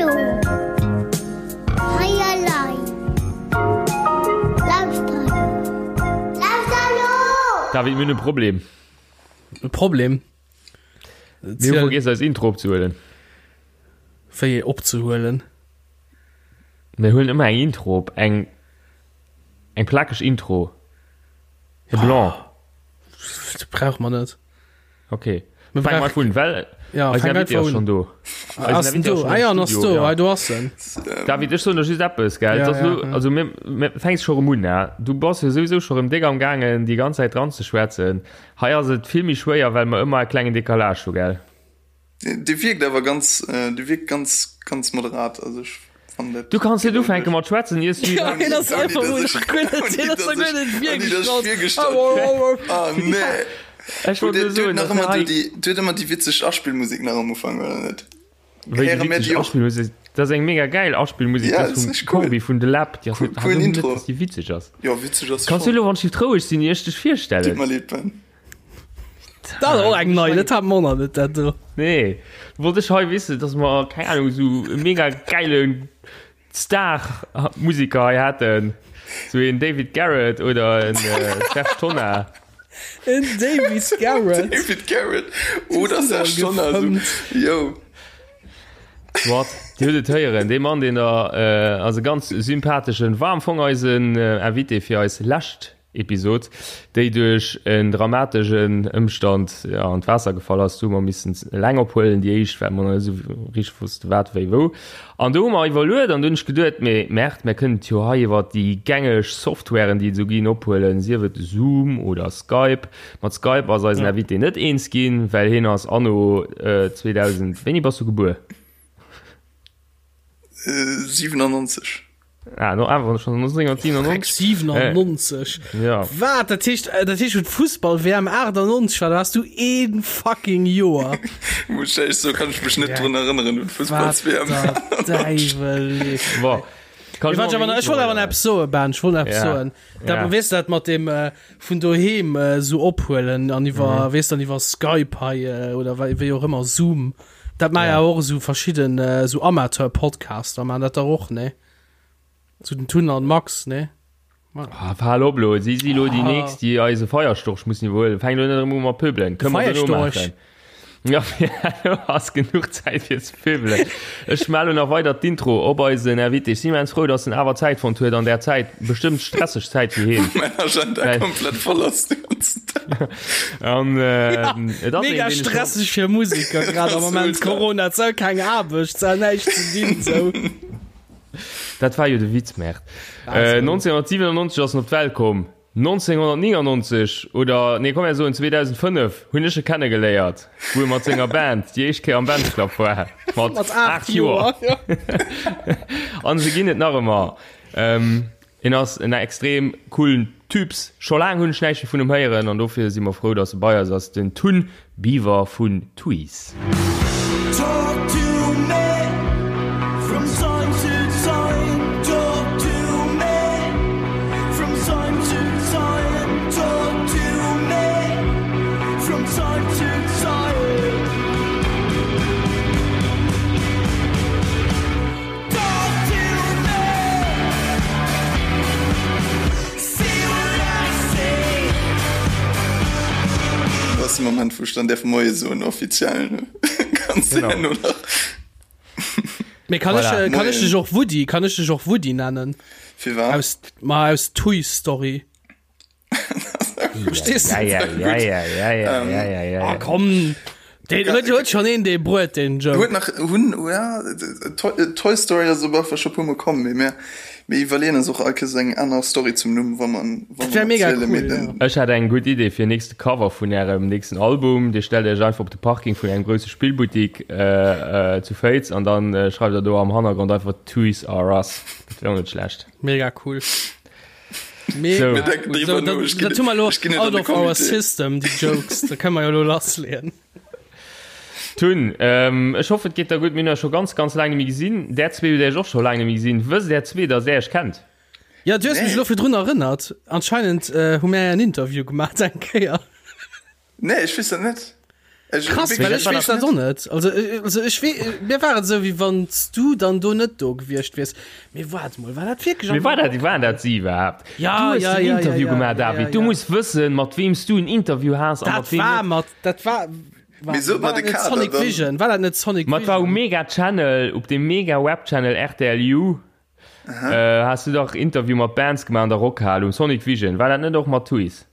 Hallo. Hei elei. Lauschter elo. Lauschter elo! David, mir hunn e Problem. E Problem? Mir hu vergiess eis Intro opzehuelen. Wéi opzehuelen? Mir huelen ëmmer eng Intro op, eng eng plakeg Intro. E Blanc. Dat brauche mer net. Okay. Mir Fang mal un, well ja, eisen Invité ass schon do. Ass den do? Ah ja, ass do. Ah, do ass en. David, ech soen der just eppes, gell? Ja, Das ja, lo, ja. also mir, mir fänks scho rem un, ne? Du bass jo souwisou scho rem déck am gaangen, déi ganz Zäit dran ze schwätzen. Hei ass et vill méi schwéier, well mer ëmmer e klengen Décalage hu, gell? Dee wierkt awer ganz, dee wierkt ganz, ganz moderat. Also ech fannen dat. Du kanns net ufänke mat schwätzen, iers du. Ja, hien ass einfach mol nach guer net, hien ass nach guer net virgestallt. Ah nee. Ech wollt nur soen, dass dass ëmmer hei. Du huet ëmmer déi witzeg Aspillmusek nach am Ufank, oder net? Wéi déi Héiere mir witzeg déi och? Aspillmusek? Dat ass eng mega gäil Aspillmusek, Ja, dat dat ass vum richteg cool. Corbi vun The Lab. Déi ass Cool, net, coolen net, Intro. dass déi witzeg ass. Jo, witzeg ass se Kanns du schonn. elo wann ech roueg sinn, ier ech dech Tut virstellen? mer leed, Ben. Dat ass och eng nei, dat hat mer och nach net, dat do. Nee, wollt ech hei wissen, dass mer, keng Ahnung, esou e mega gäile Star-Musiker hei hätten. Sou een David Garrett oder en Serge Tonnar. En David Garrett? David Garrett oder Serge Tonnar, sou, yo. Soit, Dir hutt et héieren, dee Mann, deen da ass e ganz sympatheschen, war am Fong eisen Invité fir eis lescht Episod, déi duerch en dramategen Ëmstand an d'Waasser gefall ass. Do hu mer missen eleng ophuelen, déi éischt, well mer nach net esou richteg wosste wat, wéi, wou. An do hu mer iwwerluet an do hunn ech geduet, mee Merde, mir kënnen et jo hei iwwer déi gängeg Softwaren, déi et esou ginn, ophuelen, sief et Zoom oder Skype. Mat Skype ass eisen Invité net eens ginn, well hien ass anno 2000, wéini bass du gebuer? 97. Ah, no awer schon 1997. 97. Äh, ja. Wat? Dat heescht, äh, dat heescht, Fussball-WM 98 war, da warst du een fucking Joer. Muss ich so kann ich mich net ja. drun erinnern un Fussballs-WM. Däiwel. Bon. Kann ich, ich, ich wollte awer eppes soen, Ben, ich wollte eppes ja. soen. Dat, ja. Weess dat mat dem äh, vun doheem äh, so ophuelen an iwwer, mhm. weess dann iwwer Skype hei äh, oder wéi och ëmmer Zoom. Dat ma ja och esou verschidden esou Amateur Podcaster man dat der och ne zu den Tun an Max ne. Ah, hal op lo, si si lo déi ah. nächst, déi eise Feierstorch mussen iwwerhuelen. Fäng lo net erëm u mat pöbelen. Kënnen mer dono maachen. Ja, lo ass genuch Zäit fir ze pöbelen. Ech melle nach weider d'Intro op eisen Invité. Ech sinn immens frou, dass en awer Zäit fonnt huet an där Zäit, bestëmmt stresseg Zäit fir hien. Mäin Agenda komplett voll ass de ganzen Dag. An, äh, ja, et ass mega een, stresseg fir Musiker grad am Moment Corona zou keng Aarbecht zou näischt ze dinn sou. Dat war jo de Witz Merd. Äh, 1997 ass en op d'Welt komm. 1999 oder nee komm mir soen 2005 hunn ech e kennegeléiert, wou e mat senger Band déi éischt Kéier am Bands Club war. Mat, mat 8 Joer. An se ginn et nach ëmmer. Ähm, Hien ass en extrem coolen Typs. Scho laang hunn ech näischt méi vun em héieren an dofir si mer frou, dass e bei eis ass, den Tun Biwer vun Tuys. Dat ass de Moment, wou ech dann däerf Moie soen, offiziell. Ganz Genau. herno nach. Mee kann ech, Voilà. äh, kann ech dech och Woody, kann ech dech och Woody nennen? Firwat? Aus, ma aus Toy Story. Verstehst du? Ja, ja, ja, ja, ja, ja, ja, ja, ja. Ah, komm. Den huet huet schon een dee bruet den Joke. Huet nach hunn ja, Toy, Toy Story ass op einfach scho puer mol komm, mee mir mir iwwerleeën eis och all Kéiers eng aner Story zum Numm, wa man wa Dat wär man mega erzielen, mee cool, den ja. Ech hätt eng gutt Idee fir nächste Cover vun ärem nächsten Album. Dir stellt iech einfach op de Parking vun engem grousse Spillbuttik äh, äh, zu Féiz an dann äh, schreift der do am Hannergrond einfach Toys R Us. Dat wär och net schlecht. Mega cool. Mega So. Mir denken cool. drüber So, no, dat, ech ginn- dat hu mer lo ech ginn et an out de of our Comité. system, déi Jokes. Da kënne mer jo lo lassleeën. Tun, ähm, ech hoffen, et geet der gutt. Mir hunn eis scho ganz, ganz laang net méi gesinn. Där zwee hutt Iech och scho laang net méi gesinn. Wësst där zwee, dass där Iech kennt? Ja, du hues mech Nee. lo virdrun erënnert. Anscheinend äh, hu mär en Interview gemaach eng Kéier. Nee, ech weess dat net. Krass, well ech weess dat och net. Also, also ech wee, mir war et esou, wéi wann s du dann do net do gewiescht wiers. Mee waart mol, war dat wierklech am. Mee war dat, waren dat si iwwerhaapt? Ja, du hues ja, den ja, Interview ja, gemaach, ja, David. ja, Du ja. muss wëssen, mat weem s du en Interview has a mat Dat weem war net. mat, dat war, Mee war, sot war mer dat de net Kader Sonic dann. Vision? War dat net Sonic Mat war um Vision? Mega Channel, op dem Mega Web Channel RTLU, äh, has du dach Interview mat Bands gemaach an der Rockhal um Sonic Vision. War dat net och mat Tuys?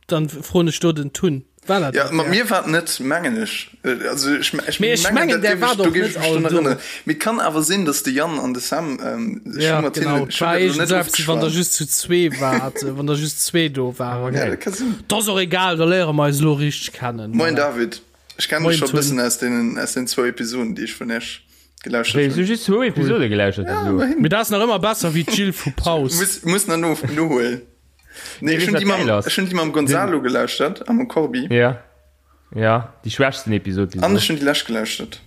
Dann froen ech do den Tun. War dat Ja, dat mat der? mir war et net, mengen ech. Also ech, ech Mee ech mengen, dat där géif war ech, do doch géif ech net mech all drun do. erënneren. Mee et kann awer sinn, datt de Yann an de Sam, ähm, ech hu Ja, mat genau. hinnen, ech Et hunn war dat elo net iergend eppes, wann der ofgeschwat. just zu zwee waart, wann der just zwee do waren. Ja, dat ka sinn. Dat ass och egal, da léiere mer eis elo richteg kennen. Moin Voilà. David, ech kennen dech Moin scho e Tun. bëssen aus deenen, aus den zwou Episoden, déi ech vun iech gelauschtert Wéi, hunn. du just zwou Episode gelauschtert Ja, bis elo? ëmmerhin. Mee dat ass nach ëmmer besser wéi d'Jill vu Paus. Muss, muss nach no, nohuelen. Nee, ech hunn déi mam, ech hunn déi mam Gonzalo gelauschtert a mam Corbi. Ja. Ja, déi schwächsten Episod bis An ech hunn déi lescht gelauschtert.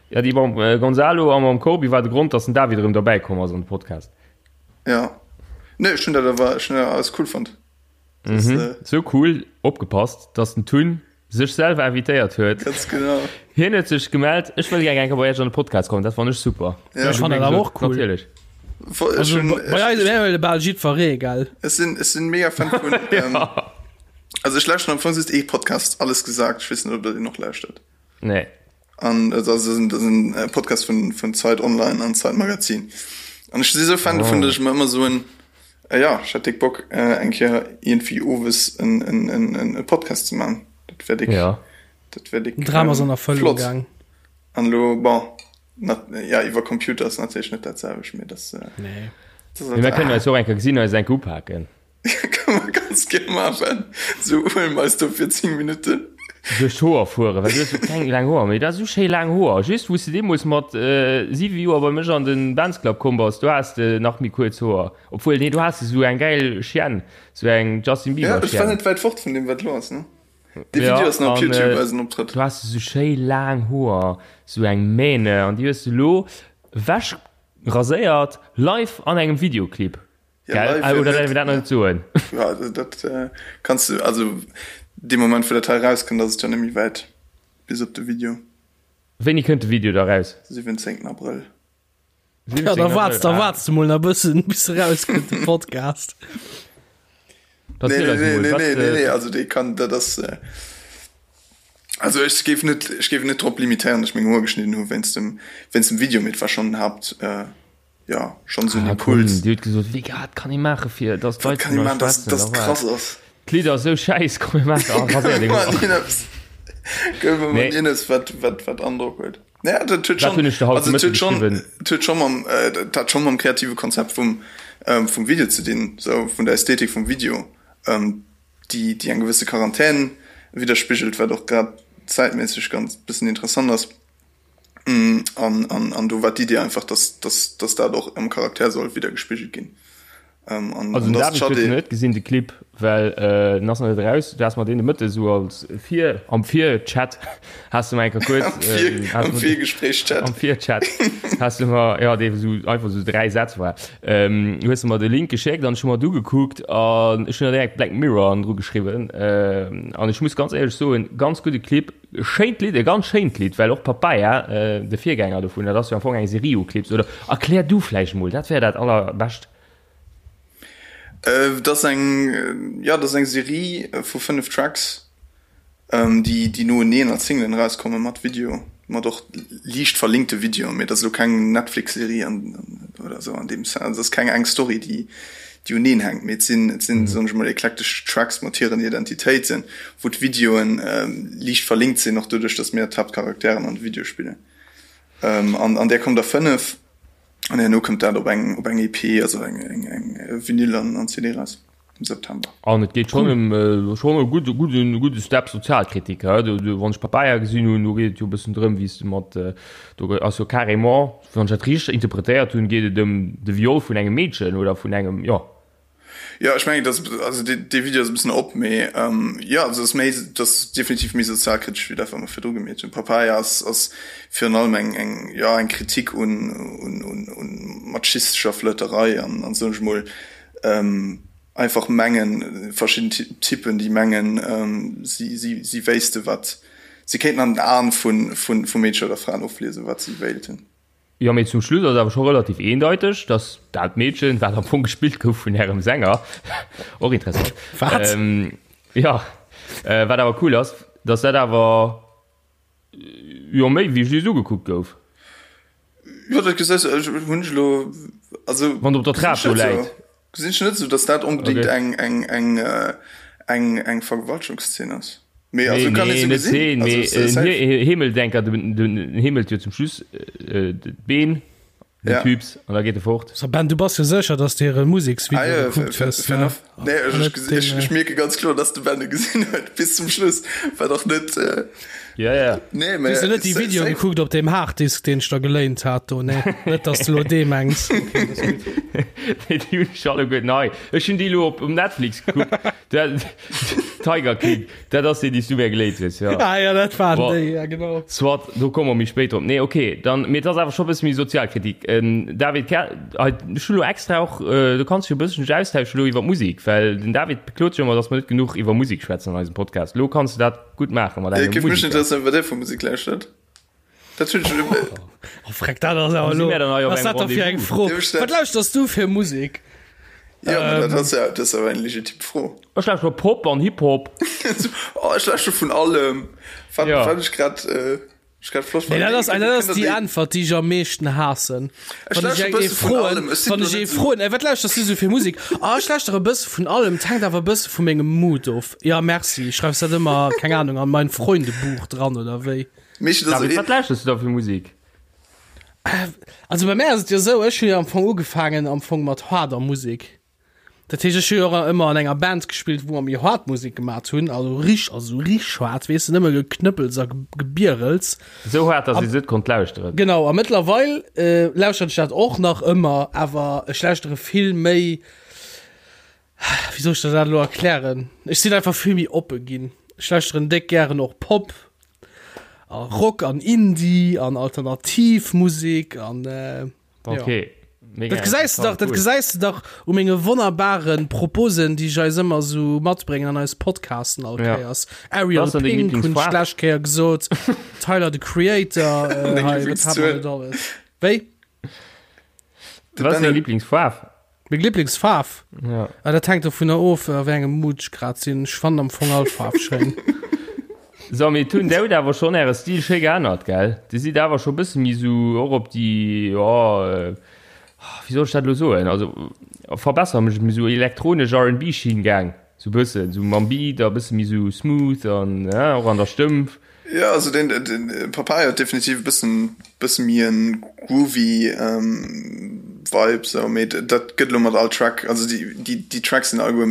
Ja, déi mam äh, Gonzalo a mam Corbi war de Grond, dass den David erëm derbäi komm ass an de Podcast. Ja. Nee, ech hunn dat awer, ech hunn dat alles cool fonnt. Das, mhm. äh, so cool, opgepasst, dass den Tun sech selwer invitéiert huet. Ganz genau. Hien huet sech gemellt, ech wëll gär eng Kéier bei iech an de Podcast kommen, dat fann ech super. Ja. Ech fann dat awer och cool. Natierlech. Also, bei eis wär bal jiddweree, gell? Ech sinn, ech sinn mega Fan vun, ähm, also ech lauschteren am Fong just ee Podcast, Alles gesagt, ech weess net, ob der deen och lauschtert. Nee. An dat ass en, dat ass en Podcast vun, vun Zeit Online an Zeit Magazin. An ech si sou Fan dovun, datt ech mer ëmmer soen, äh, ja, ech hätt déck Bock, äh, eng Kéier iergendwéi owes en, en, en, en, e Podcast ze man. Dat wär déck, Ja. dat wär déck, Den Dram ass ähm, an Erfëllung flott. gaang. An elo, bon, nat, ja, iwwer Computer ass natierlech net dat selwecht, mee dat, äh, Nee. dat ass Mee mir kënnen eis och eng Kéier gesinn, eis eng Kéier upaken. Kann man ganz gär maachen. Sou huele mer eis do fir 10 Minutten. Duerch d'Hoer fueren, well du hues jo keng laang Hoer méi. Du has esou schéi laang Hoer. Just wou s de deemools mat 7 Joer bei mech an de Benz Club komm bass, do has de nach méi kuerz Hoer. Obwuel, nee, do has de sou eng gäil Chienne, sou eng Justin Ja, Bieber ech war Chienne. net wäit fort vun deem wat elo ass, ne? Dee Ja, Video ass nach op an Youtube, eisen Optrëtt. do has de sou schéi laang Hoer, sou eng Mähne, an déi hues de elo ewech raséiert, live an engem Videoclip. Ja, Gell? live Ah, jo oder net. däerf een dat nach net soen? Ja, also dat äh, kanns du, also dee Moment wou dat hei rauskënnt, ass et jo net méi wäit bis op de Video. Wéini kënnt de Video da raus? 17. Abrëll. 17. Ja, da Abrëll, waarts, da ah. waarts du mol nach bëssen, bis e rauskënnt, de Podcast. Nee, Erziel nee, eis nee, emol, nee, wat, nee, nee, äh, nee, also dee kann, dat ass, äh, also ech géif net, ech géif net drop limitéieren, datt ech meng Hoer geschnidden hu wéinst dem, wéinst dem Video, mee et war schonn den Haupt, äh, ja, schonn esou en Ah, komm, Impuls. Dir hutt gesot, wéi wat kann ee maache fir dass Wat d'Leit kann vun ee eis maachen, dass, schwätzen? dass Da et war krass ass? d'Lidd ass esou schäiss, komm mir maachen, ah, raséier deng Komm, Hoer. mir maachen eppes, komm, mir Nee. maachen eppes, wat, wat, wat Androck huet. Naja, dat huet Dat schonn, hunn ech der haut also de et huet Mëtte schonn, geschriwwen. et huet schonn mam, äh, dat hat schonn mam kreative Konzept vum, ähm, vum Video ze dinn, sou vun der Ästhetik vum Video, ähm, déi, déi eng gewësse Quarantän widderspigelt, wat och grad zäitméisseg ganz bëssen interessant ass. An, an, an do war d'Idee einfach, dass, dass, dass dat och am Charakter soll widdergespigelt ginn. Ähm, an, Also an den dass David huet d'Schadé. net gesinn de Clip, well äh, den ass nach net eraus. Du has mer deen de Mëtte sou als Vir am Vir-Chat has du mer eng Kéier Am kuerz Vir, ähm, has am mer Virgespréich-Chat. am Vir-Chat has du mer ja dee sou einfach sou 3 Sätz war ähm, hues du mer de Link geschéckt an ech hu mer d'ugekuckt an ech hunn der direkt Black Mirror an dru geschriwwen ähm, an ech muss ganz éierlech soen, ganz gudde Clip, Schéint Lidd, e ganz schéint Lidd, well och Papaya, de Virgänger dovun, dat ass jo am Fong eng Serie u Clips, oder erklär du vläicht emol, dat wär dat allerbescht. Dat ass eng, jo, dat ass eng Serie vu 5 Tracks, déi, déi noeneen als Singlen erauskommen, mat Video, mat och liicht verlinkte Videoen, mee dat ass elo keng Netflix-Serie an, oder esou an deem Sens, also et ass keng eng Story, déi, déi uneen hänkt, mee et sinn, et sinn, soen ech mol, eklektesch Tracks mat hiren Identitéiten, wou d'Videoen liicht verlinkt sinn, och doduerch, datt mir d'Haaptcharakteren an de Videoe spillen. An an där kommt der 5, an herno kënnt dat op eng, op eng EP, also eng, eng, eng Vinyl an, an CD raus am September. An et geet schonn ëm schonn e gudde, gudden, gudde Step Sozialkritik, he? Do, do, wann ech Papaya gesinn hunn, do geet et jo e bëssen drëm, wéi s de mat, do ass jo carrément, Wann ech dat richteg interpretéiert hunn, geet et ëm de Viol vun engem Meedchen oder vun engem, jo. Jo, ech mengen, dass, also dee, dee Video ass e bëssen op, mee jo, also ass méi, dat ass definitiv méi sozialkritesch wéi dat, wat mer virdru gemeet hunn. Papaya ass, ass virun allem eng, eng, jo, eng Kritik un, un, un, un machistescher Flirterei an, an soen ech mol. einfach mengen, verschidden Typen, déi mengen, si, si, si wéisste wat, si kéinten an den Aen vu, vu, vu Meedcher oder Fraen ofliesen, wat si wéilten. Jo, mee zum Schluss ass et awer scho relativ eendeiteg, dass dat Meedchen, wat am Fong gespillt gouf vun ärem Sänger, och interessant, Wat? jo, wat awer cool ass, dass dat awer jo méi wéi just ugekuckt gouf. Jo, dat gesäis du, ech hunn ech elo, also Wann der op der Trap do läit. Gesinn ech net esou, dass dat onbedéngt Okay. eng, eng, eng, eng, eng Vergewaltegungsszene ass. Mee also Nee, kann nee, een sou net gesinn. Szene, Also mee s- safe. en Hemeldenker, den, den heemelt jo zum Schluss äh, d'Been, den Ja. Typs, an da geet e fort. So Ben, du bass jo sécher, dass du hire Museksvideo Ah, ja, gekuckt fair, hues, fair ne? enough. Nee, ech, Net ech, den, ech, ech mierke ganz kloer, dass de Ben e gesinn huet bis zum Schluss, wat och net. Äh, Ja, ja. nee, mee Hues du net déi sa- Videoe safe. gekuckt op deem Harddisk, deen ech der geléint hat do, nee? Net, dass du lo dee mengs. Okay, dat ass gutt. Nee, déi hunn ech alleguer nei. Ech hunn déi elo op um Netflix gekuckt. Dat, Tiger King, dat ass deen, dee s du mir geléint hues, jo. Ah ja, dat waren Bon. déi, ja genau. Soit, do komme mer méi spéit drop. Nee, okay, dann, mee et ass awer scho e bësse méi Sozialkritik. David, kä, hei, ech hu lo extra och, du kanns dech jo e bëssen austauschen elo iwwer d'Musek, well den David beklot sech ëmmer, datt mer net genuch iwwer Musek schwätzen an eisem Podcast. Elo kanns du dat gutt maache mat Et engem géif mech Musiker. interesséieren, wat Dir vu Musek lauschtert. Dat hunn ech elo. Oh freck, dat ass awer Wou si elo, mär dann hei op was engem dat da fir eng Rendez-vous? Fro? Dierf ech dat- Wat lauschters du fir Musek? Ja, mä dat ass ja, dat ass awer eng legitim Fro. Ech lauschtere Pop an Hip-Hop. Oh, ech lauschtere vun allem. Wat, Ja. wat ech grad, äh, ech grad flott Nee, fannen. dat ass, Kënnt dat ass der déi déi- Äntwert, déi ech am meeschten haassen. Ech Wann ech lauschtere eng ee bësse vun froen, allem. Ech sinn wann do ech ee net esou. froen, ey, wat lauschters du sou fir Musek? Ah, ech lauschtere e bësse vun allem, 't hänkt awer e bësse vu mengem Mood of. Ja, merci. Schreifs dat ëmmer, keng Ahnung, an mein Freundebuch dran oder wéi? Meeschtens ass David, et wat lauschters du da fir Musek? Also bei mär ass et jo esou, ech hu jo am Fong ugefaangen am Fong mat haarder Musek. Dat heescht, ech hu jo och ëmmer an enger Band gespillt, wou mer méi haart Musek gemat hunn, also rich, also rich haart, weess de, nëmme Geknëppels a Gebierels. Esou haart, datt ee se net konnt lauschteren. Genau, a mëttlerweil lauschteren ech dat och nach ëmmer, awer ech lauschtere vill méi, wéi soll ech der dat elo erklären, ech sinn einfach vill méi oppe ginn. Ech lauschteren déck gären och Pop a Rock an Indie an Alternativmusek an äh, Okay. Ja. Mega Dat gesäis du dach, dat cool. gesäis du dach u menge wonnerbare Proposen, déi ech eis ëmmer sou matbréngen an eis Podcasten all Ja. Kéiers. Ariel Was ass denn deng Pink hunn ech Lieblingsfaarf? d'lescht Kéier gesot, Tyler the Creator, äh, Deng hei, wat hat Lieblingszuel. man net alles. Wéi? Was ass deng Lieblingsfaarf? Meng Lieblingsfaarf? Ja. Ah, dat hänkt dovunner of, a wéi engem Mood ech grad sinn. Ech fannen am Fong all Faarf schéin. So, mee hunn der hutt awer schonn äre Stil schéi geännert, gell? Dir sidd awer scho bësse méi sou och op déi, jo, wéi soll ech dat elo soen, also verbessere mech, méi sou elektronesch R&B-Schinn gaang, sou bëssen, sou mam Beat a bësse méi sou smooth an, och an der Stëmm. Jo, also den, den Papaya huet definitiv e bëssen, bësse méi en groovy Vibe sou, mee dat gëtt elo mat all Track, also déi, déi, déi Tracks sinn alleguer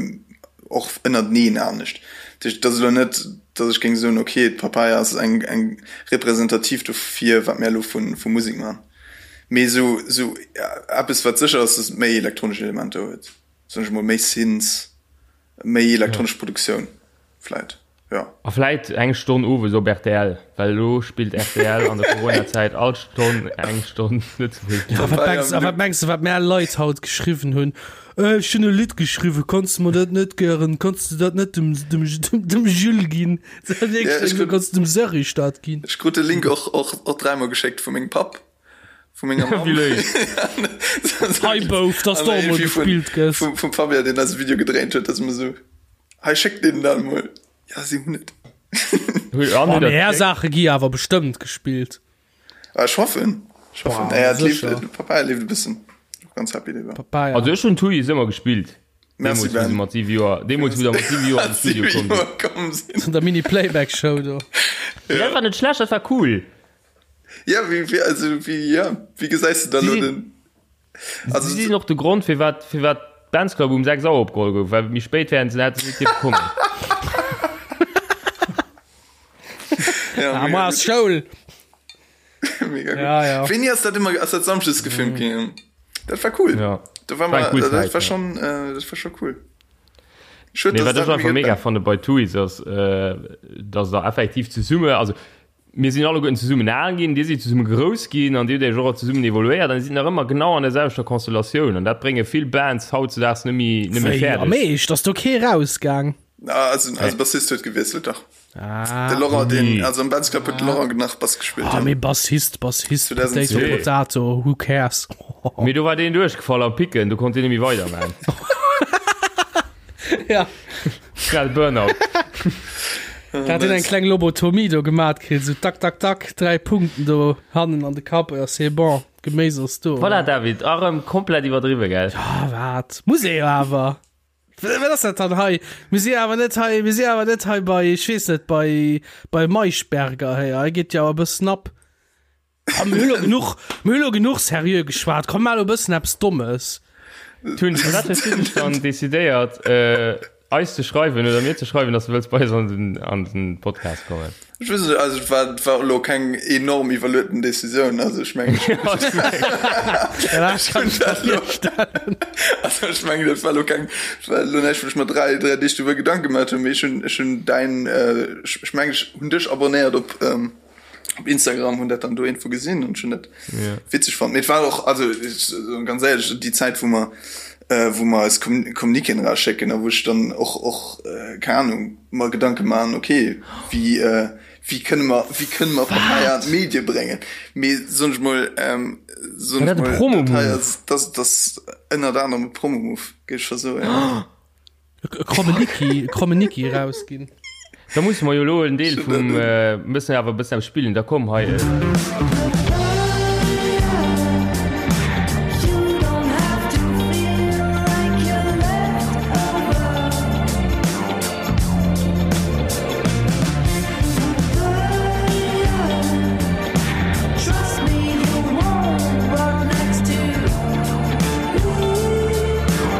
och ënnerteneen anescht. Dat heescht, et ass elo net, datt ech géing soen, ok, d'Papaya ass eng, eng representativ dofir, wat mär elo vu, vu Musek man. Mee sou, sou eppes wat sécher ass, datt et méi elektronesch Elementer huet, soen ech emol, méi Synths. Méi elektronesch Produktioun vläit, jo. A vläit eng Stonn owes op rtl, well elo spillt rtl an der Coronazäit all Stonn eng Stonn Lëtzebuergesch A Musek. wat mengs, a wat mengs de, wat mär Leit haut geschriwwen hunn? Äh, ech hunn e Lidd geschriwwen, kanns de mer dat net gären, kanns de dat net dem, dem, dem, dem Jules ginn? Ja, ech krut- Kanns de dem Serge dat ginn? Ech krut de Link och, och, och dräimol geschéckt vu mengem Papp. Vu menger Mamm. Wéi léif. Hei Bouf, dass du och mol gespillt gëss. Vum, vum Fabien, deen eise Video gedréint huet, dass mer sou, hei schéck deenen dat emol. Ja, si hunn et. Oh, mee är Saache gi awer bestëmmt gespillt. Ah, ech hoffen. Ech hoffen. Boah, Naja, et leeft, sécher. de Papaya leeft e bëssen. Och ganz happy driwwer. Papaya. Also ech hunn Tuys ëmmer gespillt. Merci, Deemools, wou Ben. se mat 7 Joer, deemools, wou der mat 7 Joer an de Studio komm sinn. Komm sinn. An der Mini-Playback-Show do. Dat war net schlecht, dat war cool. Ja, wéi, wéi, also, wéi, ja, wéi gesäis du dann Sie lo sinn- den. Also, Sie sinn och de Grond, firwat, firwat d'Bands Club um 6 Auer opgeholl gouf, well méi spéit wären se hätte se net dierfe kommen. ja, Ah, mega moi ass gut. Schoul. Mega gut. Ja, ja. Wéini ass dat ëmmer, ass dat samschdes gefilmt ginn? Dat war cool. Ja. Da war War eng mal, cool dat Zäit, war ja. schon, äh, dat war schon cool. Schued, Nee, dass wat dat ech einfach méi mega gëtt. fanne bei Tuys ass, äh, dass der effektiv zesumme, also. Mir sinn alleguerten zesummen al ginn, dir sidd zesumme grouss ginn an dir hutt iech och zesummen evoluéiert an dir sidd nach ëmmer genau an der selwechter Konstellatioun an dat brénge vill Bands hautzedaags net méi net méi Wéi, fäerdeg. am Eescht? Ass do kee rausgaang? Ah, also, also Bassist huet gewiesselt, dach. Ah. De Laurent, den, Nee. also am Bands Club huet de Laurent nach Bass gespillt. Ah, ja. mee Bassist, Bassist, 2010. Potato, Potato, who cares? Mee do war deen duerchgefall am Picken, do konnt deen net méi weiderman. Ja. Schnell Burnout. Da hat en eng kleng Lobotomie do gemat kritt, sou tak, tak, tak, 3 Punkten do hannen an de Kapp, ja c'est bon, Geméis ass do. Voilà, David, erëm komplett iwwerdriwwe, gell? Ah, wat? Muss ee jo awer. Wat ass dat dann hei? Mir si awer net hei, mir si awer net hei bei, ech weess net, bei, bei Maischberger hei. Hei geet jo e bëssen ab. Komm, mir hu lo genuch, mir hu lo genuch seriö geschwat. Komm, mar lo e bëssen eppes Dommes. Tun, firwat hues du dech dann decidéiert, äh, eis ze schreiwen oder mir ze schreiwen, dass du wëlls bei eis an den, an den Podcast kommen? Ech weess net, also et war, et war elo keng enorm iwwerlueten Decisioun, also ech mengen, Ja, ech hunn dat elo, also ech mengen, dat war elo keng, dat war elo näischt, wou ech mer 3, 3 Deeg doriwwer Gedanke gemaach hunn, mee ech hunn, ech hunn däin, ech, ech mengen, ech hunn dech abonnéiert op, op Instagram hunn dat dann do irgendwo gesinn an schon net yeah. witzeg fand. Mit war och also ich, ganz ehrlich die Zeit wo man äh, wo man als Kommuniken rauschecken, da wo ich dann och och äh, keine Ahnung mal Gedanke machen okay wie äh, wie können wir wie können wir Partei an Medien bringen mir sonst mal ähm, sonst mal Promo das das ënnert anderem Promo move geht schon so ja. E Krommeniki, e Krommeniki rausginn. Da musse mer jo elo en Deel vum mëssen awer e bëssen eppes spillen. Da komm hei.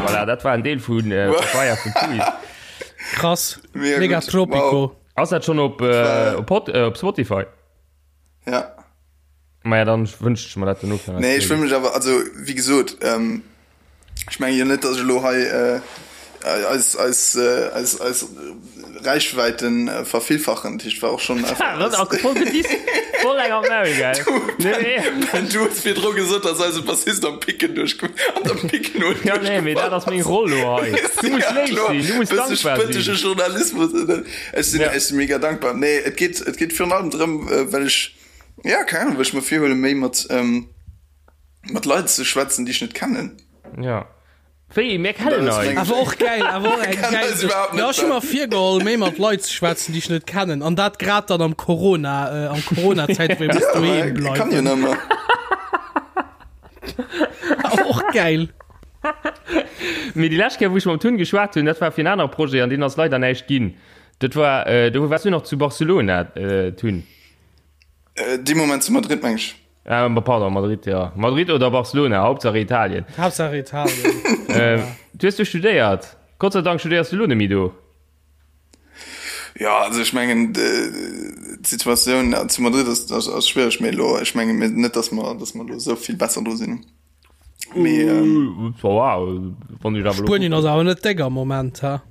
Voilà, dat war en Deel vun äh, Papaya vun Tui. Krass. Mega Mega gut. Tropico. Wow. Ass dat schon op, äh, op, Pod, äh, op Spotify? Ja. Maja, dann wënscht ech mer dat dono fir Nee, ech wëll mech awer, also wéi gesot, ähm, ech menge jo net, datt ech elo hei äh, eis, eis, äh, eis, eis Reichweiten äh, vervillfachen. Dat heescht, war och schon einfach Das ass voll gedisst, voll eng am Maul, gell? Nee, nee. Ben, du hues virdru gesot, dass eise Bassist am Picken duerch an der Picknote Ja, nee, mee dat ass meng Roll lo hei. Du muss Ja, léif kloer. sinn, du muss Bësse dankbar sinn. spëttege Journalismus. Ech sinn, Ja. ech sinn mega dankbar. Nee, et geet, et geet virun allem drëm, äh, well ech, ja, keng Ahnung, well ech mer virhuelen, méi mat, ähm, mat Leit ze schwätzen, déi ech net kennen. Ja. Wéi, mir kennen eis. Awer och gäil, awer och eng gäil Sech. Jo, ech hu mer virgeholl, méi mat Leit ze schwätzen, déi ech net kennen. An dat grad dann am Corona, äh, am Corona-Zäit, wou ee muss doheem bleiwen. Kann jo nëmmer. Awer och gäil. Mee déi lescht Kéier, wou ech mam Tun geschwat hunn, dat war fir en anere Projet, an deen ass leider näischt ginn. Dat war, äh, do waars du nach zu Barcelona, äh, Tun. Äh, dee Moment zu Madrid, meng ech. Ah, pardon, Madrid, ja. Madrid oder Barcelona, Hauptsache Italien. Hauptsache Italien. äh, du hast du studéiert. Gott sei Dank studéiers du lo net méi do. Ja, also ech mengen d'Situatioun zu Madrid ass, ass, ass schwiereg, mee lo, ech menge mir net, dass mer, dass mer lo esou vill besser do sinn. Mee, ähm, wow, wann ich awer lo Spuenien ass awer net déck am Moment, ha?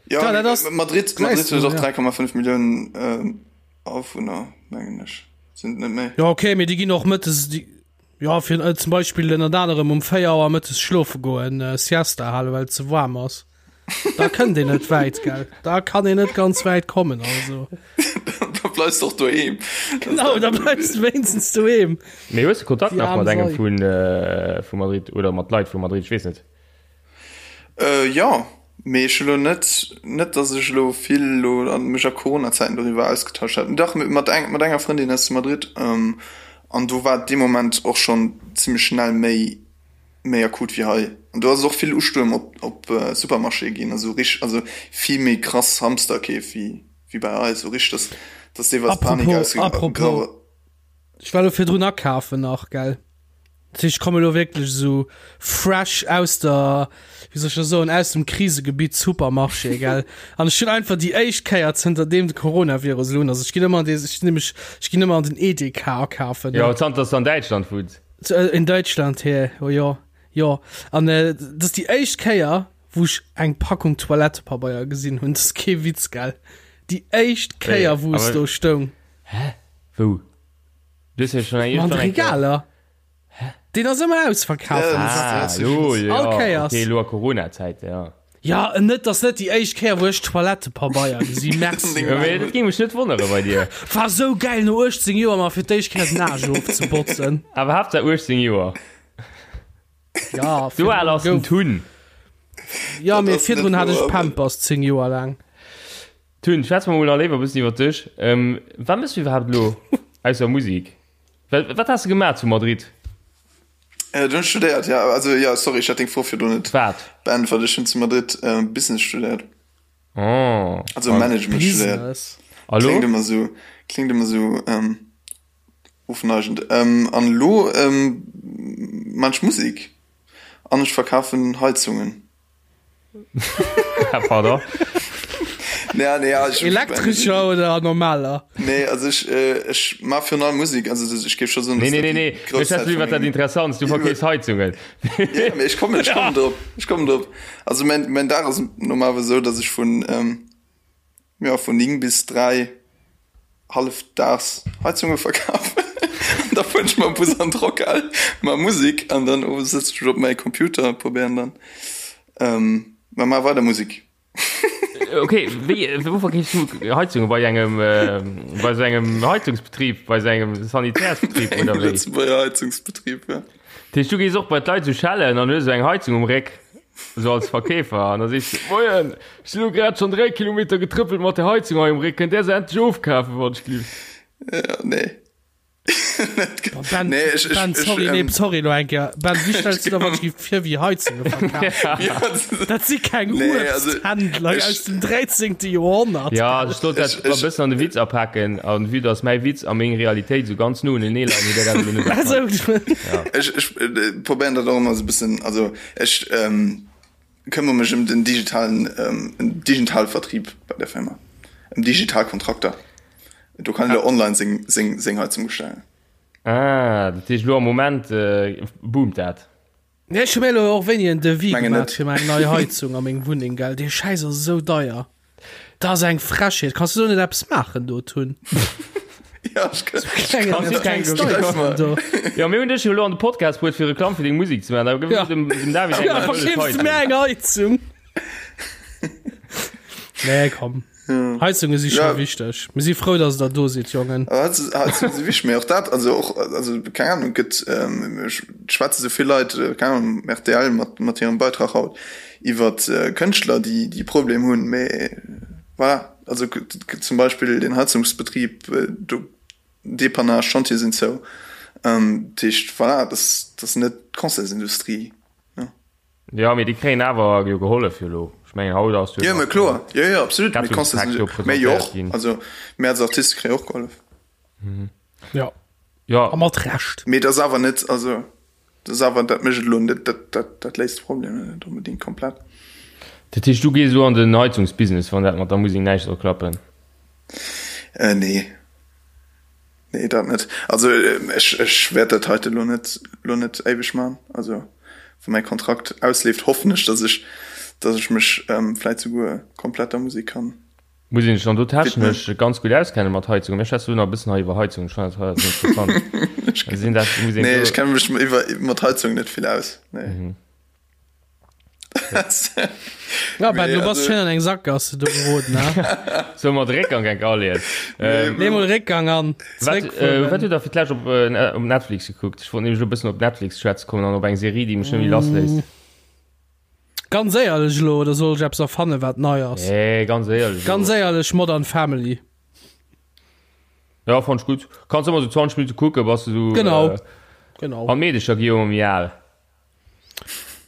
ja, Ja, dat ass- Madrid, Madrid huet och ja. 3,5 Milliounen ähm, Awunner, mengen ech. Sinn et net méi? Ja, okay, mee déi ginn och mëttes, déi, ja, fir äh, zum Beispill ënnert anerem um 4 Auer mëttes schlofe goen, äh, Siesta halen, well et ze waarm ass. Da kënnt een net wäit, gell? Da kann een net ganz wäit kommen, also. Da bleifs de och doheem. Genau, da bleifs de wéinstens doheem. Mee hues de Kontakt Déi nach aarm mat engem Sei. vun, äh, vu Madrid oder mat Leit vu Madrid? Ech weess net. Äh, jo, mee ech hu lo net, net dass ech elo vill elo an mech a Corona-Zäiten doriwwer ausgetauscht hätt. Dach, mat eng, mat enger Frëndin aus Madrid, ähm, an do war et dee Moment och schonn zimmlech schnell méi, méi akut wéi hei. An do ass et och vill Ustuerm op, op Supermarchéë ginn, also rich, also vill méi krass Hamsterkeef wéi, wéi bei eis, sou richteg, dass, dass deelweis Panik Apropos, apropos. ausge. Ech war elo virdrun akafen nach, gell. Dat heescht, ech komme elo wierklech esou fresh aus der, wéi soll ech dat soen, aus dem Krisegebitt Supermarché, gell. An ech hunn einfach déi éischt Kéier zënter deem de Coronavirus elo un ass, ech ginn ëmmer an dee, ech nämlech, ech ginn ëmmer an den Edeka akafen, ne. Jo, zanter dass de an Däitschland wunns. In Deutschland, hä, oh jo, jo. An dat ass déi éischt Kéier, wou ech eng Packung Toilettepabeier gesinn hunn. Dat ass kee Witz, gell. Déi éischt Kéier, wou es do stoung. Hä? Wou? Du hues jo schon eng An de Regaler. Hä? Deen ass ëmmer ausverkaaft. Ah, lo, ja. All Kéiers. Okay, lo a Corona-Zäit, ja. Ja, net, ass net déi éischt Kéier, wou ech Toilettepabeier gesi. Merci. Ja, mee dat géing mech net wonnere bei dir. War sou gäil, no 18 Joer mer fir d'éischt Kéier d'Nage ofzebotzen. Awer Haaptsaach 18 Joer. Ja, Sou al ass den Tun. Ja, mee virdrun hat ech Pampers 10 Joer laang. Tun, schwätz mer mol nach léiwer e bëssen iwwer dech. Wat méchs du iwwerhaapt elo, ausser Musek? Wat has de gemaach zu Madrid? Do hunn ech studéiert, ja. Also, ja, sorry, ech hat deng Fro virdrun net Wat? beäntwert. Ech hunn zu Madrid Business studéiert. Oh. Also Management studéiert. Business. A lo? Kléngt ëmmer sou, kléngt ëmmer sou ofneigend. An elo maan ech Musek an ech verkafen Heizungen. Pardon? Ja, nee, ja, ech, Elektrescher oder normaler? Nee, also ech, ech maa virun allem Musek, also ech géif scho soen, Nee, nee, nee, nee, ech schwätzen iwwer dat Interessants, du verkeefs Heizungen. Ja, mee ech kommen, ech kommen drop, ech kommen drop. Also mäin, mäin Dag ass normalerweis esou, datt ech vun, Jo, vun 9 bis 3 hallefdaags Heizunge verkafen. An da fueren ech mam Bus an d'Rockhal, maa Musek an dann owes sëtze ech op mäi Computer a probéieren dann, ma maa weider Musek. Ok, wéi, wou verkeefs du Heizunge? Bei engem, bei sou engem Heizungsbetrib, bei sou engem Sanitärsbetrib oder wéi? Lëtzebuerger Heizungsbetrib, ja. Dat heescht, du gees och bei d'Leit sou schellen an hues sou eng Heizung um Réck, sou als Verkeefer, an da sees du, Moien, ech sinn elo grad schonn 3 Kilometer getrëppelt mat der Heizung hei um Réck, kënnt där se endlech ofkafen, wann ech gelift? Ja, nee. Ben, Nee, ech, ech, Ben, ech, sorry, nee, ähm, sorry elo eng Kéier. Ben, wéi stells du der wann ech géif vir wéi Heizunge verkafen? Ja, das- Dat si keng Nee, also, Uebsthändler ech- aus dem 13. Joerhonnert. Ja, ech sollt dat Ech- e ech- bëssen an de Witz apaken, an vue dass mäi Witz a meng Realitéit sou ganz no unenee leien, huet der dat elo net Also, erkannt. Ech, ech äh, probéieren dat och ëmmer sou e bëssen, also ech ähm, këmmere mech ëm den digitalen, ähm, digitale Vertrieb bei der Firma, ëm digital Kontrakter. Do kann een online seng, seng, seng Heizung bestellen. Ah, dat heescht elo am Moment boomt dat? Nee, ech hu mir elo och wéini en Devis Mengen gemaach net. fir meng nei Heizung a meng Wunneng, gell. Dee Schäiss ass esou deier. Dat ass eng Frechheet. Kanns du do net eppes maachen do, Tun? Ja, ech kann. Klengen, Kanns du keng klengs Deier do. Jo, mir hunn dech jo elo an de Podcast bruet fir Reklamm fir deng Musek ze maachen. Da gëff Ja. dem, dem David eng Ja, wëlles verkeefs du mir Heizung. eng Heizung? Nee, komm. Heizunge si scho Ja. wichteg. Mir si frou, dass der do sidd, Jongen. Aber Heizunge si wichteg, mee och dat, also och, also keng Ahnung, gëtt, ähm, ech schwätze sou vill Leit, äh, keng Ahnung, rtl mat, mat hirem Beitrag haut iwwer äh, Kënschtler, déi, déi Problem hunn, mee voilà, also gëtt zum Beispill den Heizungsbetrib, äh, do Depannage, Chantiere sinn zou, ähm, dat heescht, voilà, dat ass net d'Concertsindustrie. Jo, mee déi kréien awer jo gehollef jo elo. Ech mengen haut ass jo Jo, mä kloer, jo, jo, absolut. Mee Rettungspak do Concerts, mee jo presentéiert och, ginn. also mir als Artiste kréie och gehollef. Ja, Ja, a mat Recht. Mee et ass awer net, also dat ass awer, dat mécht et elo net, dat, dat, dat léist de Problem net onbedéngt komplett. dat heescht du gees elo an den Heizungsbusiness, wann dat mat der Musek näischt soll klappen? Äh, nee. Nee, dat net. Also ech, ech wäert dat heite lo net, lo net éiweg man. Also wa mäi Kontrakt ausleeft, hoffen ech, dass ech, dass ech mech ähm, vläit souguer komplett der Musek kann. Muss een sech dann do technesch widmen. ganz gutt auskenne mat Heizungen? Mir schwätze lo nach e bëssen hei iwwer Heizungen, ech fannen dat hei ass interessant. Sinn dat, muss een Nee, do. ech kenne mech iwwer, mat Heizungen net vill aus. Nee. Ja, Ben, Nee, du bass also- schön an eng Sackgasse do geroden, ne? Soll mer de Réckgang enk aleeën? Ähm, Nee, mol Réckgang an. Wat, äh, Zréckfueren. wat hutt der fir d'lescht op, äh, op Netflix gekuckt? Ech wollt nämlech elo e bëssen op Netflix schwätze kommen an op eng Serie, déi mech net méi lassléisst. Ganz éierlech elo, oder soll ech eppes erfannen, wat nei ass? Nee, ganz éierlech. Ganz éierlech, Modern Family. Ja, fand ech gutt. Kanns ëmmer sou 20 Minutte kucken, bass du sou. Genau. Äh, Genau. an d'Meedecher gi jo ëmmer méi al.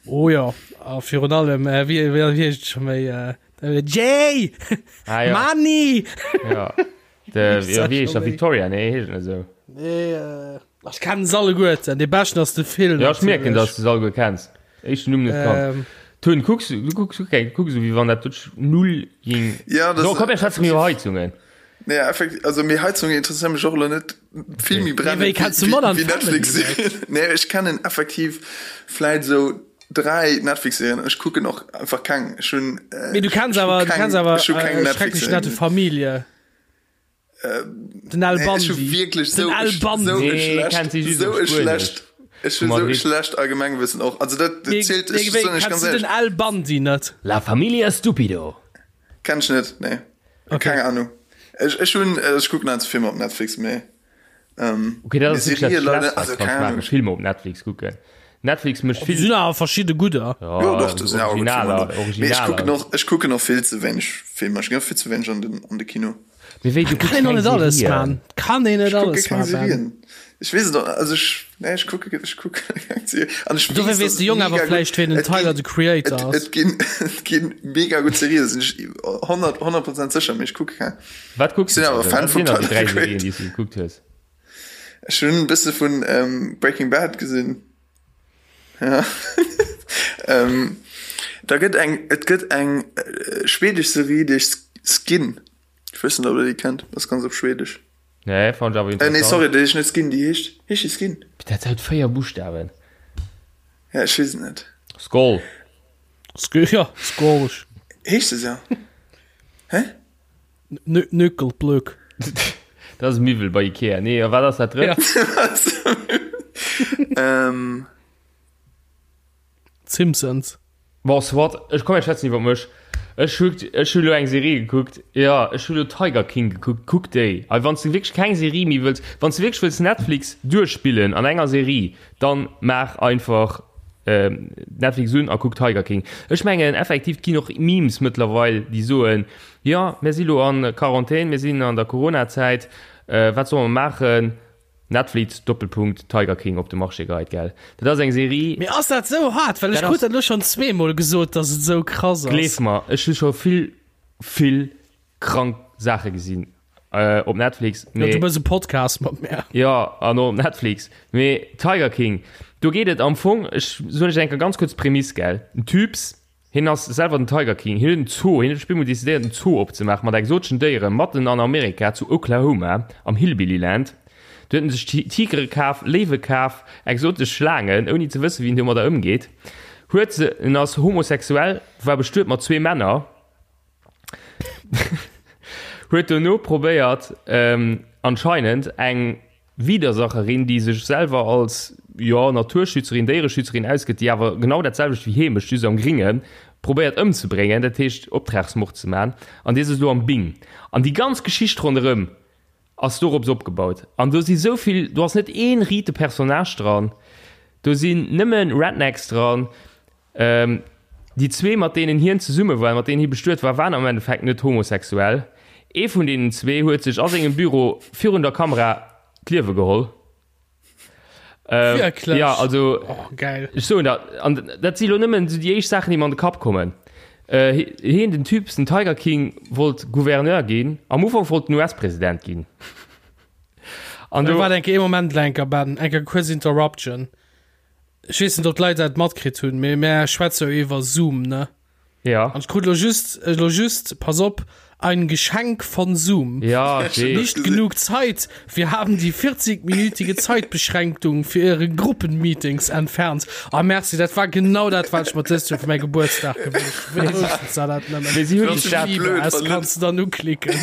Oh ja, a virun allem, äh, wéi, wéi, wéi heescht et scho méi, äh, Jay! Ah, ja. Manni! Ja. De, ja, wéi heescht der? Victoria? Nee, heescht net esou. Nee, äh, ech kennen se alleguerten. Dee beschten ass de Phil. Ja, ech mierken, dass du se alleguer kenns. Éischten Numm net kannt. Ähm. Tun, kucks, du kucks, du kucks esou, wéi wann dat duerch null ging. Ja, das So, komm, mir schwätzen méi iwwer Heizungen. Nee, effektiv, also méi Heizungen interesséieren mech och elo net vill méi brennend wéi kennst du Modern wéi Family Netflix. Nee, ech kennen effektiv vläit esou. 3 Netflix-Serien, ech kucken och einfach keng. Ech hunn äh, Mee du kenns awer, du kenns awer äh, schrecklech nette Familie. Äh, den Al Bundy. Nee, wierklech sou, den Al Bundy. Sou nee, schlecht, sou schlecht. Ech hunn sou schlecht Allgemengwissen och. Also dat, dat zielt, nee, ech, nee, ganz den Al Bundy net. La Familia Stupido. Kenn ech net, nee. Okay. Keng Ahnung. Ech, ech hunn, ech kucken einfach Filmer op Netflix, mee. Ähm, okay, dat ass wirklich dat Schlechtst, was du kannst machen, Filme op Netflix kucken. Netflix mécht vill. Sinn awer verschidde gudder. Ja, jo, doch, das sind awer gutt Filmer do. Mee ech kucken och, ech kucken och vill ze wéineg Filmer. Ech ginn och vill ze wéineg an den, an de Kino. Mee wéi, du kucks keng alles Serien? Kann een net alles man. Serien. Ech weess et och, also ech, nee, ech kucke, ech kucke keng Serien. An ech Dofir weess de Jong awer vläicht, ween den Tyler, the Creator ass. Et ginn, et ginn mega gutt Serien, sinn ech 100, 100 Prozent sécher, mee ech kucke keng. Wat kucks du awer Fan vum Tyler, the Creator. Déi du gekuckt hues? Ech hunn e bësse vun Breaking Bad gesinn. Ja. ähm, da gëtt eng, et gëtt eng äh, schwedesch Serie, déi heescht Skin. Ech weess net, ob der déi kennt. Das ganz op Schwedesch. Nee, fand ich awer interessant. Äh, nee, sorry, déi heescht net Skin, déi heescht, heescht déi Skin? Dat huet 4 Buchstaben. Ja, ech weess et net. Skol. Sk ja, Skol. Heescht se sou? Hä? Nökelplöck. Dat ass e Miwwel bei Ikea. Nee, a wat ass dat drëtt? Ähm. Simpsons. Bon, soit, ech komm, ech schwätzen iwwer mech. Ech hu ech hu lo eng Serie gekuckt, jo, ech hu lo Tiger King gekuckt. Kuck déi! A wann s de wierklech keng Serie méi wëlls, wann s de wierklech wëlls Netflix duerchspillen an enger Serie, dann maach einfach Netflix un a kuck Tiger King. Ech mengen effektiv, et ginn och Memes mëttlerweil, déi soen, Jo, mir si lo an Quarantän, mir sinn an der Corona-Zäit, wat solle mer maachen? Netflix, Doppelpunkt, Tiger King op de Marché geheit, gell? Dat ass eng Serie. Mee ass dat sou hart? Well ech krut dat elo schonn zweemol gesot, dass et sou krass ass. Gleef mer, ech hu scho vill, vill krank Saache gesinn op Netflix. Jo, du mëss e Podcast mat mär. Jo, an och op Netflix. Mee Tiger King, do geet et am Fong, ech soen lech eng Kéier ganz kuerz d'Prämiss, gell? En Typs, Hien ass selwer den Tiger King. Hien huet en Zoo, hien huet op eemol decidéiert en Zoo opzemaachen mat exoteschen Déieren matten an Amerika, zu Oklahoma, am Hillbilly Land. Do huet en sech Tigere kaf, Léiwe kaf, exotesch Schlaangen, ouni ze wëssen, wéi en domadder ëmgeet. Huet se, en ass homosexuell, war bestuet mat zwee Männer, huet dono probéiert, anscheinend eng Widersacherin, déi sech selwer als, jo, Naturschützerin, Déiereschützerin ausgëtt, déi awer genau dat selwecht wéi hee mécht, just am Gringen, probéiert ëmzebréngen, dat heescht Optragsmord ze man, an dee sëtzt elo am Bing. An déi ganz Geschicht ronderëm ass dorops opgebaut. An do si sou vill, do ass net ee riite Personnage dran, do sinn nëmme Rednecks dran, Déi zwee, mat deenen hien zesumme war, mat deenen hie bestuet war, waren am Endeffekt net homosexuell. Ee vun deenen zwee huet sech a sengem Büro virun der Kamera d'Liewe geholl. Wierklech? Ja, also Oh, geil. ech soen der, an dat si lo nëmmen esou déi éischt Saachen, déi mer an de Kapp kommen. Hien, den Typ, den Tiger King, wollt Gouverneur ginn. Am Ufank wollt en US-President ginn. An do. Waart eng Kéier, ee Moment, Lenker, Ben, eng Kéier kuerz Interruption. Ech weess net, ob d'Leit dat matkritt hunn, mee mär schwätze jo iwwer Zoom, ne? Ja. An ech krut lo just, lo just, pass op, ein Geschenk von Zoom. Ja, ech weess. Nicht genug Zeit, wir haben die 40-minütige Zeitbeschränkung für Ihre Gruppenmeetings entfernt. Ah, merci, dat war genau dat, wat ech mer dëst Joer fir mäi Gebuertsdag gewënscht hunn. Wéi wousstes de dat nëmmen? Mee si hunn sech dat. Liebe, es kanns de dann uklicken.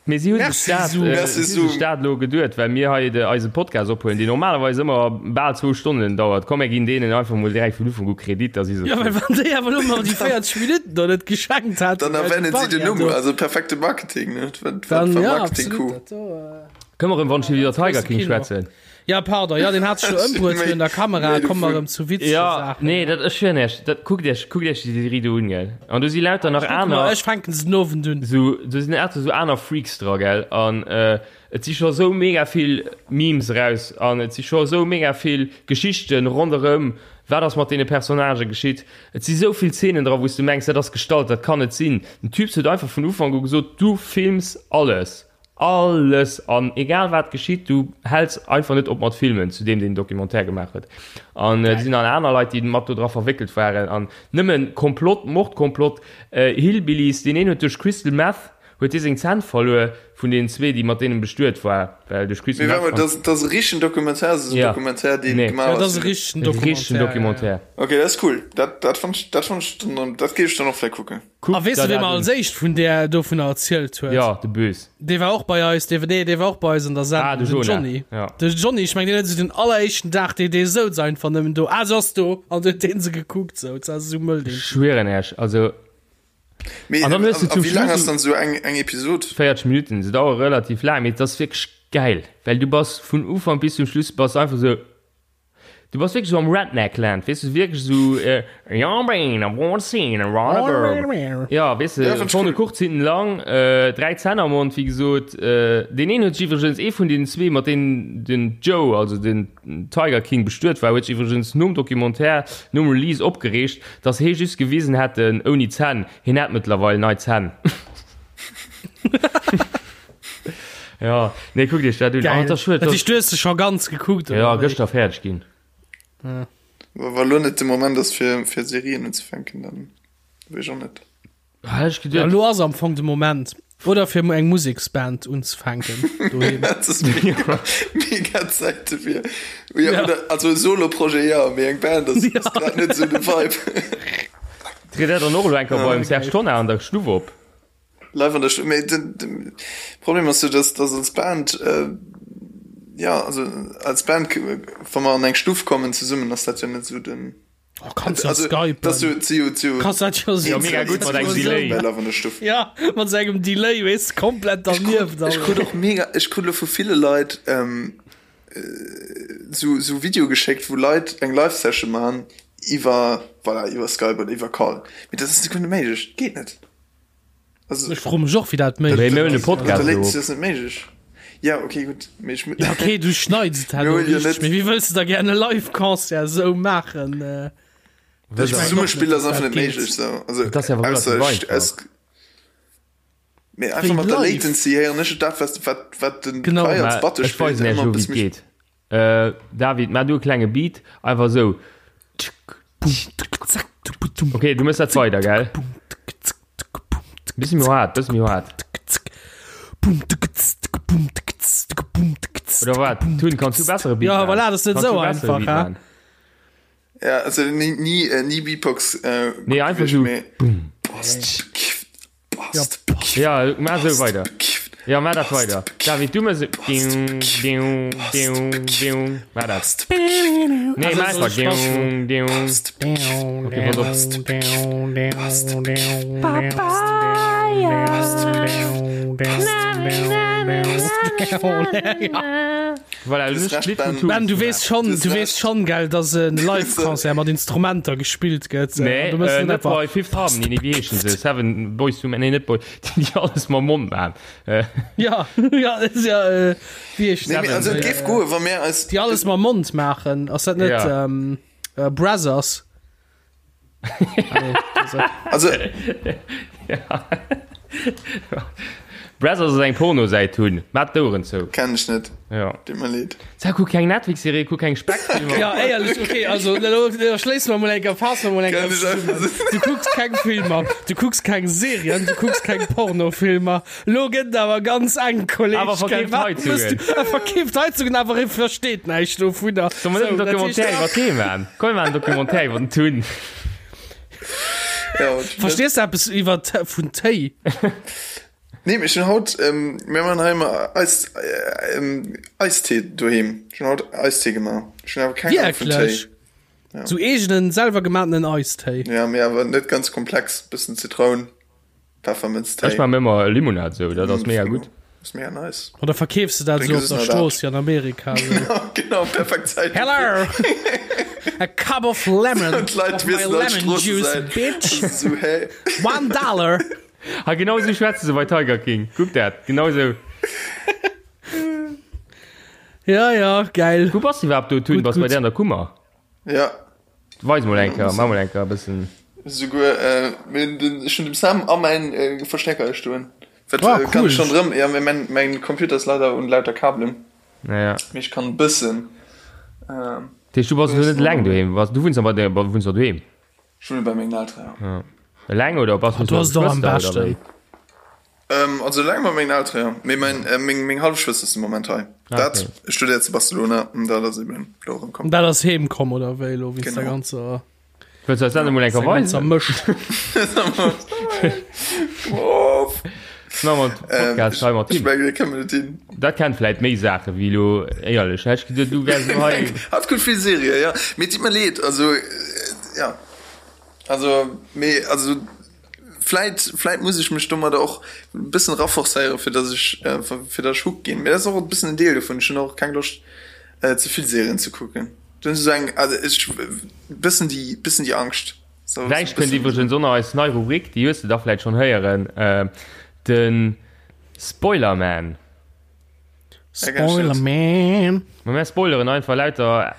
Mee si hu sech dat, si hu sech dat elo geduet, well mir hei de, eise Podcast ophuelen, deen normalerweis ëmmer bal zwou Stonnen dauert. Komm, mir ginn deenen einfach mol direkt vun Ufank u Kredit, da si se Jo, well wann déi awer elo mer déi 40 Minutten do net geschenkt hätten, Dann erwänen si den Numm, also perfekte Marketing, ne? Dat war Dann, ja, Marketing-Coup. absolut, dat do. Kënne mer erëm wann ech iwwer Tiger King schwätzen? Ja, pardon, ja, deen hat sech do ëmbruet virun der Kamera. Komm mer erëm zu witzege Ja, Saachen. nee, dat, ech schwören iech, dat, kuckt iech, kuckt iech déi Serie do un, gell. An do si lauter nach Ech kucke mer, aner. ech fänken se den Owend un. Sou, do sinn lauter sou aner Freaks dra, gell. An et si scho sou mega vill Memes eraus an et si scho sou mega vill Geschichten ronderëm, wat ass mat deene Personnagë geschitt. Et si sou vill Zeenen dra, wou s du mengs, dat ass gestallt, dat kann net sinn. Den Typs huet einfach vun Ufank u gesot, du films alles. Alles an egal wat geschitt, du häls einfach net op mat filmen, zu deem deen Documentaire gemaach huet. An et sinn nach aner Leit, déi mat do dra verwéckelt waren an nëmmen Komplott, Mordkomplott, Hillbillies, deen een huet duerch Crystal Meth. Huet hie seng Zänn verluer vun deenen zwee, déi mat deenen bestuet war, well duerch Küssen. Mee warte mol, dat ass e richtegen Documentaire, ass e Documentaire, deen gemaach ass? Ja, dat ass e richtegen Documentaire. Richtegen Documentaire. Ok, dat ass cool. Dat, dat fannt ech, dat fannt ech dann, dat géif ech dann och vläicht kucken. A weess de, wee mer als éischt vun där dovunner erzielt huet? Jo, de Bös. Dee war och bei eis, dee, nee, dee war och bei eis an der Sendung. Ah, de Jonah. Johnny. Ja. De Johnny, ech meng, deen huet esou den alleréischten Dag, dee, dee souz einfach nëmmen do, ah, se ass do, an huet dee se gekuckt, sou, dat ass esou mëll, deen Typ. Schwieren Iech, also. Mee, An dann hues du a zum wéi laang Schluss ass dann esou eng, eng Episod? 40 Minuten, se dauere relativ laang, mee et ass wierklech gäil, well du bass vun Ufank bis zum Schluss bass einfach esou, du bass wierklech esou am Redneck-Land, weess du, wierklech esou, ja, weess Ja, de, fand ich vorne cool. kurz, hinten lang, 3 Zänn am Mond, wéi gesot. Deen een huet sech iwwregens, ee vun deenen zwee, mat deenen den Joe, also den Tiger King bestuet war, huet sech iwwregens nom Documentaire, nom Release opgereegt, dass hee just gewisen hätten ouni Zänn. Hien hätt mëttlerweil nei Zänn. Ja, nee, kuckt iech dat un. Geil. Oh, dat ass schued, Dat dass. heescht, du hues se scho ganz gekuckt, Ja, oder wéi? gëschter fäerdeg ginn. Ja. Wa lo net de Moment ass fir, fir Serien unzefänken, dann weess ech och net. Ah, ech Ja, geduet. lo ass am Fong de Moment. Oder fir eng Museksband unzefänken doheem. Dat ass mega, mega Zäit dofir. Ja, Ja. oder, also e Solo-Projet, ja, mee eng Band ass, ass grad net esou de Vibe. Tritt der dann och elo eng Kéier Ja. beim Serge Tonnar an der Stuff op? Live an der Stuff. Mee den, den Problem ass jo, dass, dass als Band, äh, ja, also als Band, wa mer an eng Stuff kommen zesummen, ass dat jo net esou den. Oh, kannst ja Also, skypen. dass du zu, zu Kannst dat jo Ja, mega gutt mat engem Delay. Bei Love an der Stuff. Ja, mat sou engem Delay, weess, komplett dernieft. Ech krut och mega, ech krut lo vu ville Leit ähm, sou, sou Video geschéckt, wou Leit eng Live-Session man iwwer, voilà, iwwer Skype oder iwwer Call. Mee dat ass net méiglech, geet net. Also, Ech froe mech och, wéi dat Mee méiglech mir hunn e ass. Podcast der elo. Latency ass net méiglech. Ja, okay, gutt. Mee ech, Ja, okay, du schneids et Mir herno huelen jo richteg, net- mee wéi wëlls de da gär e Live-Concert esou maachen? Äh, Das Ich mein Zesummespill och ass net, einfach dass net dat geet. méiglech sou. Also, Dat ass ja awer ausser relativ ech, einfach. es, mee einfach Wéi mat der live. Latency héieren ech dat, wat, wat, wat den Genau. Kai als Mä Batte ech spillt, weisen iech ëmmer elo, e wéi bësse et méi. geet. Äh, David, maach du e klenge Beat, einfach esou. Okay, du mëss dat weider, gell? Bëssi méi haart, bëssi méi haart. Oder wat? Tun, kanns du bessere Beat Ja, maachen? voilà, das ist net Kanns sou du bessere einfach, Beat hä? maachen? Ja, also ni, ni, äh, ni Beatbox äh, Nee, gutt einfach gewiescht, sou. mee Boom. Bast bekifft, Ja, bast bekifft, Ja, maach sou bast weider. bekifft, Ja, maach dat bast weider. bekifft, David, du mëss. bast Diu, bekifft, diu, bast diu, bekifft, diu. Maach dat. bast bekifft, Nee, Also, maach soll einfach. ich Spaß Diu, diu. bast bekifft, Okay, pass op. bast bekifft, bast bekifft, bast bekifft, bast Voilà, Du du hast hues recht, d'Lidd vum Ben. Tun. Ben, du weess schon, Du hast du weess recht. schon, gell, dass en Live-Concert mat Instrumenter gespillt gëtt. Nee, Du mëss äh, net net einfach. bei Fifth Harmony, nee, wéi heeschen se? Seven Boys to Men, nee, net Boy, déi déi alles mam Mond maachen. Äh, Ja, ja, das ist ja, äh, wéi heescht Nee, mee, also et Äh, géif goen, wa mir eis déi alles mam Mond maachen. Ass dat net Ja. ähm, äh, Brazzers? Ah, nee, das ist- Also, Brazzers ass eng Pornosäit hunn. Maat d'Oueren zou. Kenn ech net. Ja. Deet mer leed. Sag, kuck keng Netflix-Serie, kuck keng Speckfilmer. Ja, éierlech, okay, also elo schléisse mer mol eng Kéier, faasse mer mol eng Kenn Kéier ech einfach zesummen. sou. Du kucks keng Filmer, du kucks keng Serien, du kucks keng Pornofilmer. Lo gëtt et awer ganz enk, Kolleg. Awer verkeeft gell? Wat Heizungen. mëss du? E verkeeft Heizungen, awer e versteet näischt dovunner. Soll mer net en So, dat Documentaire heescht, iwwer Tee maachen? Komm, mir maachen en Documentaire iwwer den Tun. Ja, und Verstees du eppes iwwer vun Téi? Nee, ech hunn haut, ähm, mir man hei ëmmer Eis, äh, ähm, Eistee doheem. Ech hunn haut Eistee gemaach. Ech hunn awer keng Ahnung vun Téi. Wierklech? Sou eegenen, selwer gemaatenen Eistéi? Ja, mee awer net ganz komplex. Bëssen Zitroun, Peffermënztéi. Ech maachen ëmmer Limonad sou, dat ass mega gutt. Ass mega nice. Oder verkeefs de dat Drénke sou op se der net Strooss wéi an Amerika? Sou. Genau, perfekt Zäit. Hello! A cup of lemon Und d'Leit of my wissen an lemon juice, Stroosse bitch! Sou, hä? One dollar! Ha genau sou schwätze se bei Tiger King. Kuck dat, genau sou. Ja, ja, geil. Wou bass de iwwerhaapt do, Tun? Gutt, Bass bei gutt. där an der Kummer? Ja. Weis mol eng Kéier, mach mol eng Kéier e bëssen. Souguer, äh, mir den, ech hunn dem Sam a mäin äh, Verstärker hei stoen. Wat, Ah, äh, kann cool. ech schon drëm, ja, mee mäin, mäin Computer ass leider un lauter Kabelen. Ja, ja. Mee ech kann e bëssen, ähm, Dat heescht, du bass elo net eleng doheem? Bass, du wunns a bei der, wunns der doheem? ech wunne bei mengen Elteren, ja. Ja. Eleng oder bass du Du mat ass et och am Geschwëster oder beschten. wéi? Ähm, also eleng mat mengen Eltere, jo. Mee mein, äh, meng, meng hallef Schwëster ass de Moment hei. Ah, Dat okay. studéiert zu Barcelona an dat ass eben elo erëm komm. Dat ass heem komm oder wéi elo, wéinst der Genau. ganzer, Wëlls du eis dat emol eng der Kéier ganzer weisen? Mëscht. Of. Na, mat Ähm, Podcast hei mat ech him. mengen, dat kënne mer net hin. Dat kennt vläit méi Saache wéi elo, éierlech. Hätt ech geduet, du wäers elo hei. Hatt kuckt vill Serië, ja. Mee et ditt mer leed, also, äh, ja. Also, mee, also, Vläit, vläit muss ech mech domadder och e bëssen raforcéieren, fir dass ech, fir dass ech hooked ginn. Mee dat ass och e bëssen en Deel dovun. Ech hunn och keng Loscht, ze vill Serien ze kucken. Do hunn ech esou eng, also ech, bëssen déi, bëssen déi Angscht. So, Gläich kënnt iwwregens och nach eis nei Rubrik, déi hues de da vläit schonn héieren, de Spoilerman. Spoilerman. Ma mär spoileren einfach lauter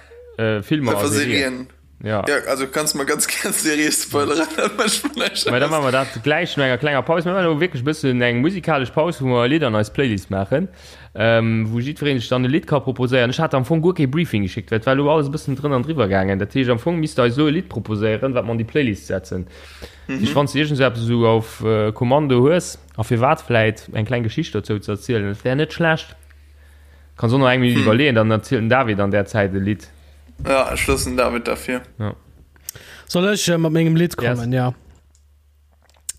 Filmer a Serien. Ja. Ja, also kanns mer ganz gär Serie spoileren, dat mécht mer näischt Mä da aus. maache mer dat gläich no enger klenger Paus. Mir maachen elo wierklech e bëssen eng musikalesch Paus, wou mer e Lidd an eis Playlist maachen, wou jiddweree sech dann e Lidd ka proposéieren. Ech hat am Fong guer kee Briefing geschéckt, well et war elo alles e bëssen drënn an driwwer gaangen. Dat heescht, am Fong misst der eis elo e Lidd proposéieren, wat mer an déi Playlist setzen. Dat heescht, wann s de iergend esou eppes esou auf Kommando hues, A firwat vläit eng kleng Geschicht dozou ze erzielen, dat wär net schlecht. Kanns och nach eng Minutt iwwerleeën, dann erzielt den David an där Zäit e Lidd. Ja, ech loossen den David derfir. Ja. Soll ech mat mengem Lidd kommen? Yes. Ja.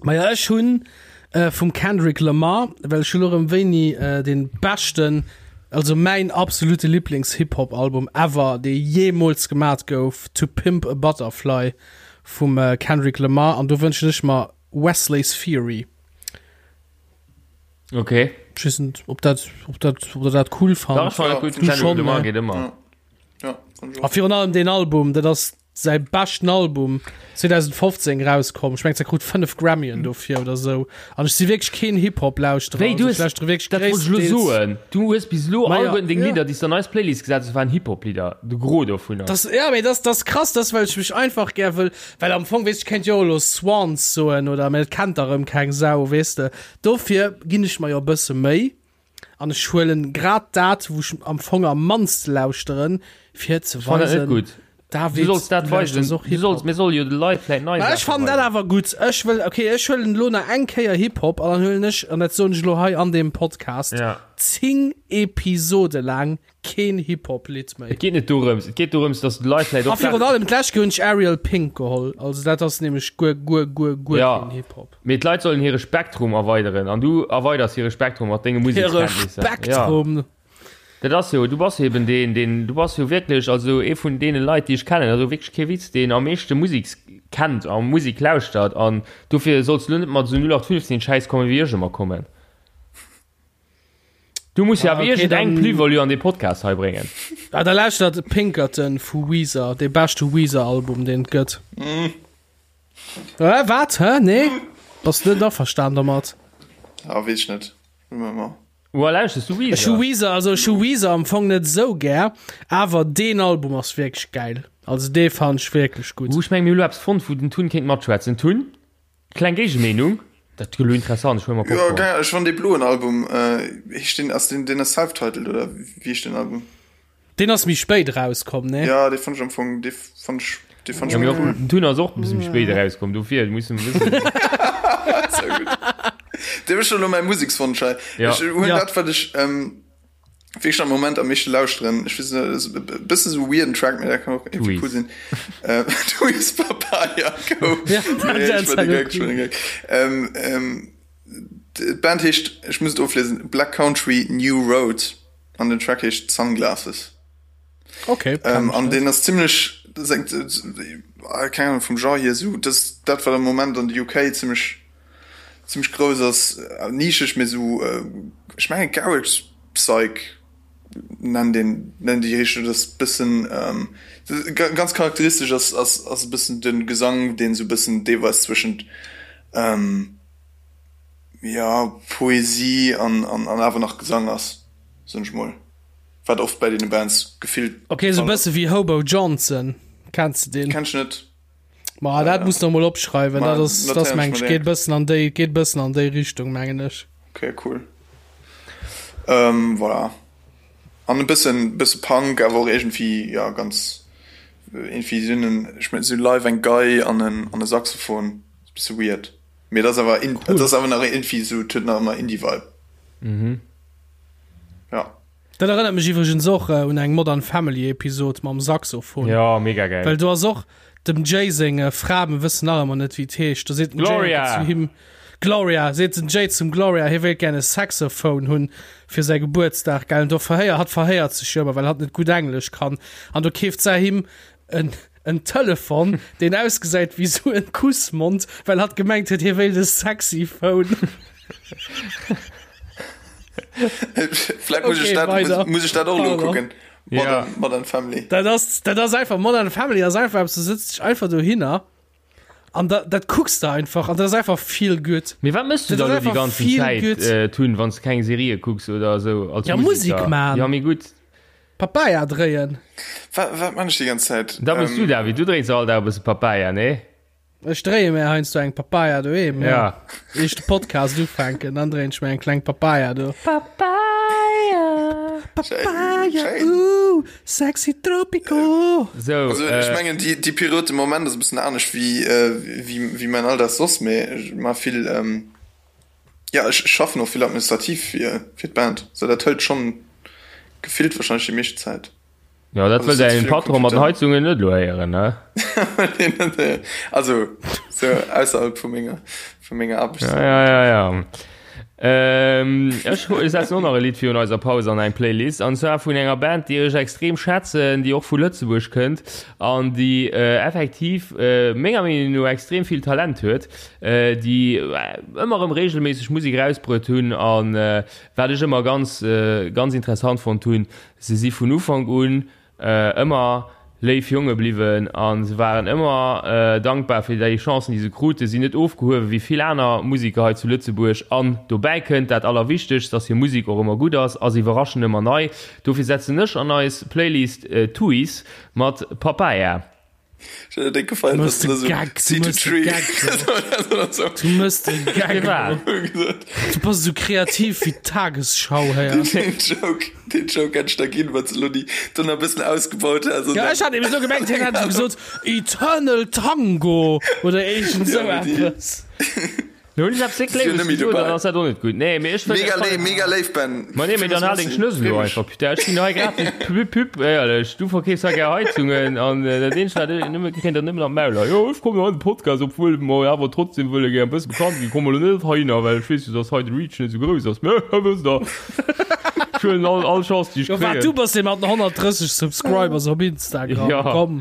Maja, ech hunn äh, vum Kendrick Lamar, well ech hu lo rëm wéini äh, den beschten, also mäin absolute Lieblings-Hip-Hop-Album ever, dee jeemools gemat gouf, To Pimp a Butterfly vum äh, Kendrick Lamar an do wënschen ech mer Wesley's Theory. Okay. Ich weiß nicht, ob dat, ob dat, ob der dat cool fand. Dach, fand ich gut. Du schon, ne? geht immer. Ja. Ja, A virun allem den Album, dat ass säi beschten Album 2015 rauskomm. Ech mengt, se krut 5 Grammyen dofir oder sou. An ech si wierklech keen Hip-Hop-Lauschterer. Wéi, du Also, hues, ech lauschtere wierklech dat wollt ech elo gréisstendeels. soen, du hues bis elo Ma ja, alleguerten deng ja. Lidder, déi s de an eis Playlist gesat hues, waren Hip-Hop-Lidder, de Gros dovunner. Das, ja, mee das, das krass, das well ech mech einfach gär wëll, well am Fong, weess, ech kéint jo och elo Swans soen oder, mee dat kennt da rëm keng Sau, weess de. Dofir ginn ech mer jo e bësse Méi an ech huelen grad dat, wou ech am Fong am mannste lauschteren, fir ze Ech fannen dat net weisen, gutt. David, Du solls dat du weisen, lauschters och du solls, Hip-Hop. mir solle jo de Leit vläit nei Ma ech Saache fannen dat weisen. awer gutt. Ech wëll, okay, ech huelen elo nach eng Kéier Hip-Hop an dann huelen ech, an dat soen ech elo hei an deem Podcast, Ja. 10 Episode laang keen Hip-Hop-Lidd méi. Et geet net dorëms, et geet dorëms, dass de Leit vläit A och virun Saachen. allem d'lescht Kéier hunn ech Ariel Pink geholl, also dat ass nämlech guer, guer, guer, guer Ja, keen Hip-Hop. mee d'Leit sollen hire Spektrum erweideren an du erweiders hire Spektrum mat denge Hire Musekskenntnisser. Ja. Spektrum! Dat ass jo, du bass jo eben deen, deen, du bass jo wierklech, also ee vun deene Leit, déi ech kennen, also wierklech kee Witz, deen am meeschte Musek kennt a Musek lauschtert an dofir solls du elo net mat esou 0815 Schäiss kommen, wéi ech ëmmer kommen. Du muss jo Ah, awer okay, iergendeng dann- Plus-value an dee Podcast hei bréngen. Ah, da lauschtert Pinkerton vu Weezer, dee beschte Weezer-Album, deen et gëtt. Äh, wat? Hä? Nee? Bass du net averstan domat? Ah, weess ech net. Mol. Woa lauschters du Ech hu Weezer? Weezer, also ech hu Weezer am Fong net esou gär, awer deen Album ass wierklech gäil. Also dee fannen ech wierklech gutt. Uh, ech meng mir hu lo eppes fonnt, wou den Tun kéint matschwätzen. Tun, kleng Géigemeenung? Dat gëtt lo interessant, ech huele mer Jo, Popcorn. geil, ech fann dee bloen Album, heescht deen, ass deen, deen ass self-titled oder wéi heescht deen Album? Deen ass méi spéit erauskomm, nee? Ja, dee fann ech am Fong, dee fann ech, dee fann ech Ja, mee méi och cool. den Tun ass och e bësse méi spéit erauskomm, dofir musse mer wëssen. Sehr gutt. Dee mécht elo mäi Musekswonsch hei. Ja. Ech hunn Ja. dat, wat ech ähm, wierklech am Moment am meeschte lauschteren. Ech weess net, ass e bësse sou weirden Track, mee dat kann och irgendwie Tweez. cool sinn. Äh, Tweez Papaya Go. Ja, dat Nee, ech ass war de elo Gag, ech war de Gag. Ähm, ähm, d'Band heescht, ech muss et ofliesen, Black Country New Road. An den Track heescht Sunglasses. Okay. Ähm, an den ass ziemlech äh, keine Ahnung, vum Genre hier so das dat wat am Moment an de UK ziemlech ziemlech grouss ass äh, nischeg mee so äh, ech menge Garage Psych nennen den nennen déi Richtung das bëssen ähm, ganz charakteristesch ass ass ass e bëssen den Gesang den so bëssen deelweis zwëschent ähm, ja Poesie an an an awer nach Gesang ass soen ech mol wat oft bei deene Bands gefillt Ok sou bësse wéi Hobo Johnson, kenns de deen? Kenn ech net. Ma dat muss de mol opschreiwen, Ma dat ass dat notéieren ech meng mer ech geet direkt. bëssen an déi geet bëssen an déi Richtung mengen ech. Ok cool ähm, voilà an e bëssen bësse Punk awer och iergendwéi ja ganz iergendwéi sinn en ech mengen si live eng Gei an en an e Saxophon bësse weird. Mee dat ass awer in, dat ass awer nach irgendwie sou, et huet nach ëmmer Indie-Vibe. Mhm. Ja. Dat erënnert mech iwwregens och un eng Modern Family Episod mam Saxophon. Ja, mega geil. Well do ass och dem Jay seng Fra, mir wëssen nach ëmmer net wéi et heescht, do seet den Jay Gloria! zu him, Gloria, seet den Jay zum Gloria, hie wéilt gär e Saxophone hunn fir säi Gebuertsdag, gell, an do verhéiert, hatt verhéiert sech jo ëmmer, well hatt net gutt Englesch kann, an do keeft se him en en Telefon, deen ausgesäit wéi sou en Kussmond, well hatt gemengt huet, hie wéilt e sexy Phone. Vläit muss ech Okay, dat, weider. muss, muss ech dat och elo Pardon. kucken. Ja. Modern, Modern Family. Dat ass, dat ass einfach, Modern Family ass einfach eppes, du sëtz dech einfach dohinner an da, dat kucks de einfach an dat ass einfach feel good. Mee wat mëss du Dat dann ass elo déi einfach ganzen feel Zäit good. äh, tun, wann s de keng Serië kucks oder esou als Ja, Musik Musiker? man. Ja, mee gutt. Papaya dréien. Wat, wat man ech déi ganz Zäit? Da bist du, David, du dréins all Dag e bësse Papaya, nee? Ech dréie mir heiansdo eng Papaya doheem, ja. Ja. Ier ech de Podcast ufänken, dann dréien ech mir eng kleng Papaya do. Papaya! Papaya, Schéin. uh, sexy tropico. So, Also ech äh, mengen déi, déi Period de Moment ass e bëssen anescht wéi, äh, wéi, wéi mäin Alldag soss, mee ech ma vill, ähm, ja ech schaffen och vill administrativ fir, fir d'Band, sou dat hëlt schonn gefillt wahrscheinlech déi meescht Zäit. ja, dat Also wëll sëtz däin vill am Patron mat den Computer. Heizungen net elo héieren, ne? Also sou ausserhalb vu menger, vu menger Ja, Aarbechtszäit. ja, ja, ja. Ähm, ech setzen och nach e Lidd virun eiser Paus an eng Playlist, an zwar vun enger Band, déi ech extrem schätzen, déi och vu Lëtzebuerg kënnt an déi äh, effektiv äh, menger Meenung no extrem vill Talent huet, äh, déi ëmmer erëm regelméisseg Musek erausbruet hunn an äh, wat ech ëmmer ganz, äh, ganz interessant fonnt hunn, se si vun Ufank un Ëmmer léif Jonge bliwwen a se waren ëmmer dankbar fir déi Chancen, déi se kruten, sinn net ofgehuewe wéi vill aner Musiker hei zu Lëtzebuerg. An dobäi kënnt dat Allerwichtegst, dass hir Musek och ëmmer gutt ass a se iwwerraschen ëmmer nei. Dofir setzen ech an eis Playlist Tuys mat Papaya. Ech hätt et gefeiert, Du wann mëss du de esou Gag, du See to mëss de tree Gag, oder Du mëss de Gag. Firwat? gesot. Du bass esou kreativ wéi d'Tagesschau héier. Den Joke, den Joke hätt ech der ginn, wann s de elo déi dann e bëssen ausgebaut häss. Ja, ech hat eben esou gemengt, hien hätt esou gesot, Eternal Tango oder iergend esou Ja, mee déi- eppes. Lo hunn ech eppes déck Si hunn Léiwes net méi gesot, dobäi. dann ass dat och net gutt. Nee, mee ech wëll Mega léif, mega léif, Ben. Ma nee, mee dann hal deng Schnëss elo einfach, putain. Ech ginn hei gratis Pub, Pub, éierlech. Du verkeefs hei gär Heizungen an dat eenzegt, wat ech nëmme kréien, dat nëmmen an d'Mauler. Jo, ech kommen an de Podcast, obwuel mer awer trotzdem wëlle gär e bësse bekannt ginn. Komme lo net heihinner, well ech weess jo, dass hei de Reach net esou grouss ass. Mä wësst der, ech huelen all, all Chance, déi ech Jo, wat, du kréien. bass dee mat den 130 Subscribers op Instagram, Ja. komm.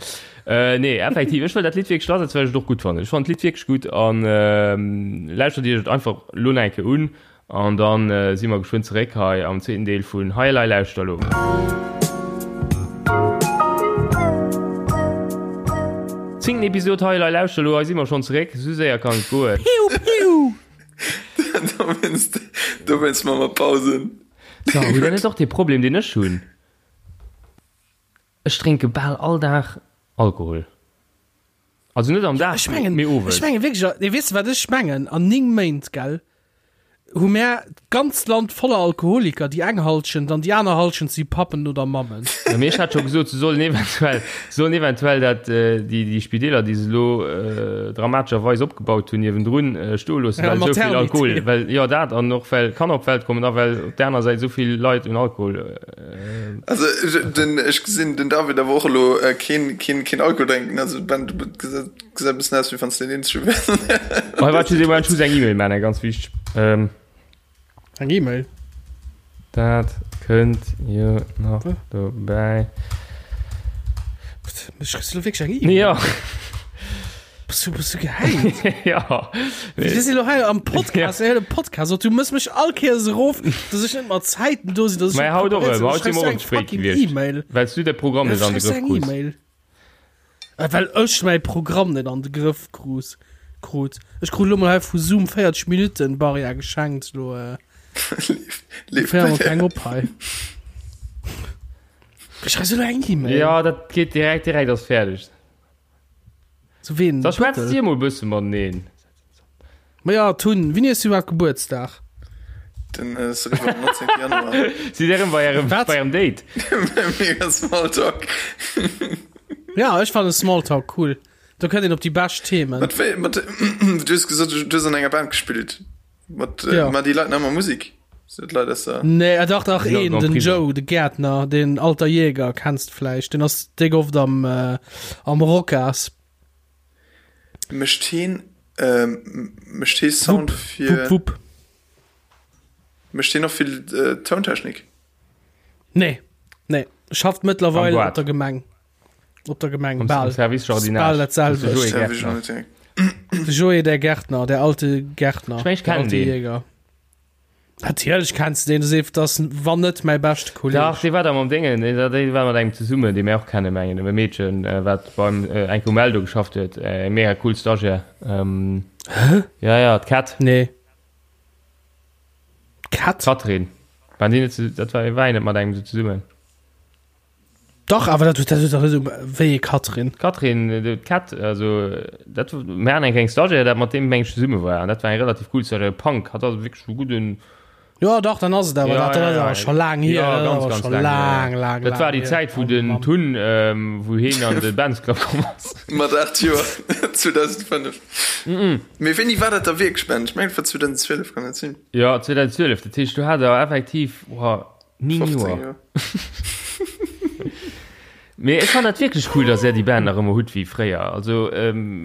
Äh, nee, effektiv, ech wëll dat Lidd wierklech lass, well ech et och gutt fannen. Ech fannen d'Lidd wierklech gutt an ähm, lauschtert iech et einfach lo nach eng Kéier un an dann äh, si mer geschwënn zeréck hei am zweeten Deel vun Hei elei lauschter lo. Zéngten Episod Hei elei lauschter lo, hei si mer schonn zeréck, sou séier kann et goen. Piu, piu! Dowéinst, dowéinst maache mer Pausen. So, mee dat ass och dee Problem, deen ech hunn. Ech drénke bal all Dag Alkohol. Also net am Dag, Ech mengen, mee owes. ech mengen wierklech, nee, weess de wat ech mengen? An 9 Méint, gell, hu mär d'ganzt Land voller Alkoholiker, déi eng Halschent an déi aner Halschent si Pappen oder Mammen. Ja, mee ech hat scho gesot, se sollen eventuell, se sollen eventuell dat, déi, déi Spideeler, déi se elo dramatescherweis opgebaut hunn, niewendrun stoe loossen, Ja, well esou vill Maternité. Alkohol, well, jo, dat an och well Kanner op d'Welt kommen a well op där aner Säit esou vill Leit un Alkohol Also den ech gesinn den David awer och elo keen keen keen Alkohol drénken, also Ben du gesäis e bëssen aus wéi wann s de deen eenzege wäers. Hei waart just ee Moment, ech muss eng E-Mail maachen, eng ganz wichteg. Ähm. Eng E-Mail? Dat kënnt jo nach dobäi. Ech kriss elo wierklech eng E-Mail? Jo. Bass du, bass du gehäit? Ja. Wir sinn lo hei am Podcast, ja. Podcast. Du mëss mech all Kéiers erof, dass ech net mat Zäiten do sinn, dass ech Mä haut och erëm, haut si mer och eng ze spéit fucking gewiescht. E-Mail. Well s du de Programm net an de Schreifs Grëff eng krus. E-Mail. Äh, Well ech mäi Programm net an de Grëff krus, krut. Ech krut lo mol hei vu Zoom 40 Minuten Barrière geschenkt, lo äh, Leeft féiere mer keng op hei. Ech schreif lo eng E-Mail. Ja, dat geet direkt, direkt ass fäerdeg. Zu ween? Da schwätzt Dir mol bësse mateneen. Ma ja, Tun, wéini hues du iwwerhaapt Gebuertsdag? Den äh, ass eriwwer am 19. Januar. Sidd Dir erëm bei ärem, Wat? bei ärem Date? Mega Smalltalk. Ja, ech fannen Smalltalk cool. Do kënnt een op déi bescht Themen. Mat wéi, mat, du hues gesot, du hues an enger Band gespillt. Mat, äh, Ja. ma déi Leit nach ëmmer Musik? Sinn dat Leit aus der. Nee, äh, dach, dach, Sinn een, am den Prison. Joe, de Gärtner, den alter Jäger, kennst vläicht. Den ass déck oft am, äh, am Rocas. Mécht heen, ähm, mécht hee Sound fir. Wupp, wupp. Mécht heen och vill äh, Tountechnik? Nee, nee. Schafft mëttlerweil Am op der Gemeng. Op der Gemeng, Am, bal. am Service Jardinage. Bal dat selwecht. Joé Service Gärtner. Jardinage. De Joé, der Gärtner, der alte Gärtner. Ich mein, ich der kenn alte den. Jäger. Natierlech kenns du den, du seef, das wann net mäi beschte Kolleg. Dach, dee war da mam Déngen, dee dee war mat engem zesummen, dee mir och kennen, mengen, e Meedchen, äh, wat beim äh, Enko Meldo geschafft huet, äh, mega cool Stagiaire. Ähm, Hä? ja, ja, d'Kat. Nee. Kat? Katrin. Waren déi net zu, dat war, war een net mat engem sou zesummen? Dach, awer dat huet dat huet dach net um wéi ee Katrin. D'Katrin, d'Kat, also dat mir haten eng kleng Stagiaire, dat mat deem meng ech zesumme war an dat war eng relativ cool Stagiaire, Punk, hat also wierklech e gudden. Jo dach, dann ass et awer Ja, dat, dat ja, ass ja. awer scho laang hier, Ja, dat ass ganz, awer ganz scho laang laang, hier. laang, Dat war laang déi hier. Zäit, wou Oh den Mann. Tun, wou heen an de Bands Club komm ass. Mat 8 Joer, 2005. Mee wéini war dat da wierklech, Ben? Ech mengen et war 2012, kann dat sinn? Jo, 2012, dat heescht, du hat der effektiv, boah, 9 15 Joer. Joer. Mee ech fannen dat wierklech cool, dass är déi Band nach ëmmer hutt wéi fréier. Also, ähm,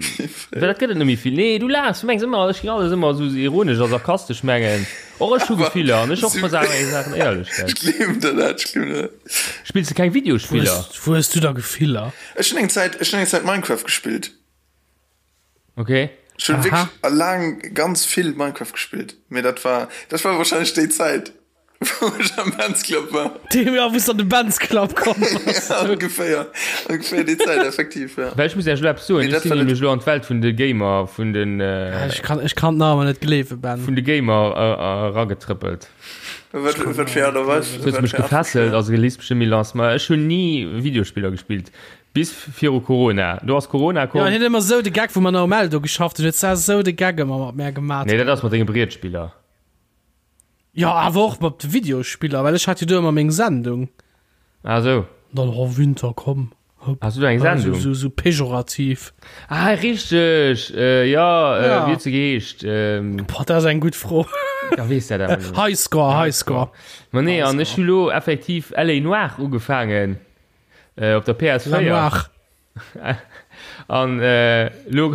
well dat gëtt et net méi vill. Nee, du laachs, du mengs ëmmer, ech ging alles ëmmer esou ironesch a sarkastesch mengen. Och ech hu Gefiller an ech och versagen eng Saachen éierlech, gell. Ech gleewen der dat, ech gleewen der dat. Spills de keng Wou Videospiller? hues, wou hues du da Gefiller? Ech hunn eng Zäit, ech hunn eng Zäit Minecraft gespillt. Okay. Ech hunn Aha. wierklech laang ganz vill Minecraft gespillt, mee dat war, dat war wahrscheinlech déi Zäit, wou ech am Benz Club war. Deem, ja, wou s an de Benz Club komm bass. Ja, ongeféier, ongeféier déi Zäit, effektiv, ja. Well ech muss Iech elo eppes soen, Mee ech dat sinn war net- nämlech elo an d'Welt vun de Gamer, vun den, Ja, ech kann, ech kann nach ëmmer net gleewen, Ben. vun de Gamer eragetrëppelt. Wat, wat fir Aart a Weis? Du hues mech gefesselt, also lies bestimmt méi lass. Ma ech hunn ni Videospiller gespillt. Bis viru Corona. Do ass Corona komm. Jo, hien huet ëmmer esou de Gag, wou mer nach um Eldo geschafft hunn, huet sa esou de Gag ëmmer mat mär gemat. Nee, dat ass mat denge Brietspiller. Jo, awer och mat de Videospiller, well ech hat jo do ëmmer meng Sendung. Ah sou. Dann, oh Winter, komm, hopp. Has du do eng Sendung? Esou, esou pejorativ. Ah, richteg! Äh, jo, äh, Ja. wéi huet se geheescht? Ähm, Boah, dat ass eng gutt Fro. ja, weess dat awer net. Highscore, Highscore. Ma nee, an ech hu lo effektiv LA Noire ugefaangen. Äh, op der PS4. La Noire. An äh, lo,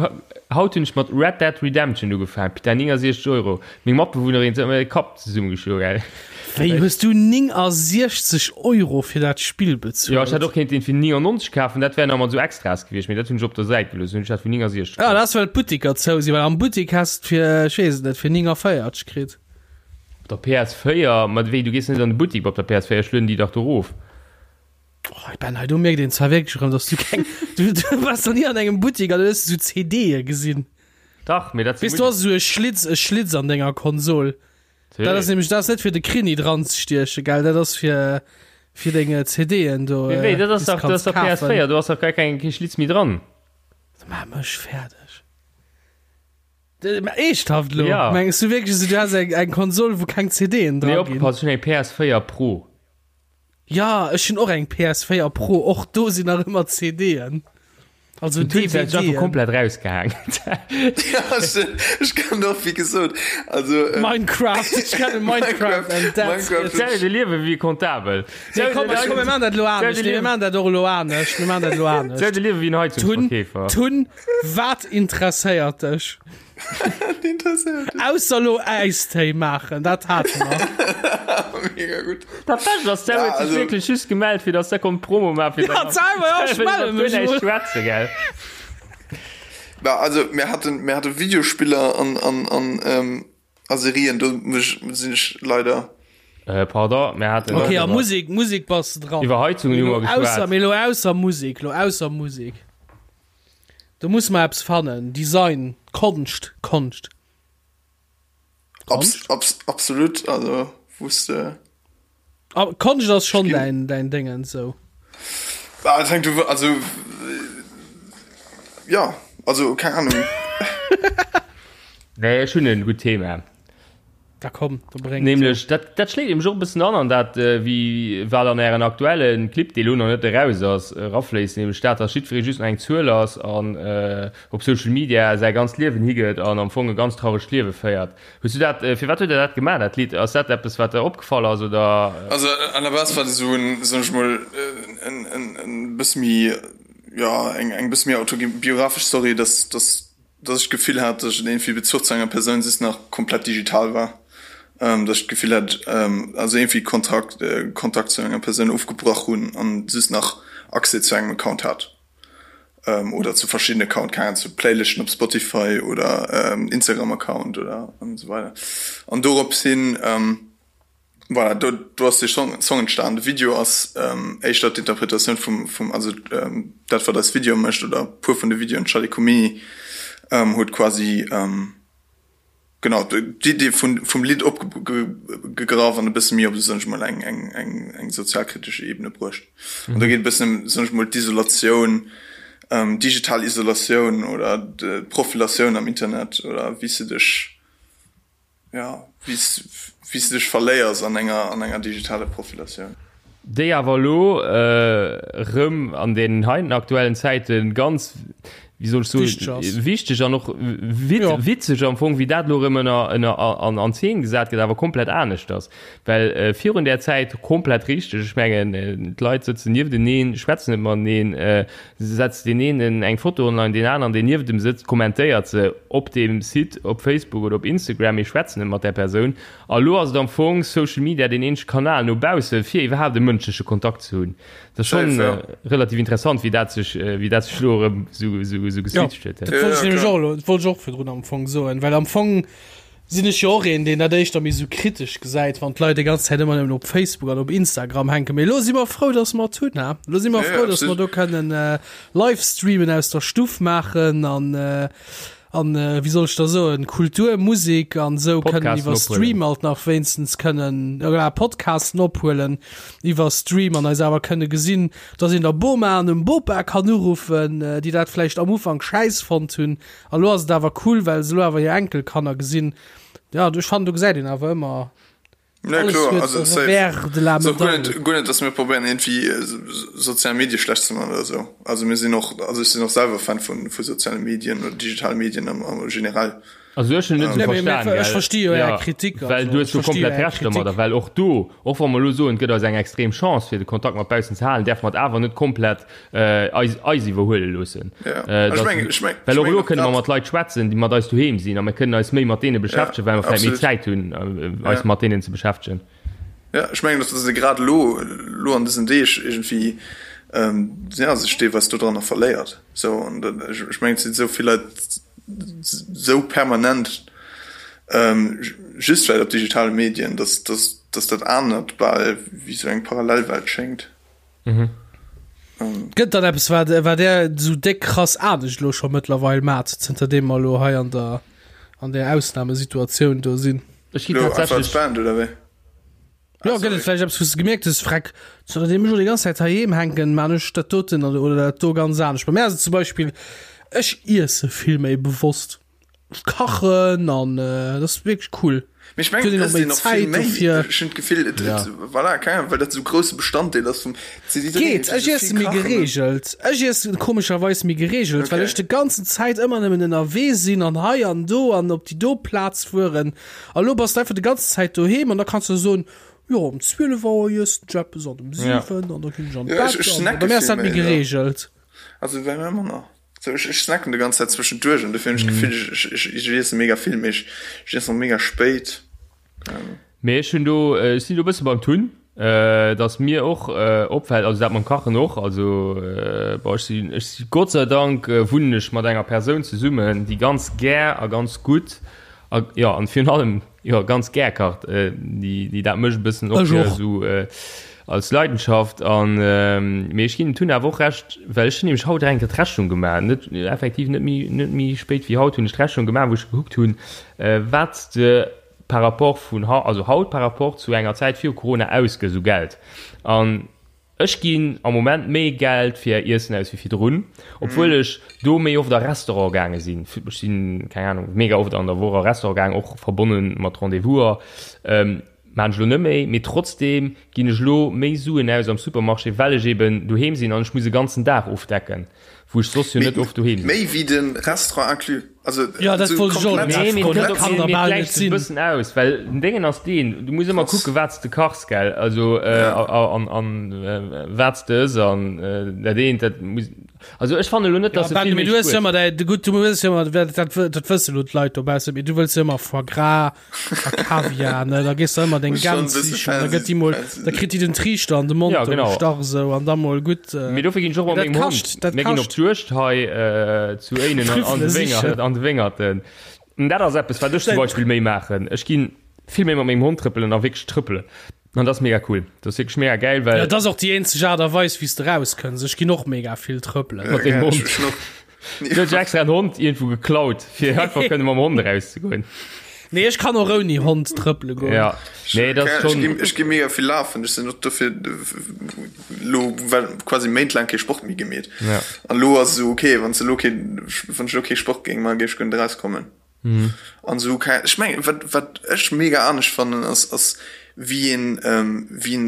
haut hunn ech mat Red Dead Redemption ugefaangen. Putain, 69 Euro. Meng Matbewunnerin huet mir de Kapp zesummegeschloen, gell. Wéi, hues du 69 Euro fir dat Spill bezuelt? Jo, ech hätt och kéinten fir 99 kafen, dat wär nach mat esou Extras gewiescht, mee dat hunn ech op der Säit gelooss, hunn ech dat fir 69 Ja, kaf. dat ass well d'Buttiker zou sinn, well am Buttik häss de fir, ech weess et net, fir 49 kritt. Op der PS4? Ma wéi, du gees net an de Buttik op der PS4, ech lueden déi dach do erof. Oh, Ben, hei do mierkt een zwar wierklech erëm, dass du keng du, du warst noch nie an engem Buttik an du hues esou CDe gesinn. Dach, mee dat Weess du hast esou e Schlitz, e Schlitz an denger Konsol. Dat ass nämlech dat ass net fir de Krini dran ze stieche, gell? Dat ass fir fir deng CDen do. Mee wéi, dat ass déi s dach, dat ass kanns dach kafen. PS4, do ass dach gar keng kee Schlitz méi dran. Maach mech fäerdeg. Mä eeschthaft lo? Ja. Mengs du wierklech, du has eng eng Konsol, wou keng CDen Nee, dra ginn? opgepasst, ech hunn eng PS4 Pro. Ja, ech hunn och eng PS4 Pro, och do sinn nach ëmmer CDen. Also Den Twitch huet sech einfach DVDen. komplett rausgehaang. Ja, ech, ech kann och, wéi gesot, also äh, Minecraft, ech kenne Minecraft and that's Minecraft it. Stell dir de Liewe wéi e Comptabel. Nee, komm, komm, mir maachen dat elo anescht. Nee, mir maachen dat och elo anescht. Mir maachen dat elo Stell dir anescht. de Liewe wéi en Tun, Heizungsverkeefer. Tun, wat interesséiert dech? interesséiert. Ausser lo Äistéi maachen, dat hate mer. Mega gutt. Dat Bescht ass, der Ja, huet sech also- wierklech just gemellt, fir dass der konnt Promo maachen. fir Ja, dann- selber, ja, ich melde mich Fir wohl. näischt schwätzen, gell? Na, also mir hatten, mir hatte Videospiller an, an, an, ähm, a Serien, do mech, sinn ech leider. Äh, pardon, mir haten Okay, a iwwer- Musik, Musik bass de dran. Iwwer Heizungen hu mer Ausser, geschwat. mee lo ausser Musik, lo ausser Musik. Do muss mer eppes fannen. Design, Konscht, Konscht. Abs, abs, absolut, also wusste. Ah, Konscht ass schon Ginn- dein, dein Dingen sou. Ah, das hängt, also äh, ja, also keine Ahnung. Nee, ech hunn en gutt Thema. Da komm, da bréng. Nämlech, dat, dat schléit nämlech och e bëssen an an dat, wéi wat an Ären aktuelle Clip, dee lo nach net eraus ass, erafléisst, nämlech dat, dass jiddweree just nach eng Zuel ass an op Social Media säi ganzt Liewen higëtt an am Fong e ganz trauregt Liewe féiert. Hues du dat, firwat huet Der dat gemaach, dat Lidd? Ass dat eppes, wat der opgefall ass, oder? Also à la base war dat esou en, soen ech mol, en, en, en bësse méi, jo, eng, eng bësse méi autobiographesch Story, dass, dass dass ech d'Gefill hat, dass ech iergendwéi Bezuch zu enger Persoun just nach komplett digital war, dass ech d'Gefill hat, also iergendwéi Kontakt, Kontakt zu enger Persoun ofgebrach hunn an just nach Accès zu engem Account hat oder zu verschiddenen Account, keng Ahnung, zu Playlisten op Spotify oder Instagram-Account oder an esou weider. An dorops hin Voilà, do, do ass de Song, Song entstan. De Video ass ähm, éischter d'Interpretatioun vum, vum also ähm, dat wat eis Video mécht oder puer vun de Videoen, Charlie Comini ähm, huet quasi ähm, genau d'Idee vun, vum Lidd opgegraff an e bësse méi op, soen ech mol, eng, eng, eng, eng sozialkritesche Ebene bruecht. Mhm. An do geet e bëssen ëm, soen ech mol, d'Isolatioun, ähm, digital Isolatioun oder d'Profilatioun am Internet oder wéi s de dech Ja, wéi s de dech verléiers an enger, an enger digitaler Profilatioun. Déi awer elo erëm an deenen heiten aktuellen Zäite ganz, wéi soll ech soen, wichteg an och witzeg am Fong, wéi dat elo erëm ënner, ënner, an, an Zeen gesat gëtt, awer komplett aneschters. Well virun där Zäit, komplett richteg, ech mengen, d'Leit sëtzen niefteneen, schwätzen net mateneen, Setzt deen een eng Foto online, deen aneren, deen nieft em sëtzt, kommentéiert se op deem Site, op Facebook oder op Instagram, mee schwätzt net mat där Persoun. A lo ass et am Fong Social Media deen eenzege Kanal no bausse fir iwwerhaapt e mënschleche Kontakt ze hunn. Dat ass schonn relativ interessant, wéi dat sech, wéi dat sech lo erëm esou, esou, esou geswitcht huet. Dat wollt ech nämlech och elo, dat wollt ech och virdrun am Fong soen, well am Fong Sinn ech jo och een, deen dat éischter méi sou kritesch gesäit, wann d'Leit déi ganz Zäit ëmmer nëmmen op Facebook an op Instagram hänken. Mee elo si mer frou, dass mer et hunn, ha? Elo si mer frou, dass mer do kënnen Livestreamen aus der Stuff maachen an, an wéi soll ech da soen, Kultur, Musek an esou kënnen iwwer Stream alt nach wéinstens kënnen, voilà, Podcasten ophuelen iwwer Stream an eis awer kënne gesinn, dass een der Boma an dem Bopa kann uruffen, déi dat vläicht am Ufank schäiss fonnt hunn. A lo ass et awer cool, well se lo awer hir Enkelkanner gesinn. Ja, ech fannen, do gesäit een awer ëmmer, Ja, alles kloer, huet also e safe. Revers de la Ass och guer Medaille. net, guer net, dass mir probéieren iergendwéi sozial Medie schlecht ze man oder esou. Also mir sinn och, also ech sinn och selwer Fan vu, vu soziale Medien oder digitale Medien am, am generell. Also ech hunn net Nee, esou mee, mee, verstan, ech gell? versti jo Är Ja, Kritik, well also du hues ech jo versti jo komplett Är Recht domadder, Kritik. well och do, och wa mer elo soen, et gëtt eis eng extrem Chance fir de Kontakt mat baussen ze halen, däerfe mer et awer net komplett eis, eis iwwerhuele loossen. Ja. Äh, Ech dass, mengen, ech meng, well ech och mengen elo och kënne mer grad, mat Leit schwätzen, déi mat eis doheem sinn, a mir kënnen eis méi mat deene ja, beschäftegen, well mer vläicht méi absolut. Zäit hunn, äh, eis Ja. mat deenen ze beschäftegen. Ja, ech mengen, dass se grad elo, elo an dësen Deeg iergendwéi, ähm, ja, sech deelweis dodranner verléiert. Sou, an dat, ech, ech mengen, et sinn esou vill Leit esou permanent, ähm, just vläicht op digitale Medien, dass, dass, dass dat anert bal wéi sou eng Parallelwelt schéngt. Mhm. Gëtt dann eppes wat wat der sou déck krass anescht lo scho mëttlerweil mat zënter deem mer lo hei an der an der Ausnahmesituatioun do sinn? Ech gi Lo einfach als tatsächlech Band oder wéi? Jo, Ah, gëtt et sorry. vläicht eppes wou s de gemierkt hues, Freck, zënter deem ech lo déi ganz Zäit heiheem hänken, man ech dat doten oder dat do ganz anescht. Bei mär ass et zum Beispill, ech iesse vill méi bewosst. Kachen an dat ass wierklech cool. Mee ech mengen, et ësst een och vill méi. Ech hunn d'Gefill, et, et, voilà, keng Ahnung, well dat esou grousse Bestanddeel ass vum Geet, ech iesse méi gereegelt. Ech iesse komescherweis méi gereegelt, well ech de ganzen Zäit ëmmer nëmmen ënnerwee sinn an hei an do an op déi do Plaz fueren. A lo bass de einfach de ganzen Zäit doheem an da kanns de soen, jo um 12 Auer iessen ech eppes an um 7 an da ginn ech an d'Bett an bei mir ass dat méi gereegelt. Also bei mir manner. So, ech, ech snacken de ganz Zäit zwëschenduerch an dofir hunn ech d'Gefill, ech, ech, ech iesse mega vill, mee ech, ech iessen och mega spéit. Mee ech hunn do, ech sinn do e bësse beim Tun, dass mir och opfält, also dat mam Kachen och, also bon, ech sinn, ech si Gott sei Dank wunnen ech mat enger Persoun zesummen, déi ganz gär a ganz gutt a jo, an virun allem Jo, ganz gär kacht. Déi, déi dat mécht e bëssen och Ech fir och. esou als Leidenschaft. An, mee ech ginn dem Tun awer och Recht, well ech hunn nämlech haut eng Kéier d'Rechnung gemaach, net, effektiv net méi, net méi spéit wéi haut hunn ech d'Rechnung gemaach, wou ech gekuckt hunn, wat s de par rapport vun hau, also haut par rapport zu enger Zäit viru Corona ausgëss u Geld. An. Ech ginn am Moment méi Geld fir Iessen aus wéi virdrun, obwuel ech do méi oft a Restaurant gaange sinn. Ech sinn, keng Ahnung, mega oft an der Woch a Restaurant gaang, och verbonne mat Rendez-vouser. Maan ech lo net méi, mee trotzdem ginn ech lo méi Suen aus am Supermarché, well ech eben doheem sinn an ech muss e ganzen Dag ofdecken, wou ech soss jo net oft doheem sinn. Méi wéi de Restaurant inclus? Also Jo, dat wollt ech och komplett, Nee, mee dat kann der bal net gläicht sech e sinn. bëssen aus, well den Déngen ass deen, du muss ëmmer kucken, wat s de kachs, gell, also an an wat s de ëss an dat eent, dat muss, also ech fannen elo net, Ja, dass e Ben, vill mee méi du hues jo spuert. ëmmer däi, gutt, du hues jo ëmmer, dat dat wësse lo d'Leit dobaussen, mee du wëlls jo ëmmer Foie gras, A Kaviar, ne? Da gees du ëmmer deng Gäns sichen, da gëtt déi mol, da kritt déi den Triichter an de Mond Ja, genau. gestach esou an da mol gutt. Äh, Mee dofir ginn ech och mat dat mengem kascht, Hond. dat Mir ginn op kascht. d'Juegd hei äh, zu Éinen an, an de Trüffele Wéngert, sichen. an de Wéngerten. An dat ass eppes, wat ech zum Beispill méi maachen. Ech ginn vill méi mat mengem Hond trëppelen a wierklech trëppelen. An dat ass mega cool. Dat ass wierklech mega gäil, well Ja, dat ass och déi eenzeg Aart a Weis, wéi s de rauskënns. Ech ginn och mega vill trëppelen. mat dengem Ja, Hond. ech hun och Du hues extra en Hond iergendwou geklaut, fir einfach kënne mam Hond erauszegoen. Nee, ech kann och ouni Hond trëppele goen. Ja, nee, dat ass Ech ginn, schon. ech gi mega vill lafen. Ech sinn och dofir lo well quasi méintlaang kee Sport méi gemeet. Ja. An lo ass esou okay, wann s de lo kee, wann ech lo kee Sport géing man, géif ech guer net erauskommen. An esou kei, ech mengen, wat, wat ech mega anescht fannen, ass, ass wéi een, wéi een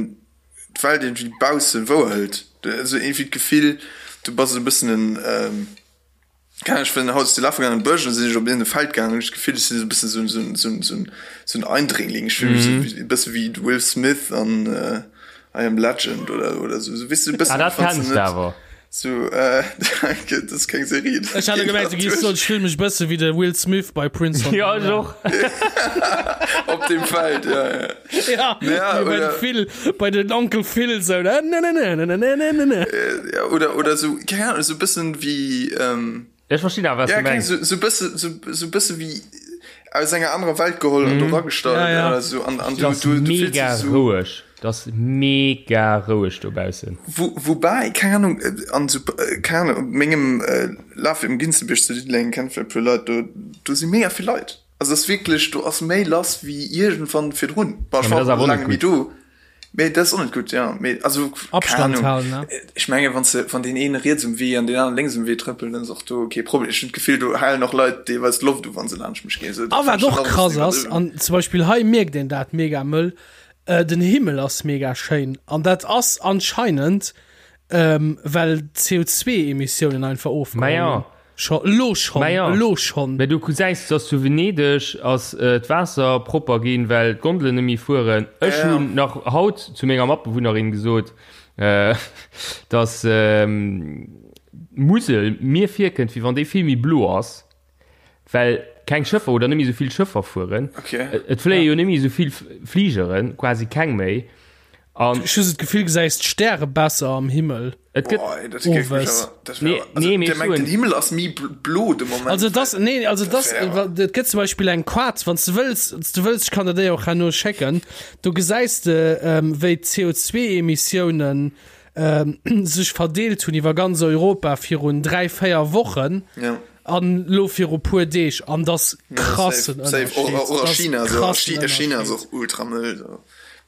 d'Welt iergendwéi bausse wouerhëlt. Esou iergendwéi d'Gefill, du bass esou e bëssen en, keng Ahnung, ech sinn haut ze lafe gaangen an de Bësch an da sinn ech op iergende Feld gaangen an hunn ech d'Gefill, ech sinn esou e bëssen esou esou esou esou esou en Eindringling. Ech fille mech esou wéi e bësse wéi de Will Smith an I Am Legend oder oder esou, esou weess du, e Ah, bëssen, dat wann s kenns de de net awer. esou, danke, dat ass keng Serie, dat Ech hat geet gemengt, du nach giss soen, duerch. ech fille mech e bësse wéi de Will Smith bei Prince von Ja, ech Bel-Air. och. Op dem Feld, ja, ja. Ja, Ja, bei oder- den Phil, bei den Onkel Phil so. Ne, ne, ne, ne, ne, ne, ne, ne, ne. Ja, oder, oder so, keine Ahnung, so bëssen wéi, ähm, Ech verstinn awer, was ja, du keng, mengs. so, so bësse, so, so bësse wéi aus enger anerer Welt geholl an do ragestallt Ja, ja. oder so. An, an du, Das du, du fills mega dich so, roueg. Das mega roueg dobaussen. Wo, wobei, keine Ahnung, äh, an so, äh, keine Ahnung, op mengem äh, Laf im Ginzebierg zu Diddeleng kennt vielleicht puer Leit, do, do si mega vill Leit. Also ass wierklech, do ass méi lass wéi iergendwann virdrun. Bon, ech Ja, mee war dat ass awer och laang net net méi gutt. do, mee dat ass och net gutt, jo. Mee also, keng Abstand Ahnung, halen, ne? ech menge wann s de, wann deen een riets um Wee an deen aneren lénks um Wee trëppelt, dann ass och do kee Problem. Ech hunn d'Gefill, do halen och Leit deelweis d'Loft u wa se laanscht mech ginn. Also A dat wat fannen ech och dann och e krass bëssen ass, iwwerdriwwen. an zum Beispill hei mierkt een dat mega mëll, den Himmel ass mega schéin. An dat ass anscheinend, well d'CO2-Emissiounen einfach ofgeholl Maja. hunn. Scho, elo schonn, Maja. elo schonn. Mä du gesäis, dass zu Venedeg ass d'Waasser propper ginn, well d'Gondelen net méi fueren. Ech Ja. hunn nach haut zu menger Matbewunnerin gesot, dass d'Musel mir virkënnt, wéi wann déi vill méi blo ass, well keng Schëffer oder net méi esou vill Schëffer fueren. Okay. Et fléie jo net méi esou vill Fligeren, quasi keng méi. An Ech hu sou d'Gefill, gesäis d'Stäre besser am Himmel. et gëtt. Boah, ey, dat géif mech Owes. awer, dat Nee, wär, also, nee, mee der ech mengt, soen- den Himmel ass méi bl- blo de Moment. Also das, nee, also das, wär awer- et gëtt zum Beispill eng Quart, wann s de wëlls, wann s de wëlls, ech kann der déi och herno schécken, do gesäis de, ähm, wéi d'CO2-Emissiounen ähm, sech verdeelt hunn iwwer ganz Europa virun 3, 4 Wochen Ja. an lo viru puer Deeg an das krassen Safe, safe. Och, och a China, so. A krassen Chi- a China ass Ënnerscheed. och ultra mëll, so.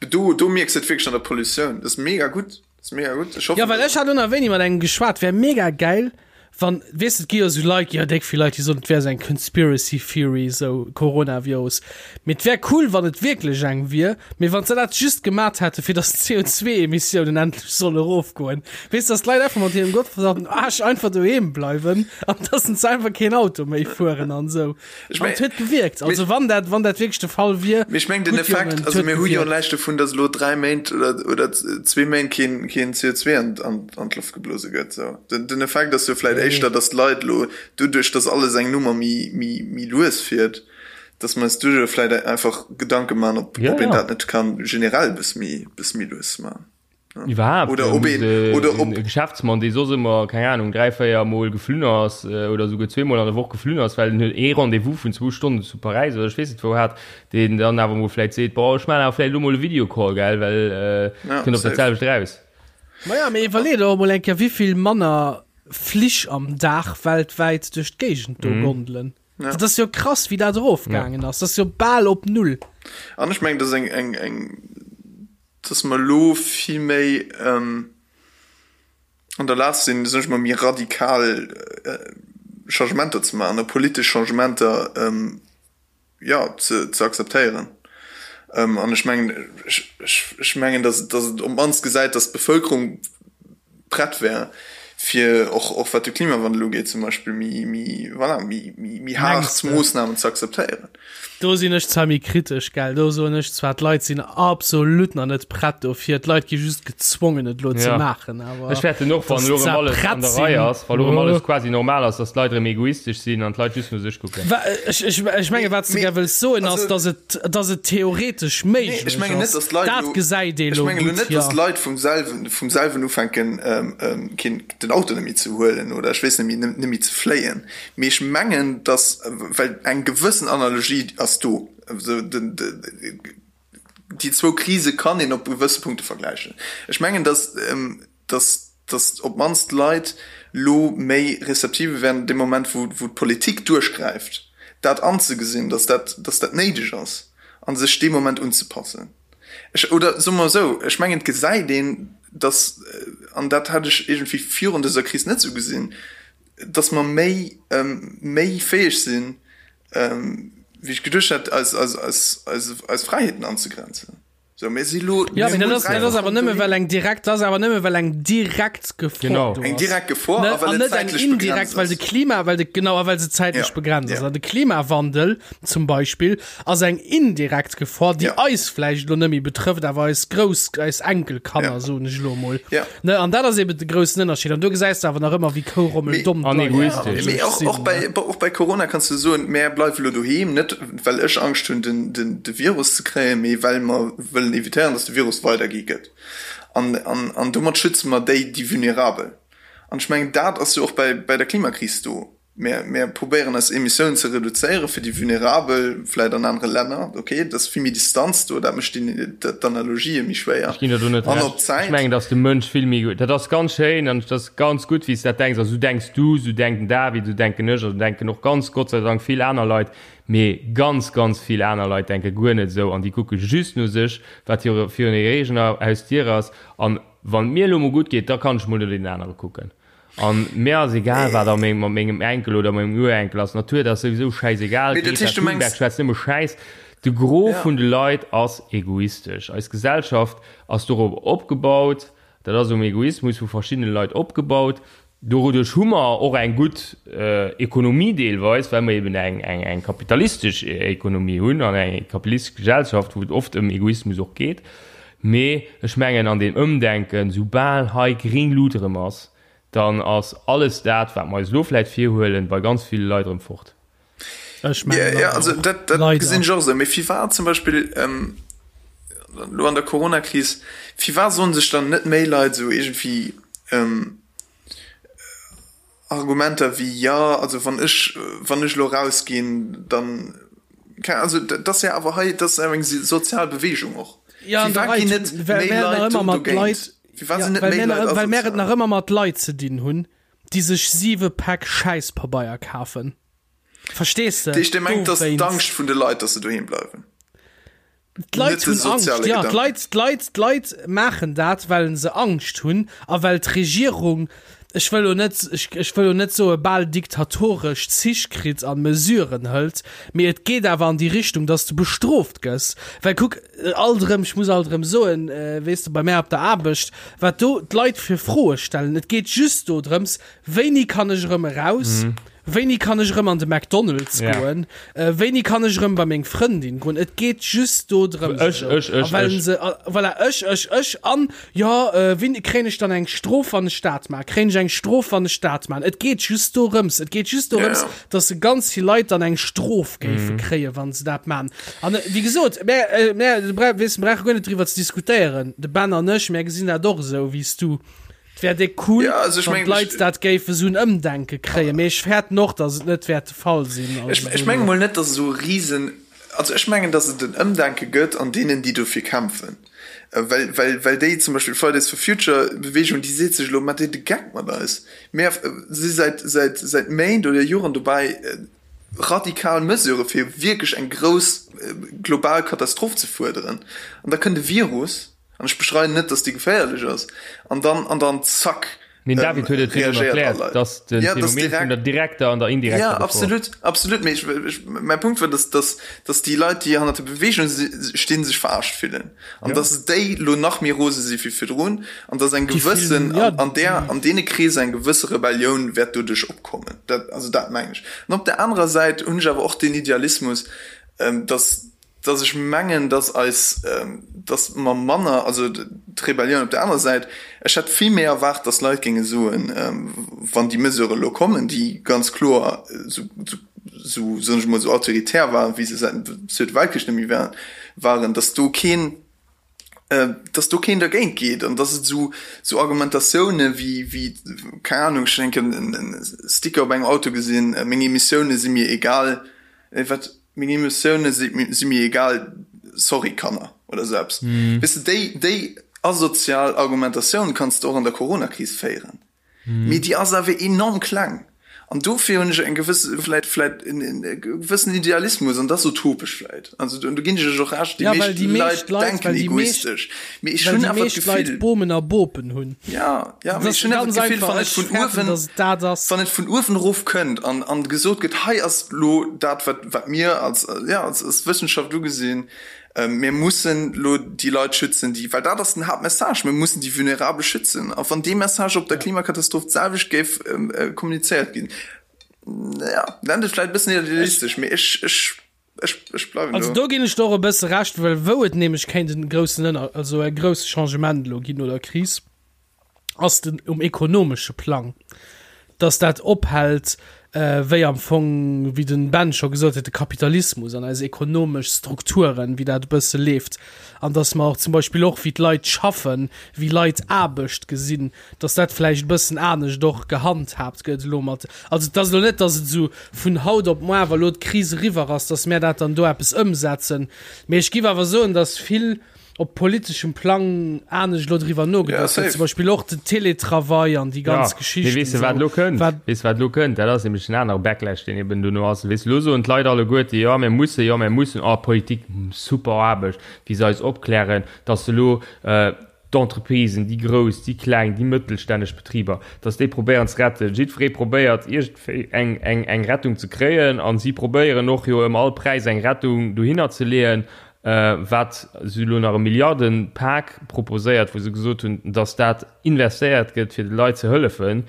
Do, do mierks de et wierklech an der Pollutioun. Dat ass mega gutt. Dat ass mega gutt. Ech hoffen, Ja, well ech hat ënner wéini mat engem geschwat, wär mega geil, wann, weess de, et gi jo sou Leit, jo déck vill Leit, déi soen, et wär sou eng Conspiracy Theory, sou Coronavirus. Mee et wär cool, wann et wierklech eng wier, mee wann se dat just gemat hätte fir datt d'CO2-Emissiounen endlech solle erofgoen. Weess, datt d'Leit einfach mat hirem gottverdammten Aarsch einfach doheem bleiwen an datt se einfach keen Auto méi fueren an sou. Ech An meng- et huet gewierkt. Also wann dat, wann dat wierklech de Fall wier. Mee ech meng den gutt, Effekt, Jongen, et also huet mir hu jo gewierkt. näischt dovun, datt elo 3 Méint oder, oder zwee Méint keen, keen CO2 an, an, an d'Loft geblose gëtt. Sou. Den, den Effekt ass jo vläit éischter, datt d'Leit elo doduerch, datt alles eng Nummer méi, méi, méi lues fiert, datt mer eis doduerch vläit einfach Gedanke man, ob, Ja, ob een ja. dat net kann generell e bësse méi, bësse méi lues man. Iwwerhaapt, Oder ob een, oder ob. E Geschäftsmann, dee soss ëmmer, keng Ahnung, 3, 4 Mol geflunn ass oder esouguer zweemol an der Woch geflunn ass, well en huet ee Rendez-vous vun zwou Stonnen zu Paräis oder ech weess net wou hat, deen dann awer mol vläicht seet, boah, ech maachen awer vläicht elo mol e Videocall, gell, well et kënnt op dat selwecht eraus. Maja, mee iwwerlee der och mol eng Kéier, wéivill manner Flich am Dag weltwäit duerch d'Géigend do gondelen. Dat ass jo krass, wéi dat erofgaangen ass. Dat ass jo bal op Null. An ech mengen, dat ass eng, eng, eng, dass mer elo vill méi. An der Lag sinn, soen ech mol, méi radikal Changementer ze maachen a politesch Changementer, jo, ze akzeptéieren. An ech mengen, ech mengen, datt et op d'mannst gesäit, datt d'Bevëlkerung prett wär, fir och, och wat de Klimawandel ugeet zum Beispill, méi, méi, voilà, méi, méi haart Moossnamen ze akzeptéieren. Do sinn ech zwar méi kritesch, gell. Do soen ech zwar, d'Leit sinn absolut nach net prett dofir. D'Leit gi just gezwongen, et elo ze maachen. Awer Ech fäerten och, wann elo erëm alles an der Rei ass, wa elo erëm alles quasi normal ass, dass d'Leit erëm egoistesch sinn an d'Leit just no sech kucken. Ech, ech, ech menge wat s de gär wëlls soen ass, dass et, dass et theoretesch méiglech ass. Dat gesäit ee elo gutt, jo. Ech mengen elo net, dass d'Leit vum selwen, vum selwen ufänken, keen, den Auto net méi ze huelen oder ech weess net méi, net méi ze fléien. Mee ech mengen, dass, well eng gewëssen Analogie ass do, déi zwou Krise kann een op gewësse Punkte vergläichen. Ech mengen, dass, dass, dass op d'mannst d'Leit lo méi receptive wären dee Moment, wou, wou d'Politik duerchgräift, dat anzegesinn, dass dat, dass dat néideg ass a sech dee Moment unzepassen. Ech, oder soe mer esou, ech mengen, et gesäit een, dass, an dat hat ech iergendwéi virun dëser Kris net esou gesinn, dass mer méi méi fäeg sinn, wéi ech geduecht hat, eis eis eis eis eis Fräiheeten anzegrenzen. Sou, mir si lo. Ja, mee dat ass, dat ass awer nëmme well eng direkt, dat ass awer nëmme well eng direkt Gefor Genau. do ass. Eng direkt Gefor Ne, a well an et net eng zäitlech indirekt, begrenzt well de ass. Klima, well de, genau, a well se zäitlech Ja, begrenzt ass. ja. An de Klimawandel zum Beispill ass eng indirekt Gefor, déi Ja. eis vläicht elo net méi betrëfft, awer eis Grouss, eis Enkelkanner, Ja. soen ech elo emol. Ja. Ne, an dat ass eben de groussen Ënnerscheed. An do gesäis de awer nach ëmmer, wéi kourommel-domm An d'Leit egoistesch. Mee och, sinn, och, bei, ne? och bei Corona kanns du soen, mär bleiwe lo doheem, net well ech Angscht hunn, den, den, de Virus ze kréien, mee well mer wëllen evitéieren, dass de Virus weidergi gëtt. An, an, an domat schütze mer déi, déi vulnerabel. An ech mengen, dat ass jo och bei, bei der Klimakris do. Mär, mär probéieren eis Emissiounen ze reduzéieren fir déi Vulnerabel, vläit an anere Länner, ok, et ass vill méi Distanz do, dat mécht déi, d'Analogië méi schwéier. Ech ginn der do net An op Recht. Ech Zäit. mengen, datt de Mënsch vill méi, dat ass ganz schéin an et ass ganz gutt, wéi s de dat denks a sou denks du, sou denkt den David, sou denken ech a sou denken och ganz, Gott sei Dank, vill aner Leit. Mee ganz, ganz vill aner Leit denke guer net esou an déi kucke just no sech, wat hire, virun hirer eegener Hausdier ass. An wann et mir elo mol gutt geet, da kann ech mol no deenen anere kucken. An mir ass egal wat a mengem, mat mengem Enkel oder mengem Urenkel ass. D'Natur, dat ass souwisou schäisegal. Mee dat Greta heescht, du Thunberg mengs. schwätzt nëmme Schäiss. De Gros Ja. vun de Leit ass egoistesch. Eis Gesellschaft ass dorop opgebaut, dat ass um Egoismus vu verschiddene Leit opgebaut. Doduerch hu mer och eng gutt Ekonomie deelweis, well mer eben eng, eng, eng kapitalistesch Ekonomie hunn an eng kapitalistesch Gesellschaft, wou et oft ëm Egoismus och geet. Mee ech mengen an deem Ëmdenken, soubal hei gréng Lut erëm ass, dann ass alles dat, wat mer eis elo vläicht virhuelen, bei ganz ville Leit erëm fort. Ech mengen Ja, awer also och, dat, dat leider. gesinn ech och esou. Mee firwat zum Beispill elo an der Coronakris, firwat soen sech dann net méi Leit esou iergendwéi, Argumenter wéi, jo, also wann ech, wann ech elo erausginn, dann, keng, also dat ass jo awer hei, dat ass awer eng sozial Beweegung och. Ja, an der Firwat Rei, ginn net well méi mär nach Leit ëmmer do mat dogéint? Leit, Firwat ja, sinn net well méi mär Leit nach, well mär et asozial? nach ëmmer mat Leit ze dinn hunn, déi sech siwe Päck Schäisspabeier kafen. Verstees de? Dat heescht, Dir mengt, dass Dowéinst. d'Angscht vun de Leit, dass se doheem bleiwen? D'Leit Net de hunn Angscht, soziale ja, Gedanken. d'Leit, d'Leit, d'Leit maachen dat, well se Angscht hunn a well d'Regierung, ech wëll lo net, ech, ech wëll lo net soe bal diktatoresch Zich kritt a Mesuren hëlt, mee et geet awer an déi Richtung, dass de bestrooft gëss. Well kuck, alt erëm, ech muss alt erëm soen, weess de, bei mär op der Aarbecht, wat do d'Leit fir Froe stellen, et geet just dodrëms, wéini kann ech erëm eraus, Wéini kann ech erëm an de McDonald's Ja. goen? Äh, wéini kann ech erëm bei meng Frëndin goen? Et geet just do drëms. Ech, ech, ech, A well ech. se, a, voilà, ech, ech, ech an jo, äh, wéini kréien ech dann eng Strof, wann ech dat maachen? Kréien ech eng Strof, wann ech dat maachen? Et geet just dorëms. Et geet just dorëms, Ja. dass se ganz vill Leit dann eng Strof géife Mhm. kréien, wann se dat maachen. An äh, wéi gesot, mär, äh, mär, du weess, mir brauche guer net driwwer ze diskutéieren. De Ben an ech, mär gesinn dat och esou wéi s du. Et wär déck cool, Ja, also ech wann mengen, d'Leit ech- dat géife sou en Ëmdenke kréien, mee ech fäerten och, datt et net wäert de Fall sinn. Also Ech, ech menge mol net, datt esou e Risen, also ech mengen, datt et en Ëmdenke gëtt an deenen, déi dofir kämpfen. Well, well, well déi zum Beispill Fridays for Future Bewegung, déi seet sech elo, Maacht Dir de Geck mat eis? Mir si säit, säit, säit Méint oder Joren dobäi, radikal Mesurë fir wierklech eng grouss global Katastroph ze fuerderen. An da kënnt e Virus, An ech bestreiden net, dass déi geféierlech ass. An dann, an dann zack! Den David huet et virdrun erkläert, dass de Phänomen vun der direkter an der indirekter Gefor. Ja, absolut, absolut. Mee ech, ech, mäi Punkt war, dass, dass, dass déi Leit, déi hannert der Beweegung stinn, sech verarscht fillen. An ja. dass déi lo nach méi rose si wéi virdrun. An dass eng gewëssen, an, an där, an deene Kreeser eng gewësse Rebellioun wäert doduerch opkommen. Dat, also dat mengen ech. An op der anerer Säit hunn ech awer och deen Idealismus, dass, dass ech mengen, dass eis, dass mer manner, also d'Rebellioun op der anerer Säit, ech hätt vill méi erwaart, dass Leit géinge soen, wann déi Mesurë elo kommen, déi ganz kloer esou, esou, soen ech emol, esou autoritär waren, wéi se säit dem Zweete Weltkrich net méi waren, dass do keen, dass do keen dergéint geet an dass et esou, esou Argumentatioune wéi, wéi, keng Ahnung, ech hunn eng Kéier e Sticker op engem Auto gesinn, meng Emissioune si mir egal, wat, Meng Emotioune si mir egal, sorry Kanner oder sou eppes. Weess de, déi, déi asozial Argumentatioun kanns de och an der Coronakris féieren, mee déi ass awer enorm kleng. An dofir hunn ech eng gewëss, vläit, vläit en gewëssen Idealismus, an dat ass utopesch vläit, also do ginn ech iech och Recht, déi meescht Leit denken egoistesch, mee ech hunn awer d'Gefill, Bomen a Bopen hunn. Ja, ja, mee ech hunn awer d'Gefill, wann et vun uewen, wann et vun uewen erof kënnt an, an gesot gëtt, hei ass lo dat, wat, wat mir als, ja, als, als Wëssenschaft ugesinn, mir mussen lo déi Leit schützen, déi, well dat ass den Haaptmessage, mir mussen déi Vulnerabel schützen. A wann dee Message op der Klimakatastroph d'selwecht géif kommunizéiert ginn, ja, nennt et vläicht e bëssen idealistesch, mee ech, ech, ech, ech bleiwen do. Also do ginn ech der och e bësse Recht, well wou et nämlech kéint en groussen Ënner-, also e grousse Changement elo ginn oder Kris, ass den um ekonomesche Plang, dass dat ophält, wéi am Fong, wéi den Ben scho gesot huet, de Kapitalismus an eis ekonomesch Strukturen, wéi dat e bësse leeft an dass mer och zum Beispill och wéi d'Leit schaffen, wéi Leit Aarbecht gesinn, dass dat vläicht e bëssen anescht och gehandhaabt gëtt elo mat, also et ass elo net, dass et esou vun haut op muar, wa elo d'Kris eriwwer ass, dass mär dat dann do eppes ëmsetzen, mee ech giff awer soen, dass vill op politeschem Plang anescht elo driwwer nogeduecht gëtt, zum Beispill och den Télétravail an déi ganz Geschichten. Mee weess de wat elo kënnt? Weess de wat elo kënnt? Dat ass nämlech en anere Backlash, deen eben dono ass. Weess de, elo soen d'Leit alleguerte, jo mir mussen, jo mir mussen, oh Politik, super Aarbecht, wéi se eis opklären, datt se elo d'Entreprisen, déi grouss, déi kleng, déi mëttelstänneg Betriber, datt déi probéieren ze retten. Jiddweree probéiert iergendwéi eng, eng, eng Rettung ze kréien a si probéieren och jo ëm all Präis eng Rettung dohinner ze leeën. Wat si elo nach e Milliardenpak proposéiert, wou se gesot hunn, datt dat investéiert gëtt, fir de Leit ze hëllefen.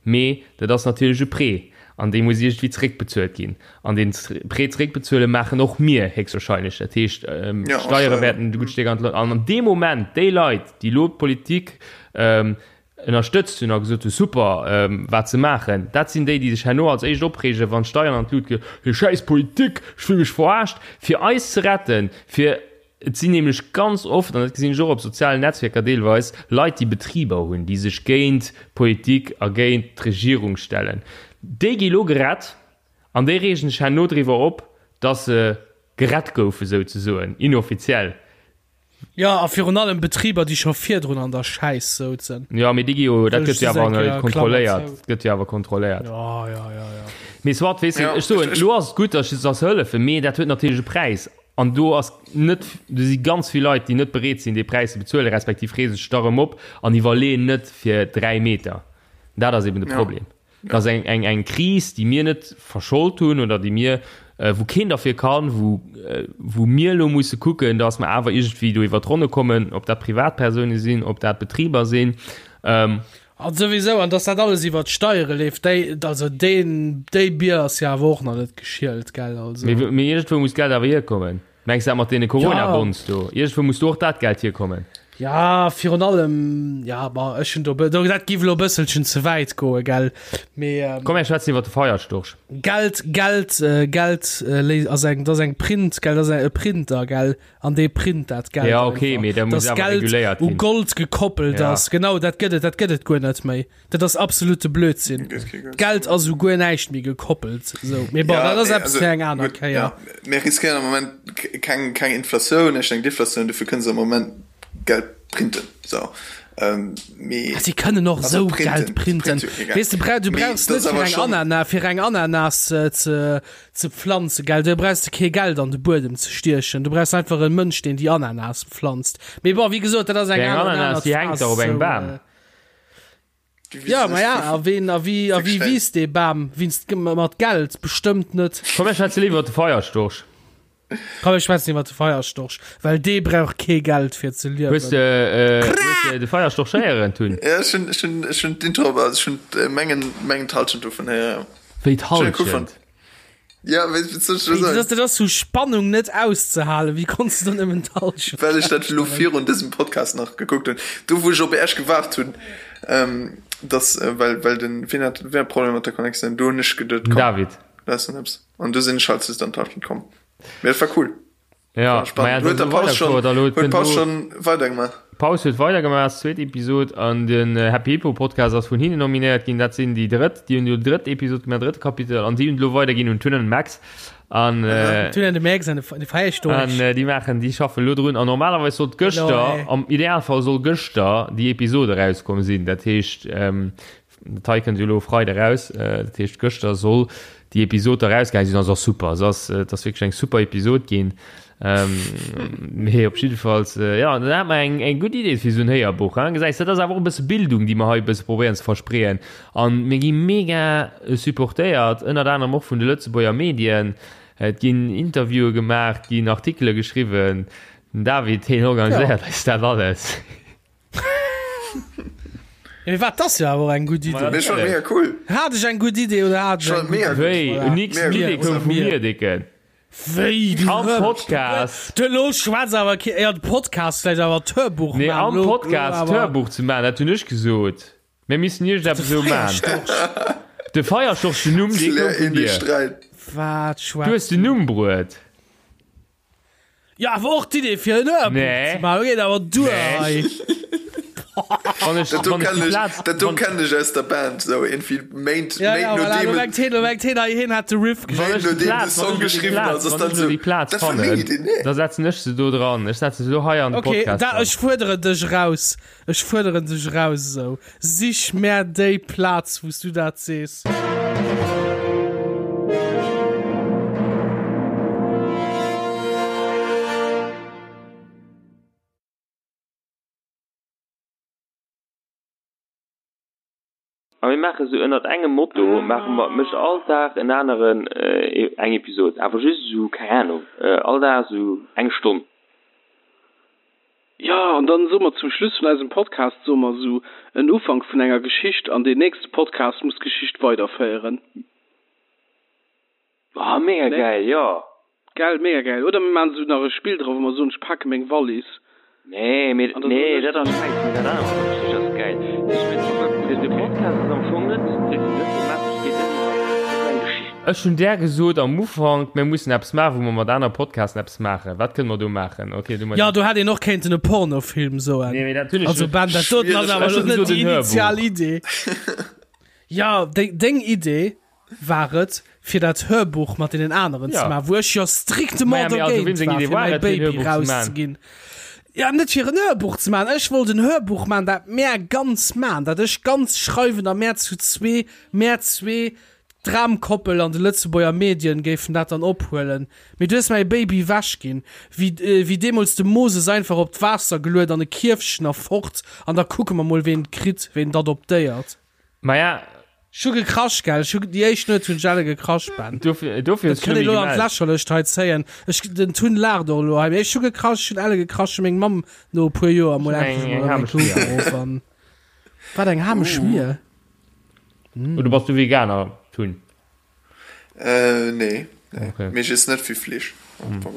Mee dat ass natierlech e Prêt an dee muss iergendwéi zeréckbezuelt ginn. An deen Prêt zeréckbezuele maachen och mir héchstwahrscheinlech. Dat heescht, d'Steiere wäerten e gutt Stéck an d'Lut. An an deem Moment, déi Leit, déi elo d'Politik ënnerstëtzt hunn a gesot hunn, super, wat se maachen, dat sinn déi, déi sech herno als éischt opreegen, wann d'Steieren an d'Lut ginn, Hir schäiss Politik, ech fill mech verarscht, fir eis ze retten, fir, et sinn nämlech ganz oft, an dat gesinn ech och op sozialen Netzwierker deelweis, Leit, déi Betriber hunn, déi sech géint d'Politik a géint d'Regierung stellen, déi gi lo gerett an déi reegen sech herno driwwer op, dass se gerett goufe souzesoen, inoffiziell. Jo, a virun allem Betriber, déi scho virdrun an der Schäiss souzen. Jo, mee déi gi jo, dat gëtt jo awer kontrolléiert. Dat gëtt jo awer kontrolléiert. Jo, jo, jo, jo. Mee soit, weess de, ech soen, elo ass et gutt, datt se hëllefen, mee dat huet natierlech e Präis. An do ass net, do si ganz vill Leit, déi net bereet sinn, dee Präis ze bezuelen, respektiv reese sech da erëm op an iwwerleeën net fir 3 Meter. Dat ass eben de Problem. Dat ass eng, eng, eng Kris, déi mir net verschold hunn oder déi mir, wou keen derfir kann, wou, wou mir elo musse kucken, dass mer awer iergendwéi do iwwert d'Ronne kommen, ob dat Privatpersoune sinn, ob dat Betriber sinn. An souwisou, an dass dat alles iwwert d'Steiere leeft, déi, also deen, déi Bier ass jo awer och nach net geschielt, gell, also. Mee, mee iergendwou muss d'Geld awer hierkommen. Mengs dat mat deene Corona-Bonds do? Iergendwou muss do och dat Geld hierkommen. Ja, virun allem, ja, ma ech hunn do, do, dat giff elo e bësselchen ze wäit goen, gell, mee. Ähm, Komm, mir schwätzen iwwer de Feierstorch. Geld, Geld, äh, Geld äh, léi- ass eng, dat ass eng Print, gell, dat ass e Printer, gell, an dee print dat Geld. Ja, okay, mee dat muss Dass awer Geld reguléiert u ginn. Gold gekoppelt Ja. ass, genau, dat gëtt et, dat gëtt et guer net méi. Dat ass absolute Blödsinn. D'Geld ass u guer näischt méi gekoppelt. Sou, mee bon, dat ass eppes fir eng aner Kéier. Ja, mir riskéieren am Moment keng, keng Inflatioun, ech eng Deflatioun, dofir kënne se am Moment Geld printen. Sou, mee. Si kënnen och esou Geld printen. Weess de, du brauchs net fir eng Anana, fir eng Ananas ze, ze pflanzen, gell, do brauchs de kee Geld an de Buedem ze stiechen, du brauchs einfach e Mënsch, deen déi Ananas pflanzt. Mee bon, wéi gesot, dat ass eng aner, Ananas, déi hänkt dach op engem Bam. Ja, ma ja, a ween, a wéi, a wéi wiisst dee Bam? Wiisst mat Geld? Bestëmmt net. Komm, mir schwätze léiwer iwwer de Feierstorch. Komm, mir schwätzen iwwer de Feierstorch, well dee brauch kee Geld fir ze liewen. Hues de, äh, hues de de Feierstorch héieren, Tun? Ja, ech hunn, ech hunn, ech hunn d'Intro, also ech hunn mengen, mengen d'Halschent dovun héieren, ja. Wéi d'Halschent? Ja, wéi wéi soll ech dat soen? Dat ass vu Spannung net auszehalen. Wéi konns du dann nëmmen d'Halschent? Well ech dat elo virun dësem Podcast nach gekuckt hunn. Do wou ech op Äech gewaart hunn, ähm, dass, äh, well, well den, wien hat, wien hat Problemer mat der Connectioun? Do hunn ech geduet, komm, David. lass en eppes. An du sinn ech halt just an d'Halschent komm. Mee dat war cool. Ja, spannend. Huet der Paus schon, huet Paus schon weidergemaach? Paus huet weidergemaach, zweet Episod an den äh, Happy Hippo Podcast ass vun hinne nominéiert ginn. Dat sinn déi drëtt, déi hunn jo drëtt Episod gemaach, drëtte Kapitel an déi hunn lo weiderginn un Tun an Max an äh, Tun an de Max an de Feierstorch. An äh, déi maachen, déi schaffen lo drun an normalerweis sollt gëschter, am Idealfall soll gëschter déi Episode rauskomm sinn. Dat heescht ähm, Dat hei kënnt jo elo Freide raus, dat heescht gëschter soll déi Episod da rausgaange sinn. Ass och super, se ass, et ass wierklech eng super Episod ginn. Mee op jiddefalls, jo, dann hat mer eng, eng gutt Idee fir esou en Héierbuch, hein. Gesäis, dat ass awer och e bësse Bildung, déi mer hei e bësse probéieren ze verspreeën. An mir gi mega supportéiert, ënnert anerem och vun de Lëtzebuerger Medien. Et ginn Interviewe gemaach, et ginn Artikele geschriwwen. Den David, hien organiséiert eis dat alles. Ja, mee wat, dat ass jo awer och eng gutt Idee. Mee schon mega cool. Hat ech eng gutt Idee oder hat ech eng gutt Idee? Wéi? Voilà. Nix, d'Idee koum vu mir, Dicken. Wéi, du Am Rëmsch. Podcast. Du, lo schwätz awer kee, ja, de Podcast vläicht, awer d'Hörbuch Nee, man, am lo, lo Podcast awer. d'Hörbuch ze man, dat hunn ech gesot. Mir missten iergendeppes De esou man. Feierstorch. De Feierstorch, den Numm, dee koum Klär vun een dee dir. Sträit. Wat Du schwätz hues den du? Numm bruet. Jo, awer och d'Idee fir en Hörbuch Nee. ze maachen, geet awer duer Nee. hei. Wann ech, Dat do wann ech kennen déi ech, Plaz, dat do wann, kennen ech aus der Band, sou iergendwéi Méint, Ja, Méint ja, voilà, nodeem lo et, mengt heen, lo mengt heen, hei, heen hat de Riff wann Méint ech déi nodeem de Plaz, wann Song ech lo déi geschriwwen Plaz, ass, ass wann dann ech lo sou, déi Plaz dat war meng fannen, Idee, nee. da setzen ech se do dran. Ech setzen se do hei an de Okay, Podcast da, dran. ech fuerderen dech eraus. Ech fuerderen dech eraus esou. Sich mär déi Plaz, wou s du dat sees. A mir maache sou ënnert engem Motto maache mer, mécht all Dag en aneren eng Episod, awer just esou, keng Ahnung, all Dag esou eng Stonn. Jo, an dann soe mer zum Schluss vun eisem Podcast soe mer esou en Ufank vun enger Geschicht an deen nächste Podcast muss d'Geschicht weiderféieren. Oh, mega gäil, jo! Gell, mega gäil. Oder mir maachen esou nach e Spill dra wou mer soen, ech pake meng Wallis. Nee, mee, nee, dat ass schäiss, mee dat anert mat der Geschicht ass gäil. De Podcast ass am Fong net, net thematesch, geet net iwwer, net eng Geschicht. Ech hunn där gesot am Ufank, mir mussen eppes maachen, wou mer mat anere Podcasten eppes maachen. Wat kënne mer do maachen? Ok, du mat. Jo, do hätt een och kéinten e Pornofilm soen. Nee, mee dat hunn ech. Also Ben, dat doten ass awer Ech elo hunn net gesot déi en initial Hörbuch. Idee. Jo, deng, deng Idee war et, fir dat Hörbuch mat deenen aneren Ja. ze maachen, wou ech jo strictement Maja, mee also dogéint weem seng war, Idee fir war mäi et, fir en Baby Hörbuch ze maachen? rauszeginn. Ja, net fir en Hörbuch ze maachen. Ech wollt en Hörbuch maachen, dat mär ganz maachen, dat ech ganz schreiwen a mär zu zwee, mär zwee, d'Dramkoppel an de Lëtzebuerger Medien géifen dat dann ophuelen. Mee du hues mäi Baby wech ginn, wéi, wéi deemools de Moses einfach op d'Waasser geluet an e Kierfchen a fort an da kucke mer mol, ween et kritt, ween et adoptéiert. Maja. Ech hu gekrasch, gell? Ech hu, déi éischt Nuet hunn ech elle gekrasch, Ben. Dofir, dofir hues Dat du kënnt mech een elo an gemellt. d'Lächerlecht hei zéien. Ech, den Tun laacht och elo hei, mee ech hu gekrasch, ech hunn elle gekrasch, hu meng Mamm no e puer Joer mol Eng, endlech eng mol eng hamesch Klo Mier. geruff an. Wat, eng hamesch Mier? Oder bass du Veganer, Tun? Äh, nee, nee. Okay. Mee ech iess net vill Fleesch. Am Fong.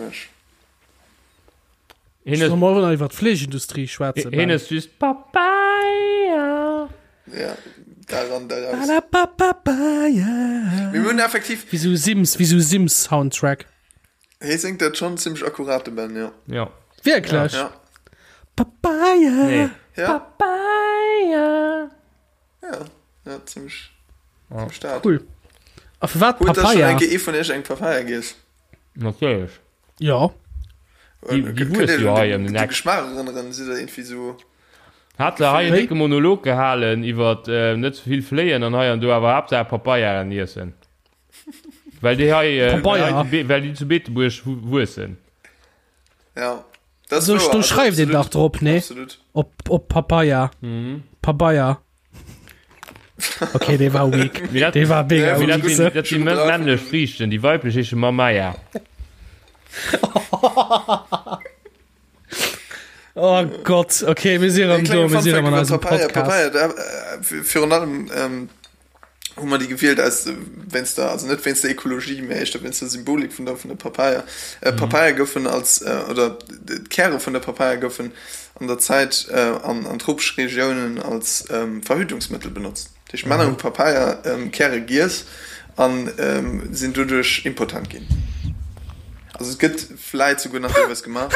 Hien Solle huet, mer och nach iwwer d'Fleeschindustrie schwätzen, hien Ben? huet just Papaya. Ja, daran, daraus. Palapapapaya. Mir hunn effektiv. Wéi sou Sims, wéi sou Sims-Soundtrack. Hie séngt dat schonn zimmlech akkurat, de Ben, jo. Ja. Wierklech? Ja. Papaya. Nee. Ja. Papaya. Ja, ja, zimmlech, zimmlech dat. Cool. A firwat Huet da schonn Papaya? eng Kéier ee vun iech eng Papaya giess? Natierlech. Jo. Déi, déi wuesse jo hei ëm den De Eck. Geschmaach erënneren, si der irgendwie sou. Hat se hei en Wéi? décke Monolog gehalen iwwer net ze vill fléien an hei an do, awer Haaptsaach Papayaen iessen. Well déi hei, well Papaya. hei zu Be well déi zu Beetebuerg wuessen. Ja, dat ass Do, wouer, do also schreift een absolut, dach drop, nee? Absolut. Op, op Papaya. Papaya. Okay, dee war weak. Dee war mega weak. Dat si männlech Friichten, déi weiblech heesche Mamaya. Oh Gott, okay, mir si rëm do, mir si rëm an eisem Podcast. Papaya, Papaya, virun allem ähm, hu mer déi gewielt aus wéinst der, also net wéinst der Ekologie, mä éischter wéinst der Symbolik vun der vun der Papaya. Äh, mhm. Papaya goufen als äh, oder d'Käre vun der Papaya goufen an der Zäit äh, an, an tropesch Regiounen als ähm, Verhütungsmëttel benotzt. Dat heescht, Männer hu Papaya ähm, Käre giess an ähm, sinn doduerch impotent ginn. Also et gëtt vläit souguer nach deelweis gemaach,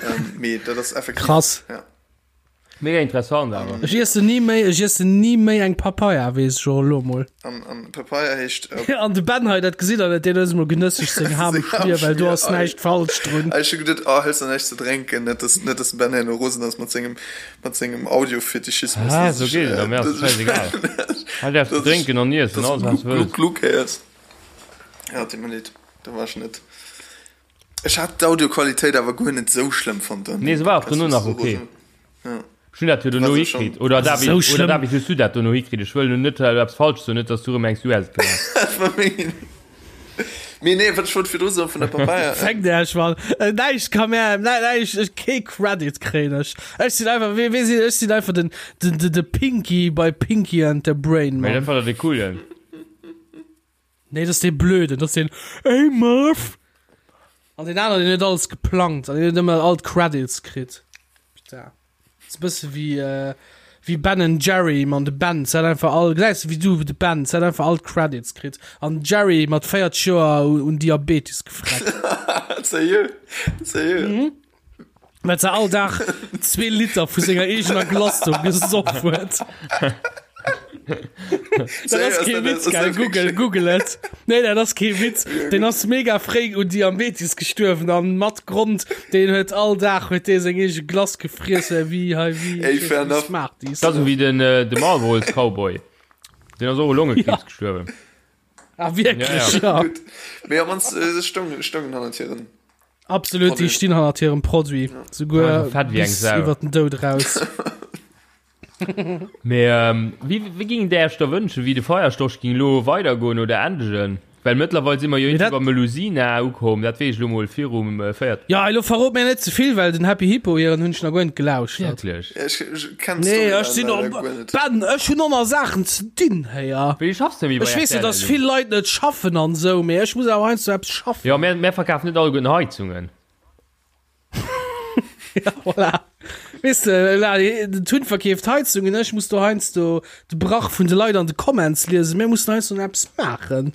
ähm, mee dat ass effektiv. Krass. Ja. Mega interessant awer. Ech iessen ni méi, ech iessen ni méi eng Papaya, weess ech och elo mol. An, an Papaya heescht. Äh, an de Ben hei, dat gesitt der net, deen huet emol genësseg seng Ham Schmier, well do ass näischt falsch drun. Ech hu geduet, oh, hëls der näischt ze drénken, net dass, net dass de Ben herno rosen ass mat sengem, mat sengem Audiofetischismus. Ah, sou geet et, mir ass et schäisegal. Hei däerfs du drénken an iessen, alles wat du wëlls. Gluck, gluck héiers. Ja, deet mer leed, da war ech net. Ech hat d'Audioqualitéit awer guer net sou schlëmm fonnt. Nee, se war och dono nach ok. Ech hunn dat jo dono hikritt. Oder David, oder David, hues du dat dono hikritt? Ech wëll lo net eppes falsch soen, net dass du erëm mengs, du häss et gemaach. Mee nee, wat ech wollt virdru soen vun der Papaya. Fänkt Iech mal näischt ka mär näischt, ech kee Credit kréien ech. Ech sinn einfach, wee weess ech sinn einfach den den de Pinky bei Pinky and the Brain, Mee Mann. dat war der dee coolen. Nee, dat ass dee Blöden, dat ass deen Ey Murph! An deen aneren, deen huet alles geplangt an deen huet ëmmer all d'Credits kritt. Putain. Ass e bësse wéi, äh, wéi Ben and Jerry, man, de Ben hat einfach all, gesäis de wéi du, de Ben hat einfach all d'Credits kritt an Jerry mat 40 Joer un Diabetes gefreckt. Sérieux? Sérieux? Mhm. Well se all Dag zwee Liter vu senger eegener Glace do gesoff huet. Dat ass kee Witz, gell? Google, Google et. Nee, dat ass kee Witz. Deen ass mega fréi un Diabetes gestuerwen an mat Grond, deen huet all Dag huet dee seng eege Glace gefriess, wéi hei, wéi, Ey, fair enough. Smarties. Dat ass esou wéi den, de Marlboro's Cowboy. Deen ass och u Longekriibs gestuerwen. Ah, wierklech? Ja, ja. Ja. Gutt. Mee am mannst, se stoungen, stoungen hannert hiren. Absolut, déi stinn hannert hirem Produit, souguer Ja, fett wéi eng bis Sau. iwwer den Doud raus. Mee ähm, wéi, wéi ging der Iech da wënschen, wéi de Feierstorch ging lo weidergoen oder endegen? Well mëttlerweil si mer jo Mee dat- iwwer Melusina ukomm, dat weess ech lo mol virum äh, véiert. Ja, elo verrot mir net ze vill, well den Happy Hippo hiren hunn ech nach guer net gelauschtert. Wierklech? Ja, ech, ech kenn Nee, d'Storyline ech sinn leider och, guer net. Ben, ech hunn och nach Saachen ze dinn, héier. Wéi schaffs de méi bei Ech weess jo, RTL dass elo? vill Leit net schaffen an esou, mee ech muss awer heiansdo eppes schaffen. Jo, mär, mär verkafen net alleguerten Heizungen. Ja, voilà. Weess de, la, den Tun verkeeft Heizungen, ech muss do heiansdo de Brach vun de Leit an de Comments liesen. Mir mussen heiansdo nach eppes maachen.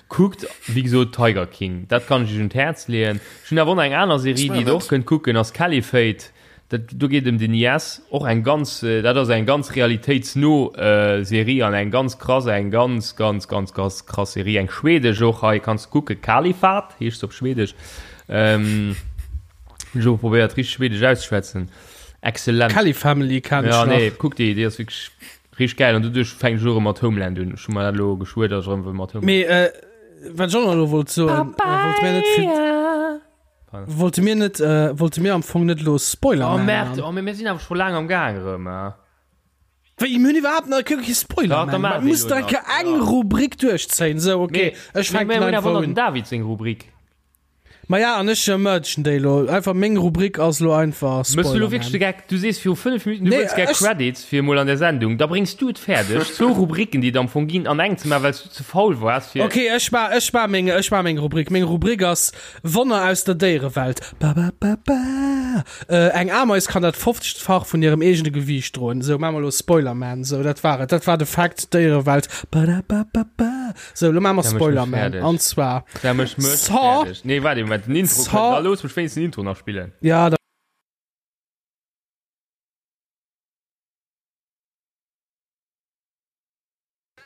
Kuckt, wéi gesot, Tiger King, dat kann ech iech un d'Häerz leeën. Ech hunn awer och nach eng aner Serie, déi der och kënnt kucken, ass Caliphate. Dat do geet ëm den IS, och eng ganz, dat ass eng ganz realitéitsno Serie an eng ganz krass, eng ganz, ganz, ganz, ganz krass Serie, eng schwedesch och. Hei kanns de kucken, Kalifat heescht se op Schwedesch. Hunn ech och probéiert richteg schwedesch auszeschwätzen. Excellent. Kelly Family kenn ech Ja, nach. nee, kuck déi, déi ass wierklech richteg gäil an doduerch fänken ech och erëm mat Homeland un. Ech hu mer dat elo geschwuer, datt ech erëm wëll mat Homeland. Mee wat ech och nach elo wollt soen, wollte mir net fir. Wollte mir net, äh, wollte mir am Fong net lo Spoiler Oh man merde, man? oh, mir sinn awer scho laang am Gaang erëm. Wéi, mir hunn iwwerhaapt nach kee Spoiler Ja, da man. maache Man muss elo da nach, eng ja. Rubrik duerchzéien. Sou, okay, ech Mir fänken hunn awer einfach nach un. den David seng Rubrik. Ma ja, an ech mergen déi lo. Einfach meng Rubrik ass lo einfach Mëss du Spoiler lo wierklech de man. Geck? Du sees viru 5 Minuten, du Nee, wëlls gär ech- Credits fir emol an der Sendung. Da bréngs du et fäerdeg, zwou Rubriken, déi et am Fong ginn, an eng ze maachen, well s du ze faul waars fir. Okay, ech ma, ech ma meng, ech ma meng Rubrik. Meng Rubrik ass Wonner aus der Déierewelt. Ba, ba, ba, ba. Äh, eng Ameis kann dat 50-fach vun hirem eegene Gewiicht droen. Sou, maache mer elo Spoilerman. Sou, dat war et. Dat war de Fakt, Déierewelt. Ba, da, ba, ba, ba. Sou, elo maache mer Da méch mech Spoilerman. fäerdeg. An zwar. Da méch mech Saw. fäerdeg. Nee, waart ee Moment, den Intro Saw. kënnt. Da looss mech wéinstens den Intro nach spillen. Ja, da.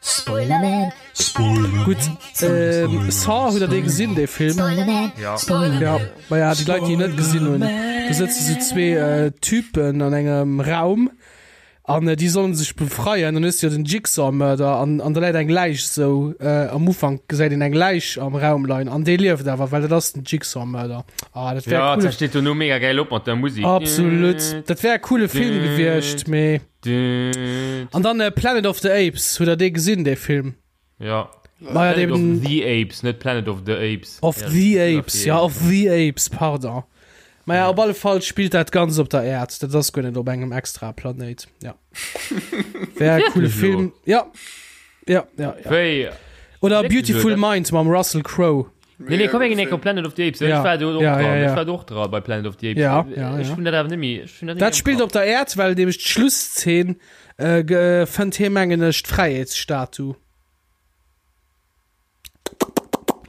Spoilerman, Gutt, ähm, Saw, hutt der dee gesinn, dee Film? Spoilerman, Ja. Spoilerman. Ja, ma ja, déi Leit, déi en net gesinn hunn, do sëtze sou zwee äh, Typen an engem Raum. An déi sollen sech befreien, dann hues de jo den Jigsaw Mörder an an da läit eng Läich sou am Ufank gesäit een eng Läich am Raum leien an dee lieft awer, well dat ass den Jigsaw Mörder. Ah dat wär Ja, coole dat steet dono mega gäil op mat der Musik. Absolut, dat wär e coole Film gewiescht, mee an dann Planet of the Apes, hutt der dee gesinn dee Film? Ja. Maja, Planet of eben- the Apes, net Planet of the Apes. Of Ja, the das ist Apes, ja, of the Apes, pardon. Maja, op alle Fall spillt dat Ganzt op der Äerd. Dat ass guer net op engem extra Planéit. Ja. Wär e coole Wirklich Film. Ja. Ja, ja, ja. Wéi? Oder Wirklich Beautiful lo, dat- Mind mam Russell Crowe. Nee, nee, komm eng Enk op Planet of the Apes. Ja. Ech war do och Ja, dran. ja, ja. Ech war do och dran bei Planet of the Apes. Ja, ja, Ech ja. hunn dat awer net méi. Ech hunn dat net méi Dat am spillt Kapp. op der Äerd, well nämlech d'Schlusszeen äh, ge- äh, fënnt hie mengen ech d'Fräiheetsstatu.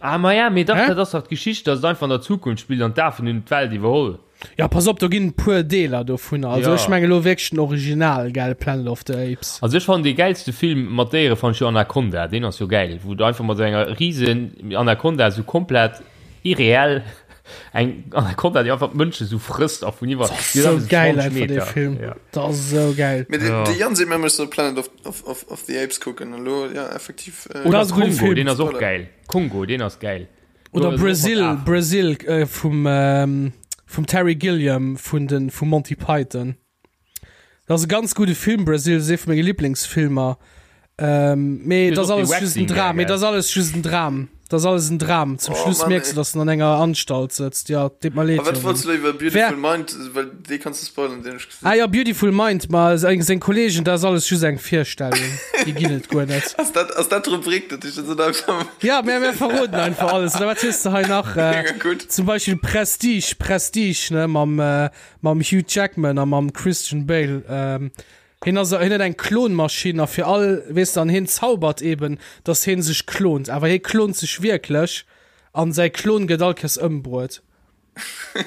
Ah, ma ja, mee dach, Hä? dat ass dach d'Geschicht, dass et einfach an der Zukunft spillt an d'Afen hunn d'Welt iwwerholl. Ja, pass op, do ginn e puer Deeler dovunner. Also Ja. ech menge lo wierklech den Original, gell, Planet of the Apes. Also ech fannen dee gäilste Film mat Déiere fannen ech jo Anaconda, deen ass jo gäil, wou du einfach mat sou enger riesen Anaconda sou komplett irreell eng Anaconda déi einfach d'Mënsche sou frësst a vun iwwer Das ass sou gäil einfach dee Film. Ja. Dat ass sou gäil. Mee Ja. de Jan seet mir, ech soll Planet of, of, of, of the Apes kucken. Elo, ja, effektiv. Äh, Oder Das ass e gudde Kongo, Film. deen ass och Spoiler. gäil. Kongo, deen ass gäil. Oder Do ass och Brazil, mat Afen. Brazil äh, vum, ähm, vum Terry Gilliam vun den, vu Monty Python. Dat ass e ganz gudde Film, Brazil, ass ee vu menge Lieblingsfilmer. Ähm, mee Du dat hues ass och alles dee just en Waxing Dram, gär, mee gell? dat ass alles just en Dram. Dat ass alles en Dram. Zum Oh, Schluss Mann, mierks ey. du, dass en an enger Anstalt sëtzt. Ja, deet mer leed, A wat wollts Jongen. du elo iwwer Wer Beautiful Mind, well dee kanns du spoilern, deen hu ech gesinn. Ah ja, Beautiful Mind, ma seng, seng Kollegen, dat ass alles just eng Virstellung. Déi ginn et guer net. Ass dat, ass dat d'Rubrik, dat ech dat einfach. Ja, mir, mir verroden einfach alles. Oder wat hues du hei nach? Äh, Mega gutt. zum Beispill Prestige, Prestige, ne, mam, äh, mam Hugh Jackman a mam Christian Bale. Ähm, hien ass, hien huet eng Klonmaschinn a fir all, weess de, an hien zaubert eben, dass hien sech klont. Awer hie klont sech wierklech an säi Klon gëtt all Kéiers ëmbruet.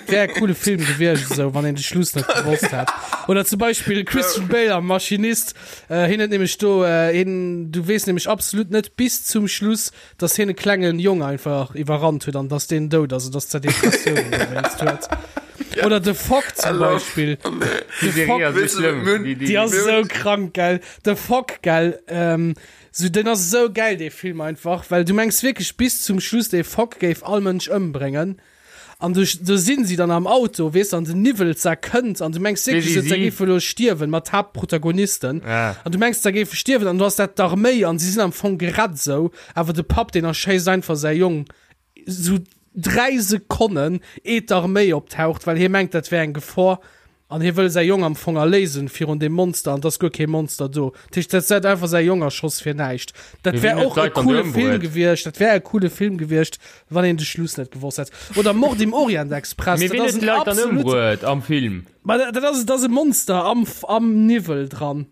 Wär e coole Film gewiescht esou, wann een de Schluss net gewosst hätt. Oder zum Beispill Christian Bale am Maschinist. Äh, hien huet nämlech do, äh, hien, du weess nämlech absolut net bis zum Schluss, dass hien e klengen Jong einfach iwwerrannt huet an dass deen dout ass, dass der Depressioun dowéinst huet. Oder The Fog zum Beispill. Die The Fog, Serie ass so schlimm. Die, die, die ass esou krank, gell. The Fog, gell. Ähm, sou, den ass esou geil, dee Film einfach, well du mengs wierklech bis zum Schluss, dee Fog géif all Mënsch ëmbréngen. An du, do sinn si dann am Auto, weess an den Niwwel za kënnt an du mengs wierklech, Wéi si se si? géife lo stierwen, mat Haaptprotagonisten. Ah. An du mengs, se géife stierwen an du ass dat d'Arméi an si sinn am Fong gerett sou, awer de Papp, deen erschéisst einfach säi Jong sou 3 Sekonnen eet d'Arméi optaucht, well hie mengt, dat wär eng Gefor. An hie wëll säi Jong am Fong erléisen virun deem Monster, an 't ass guer kee Monster do. Dat heescht, dat hätt einfach säi Jong erschoss fir näischt. Dat Mee wär wien huet och e d'Leit dann coole do Film ëmbruet? gewiescht, dat wär e coole Film gewiescht, wann een de Schluss net gewosst hätt. Oder Mord im Orient Express, Mee dat wien ass huet en d'Leit dann absolut. ëmbruet am Film? Ma dat ass, dat ass e Monster am, am Niwwel dran.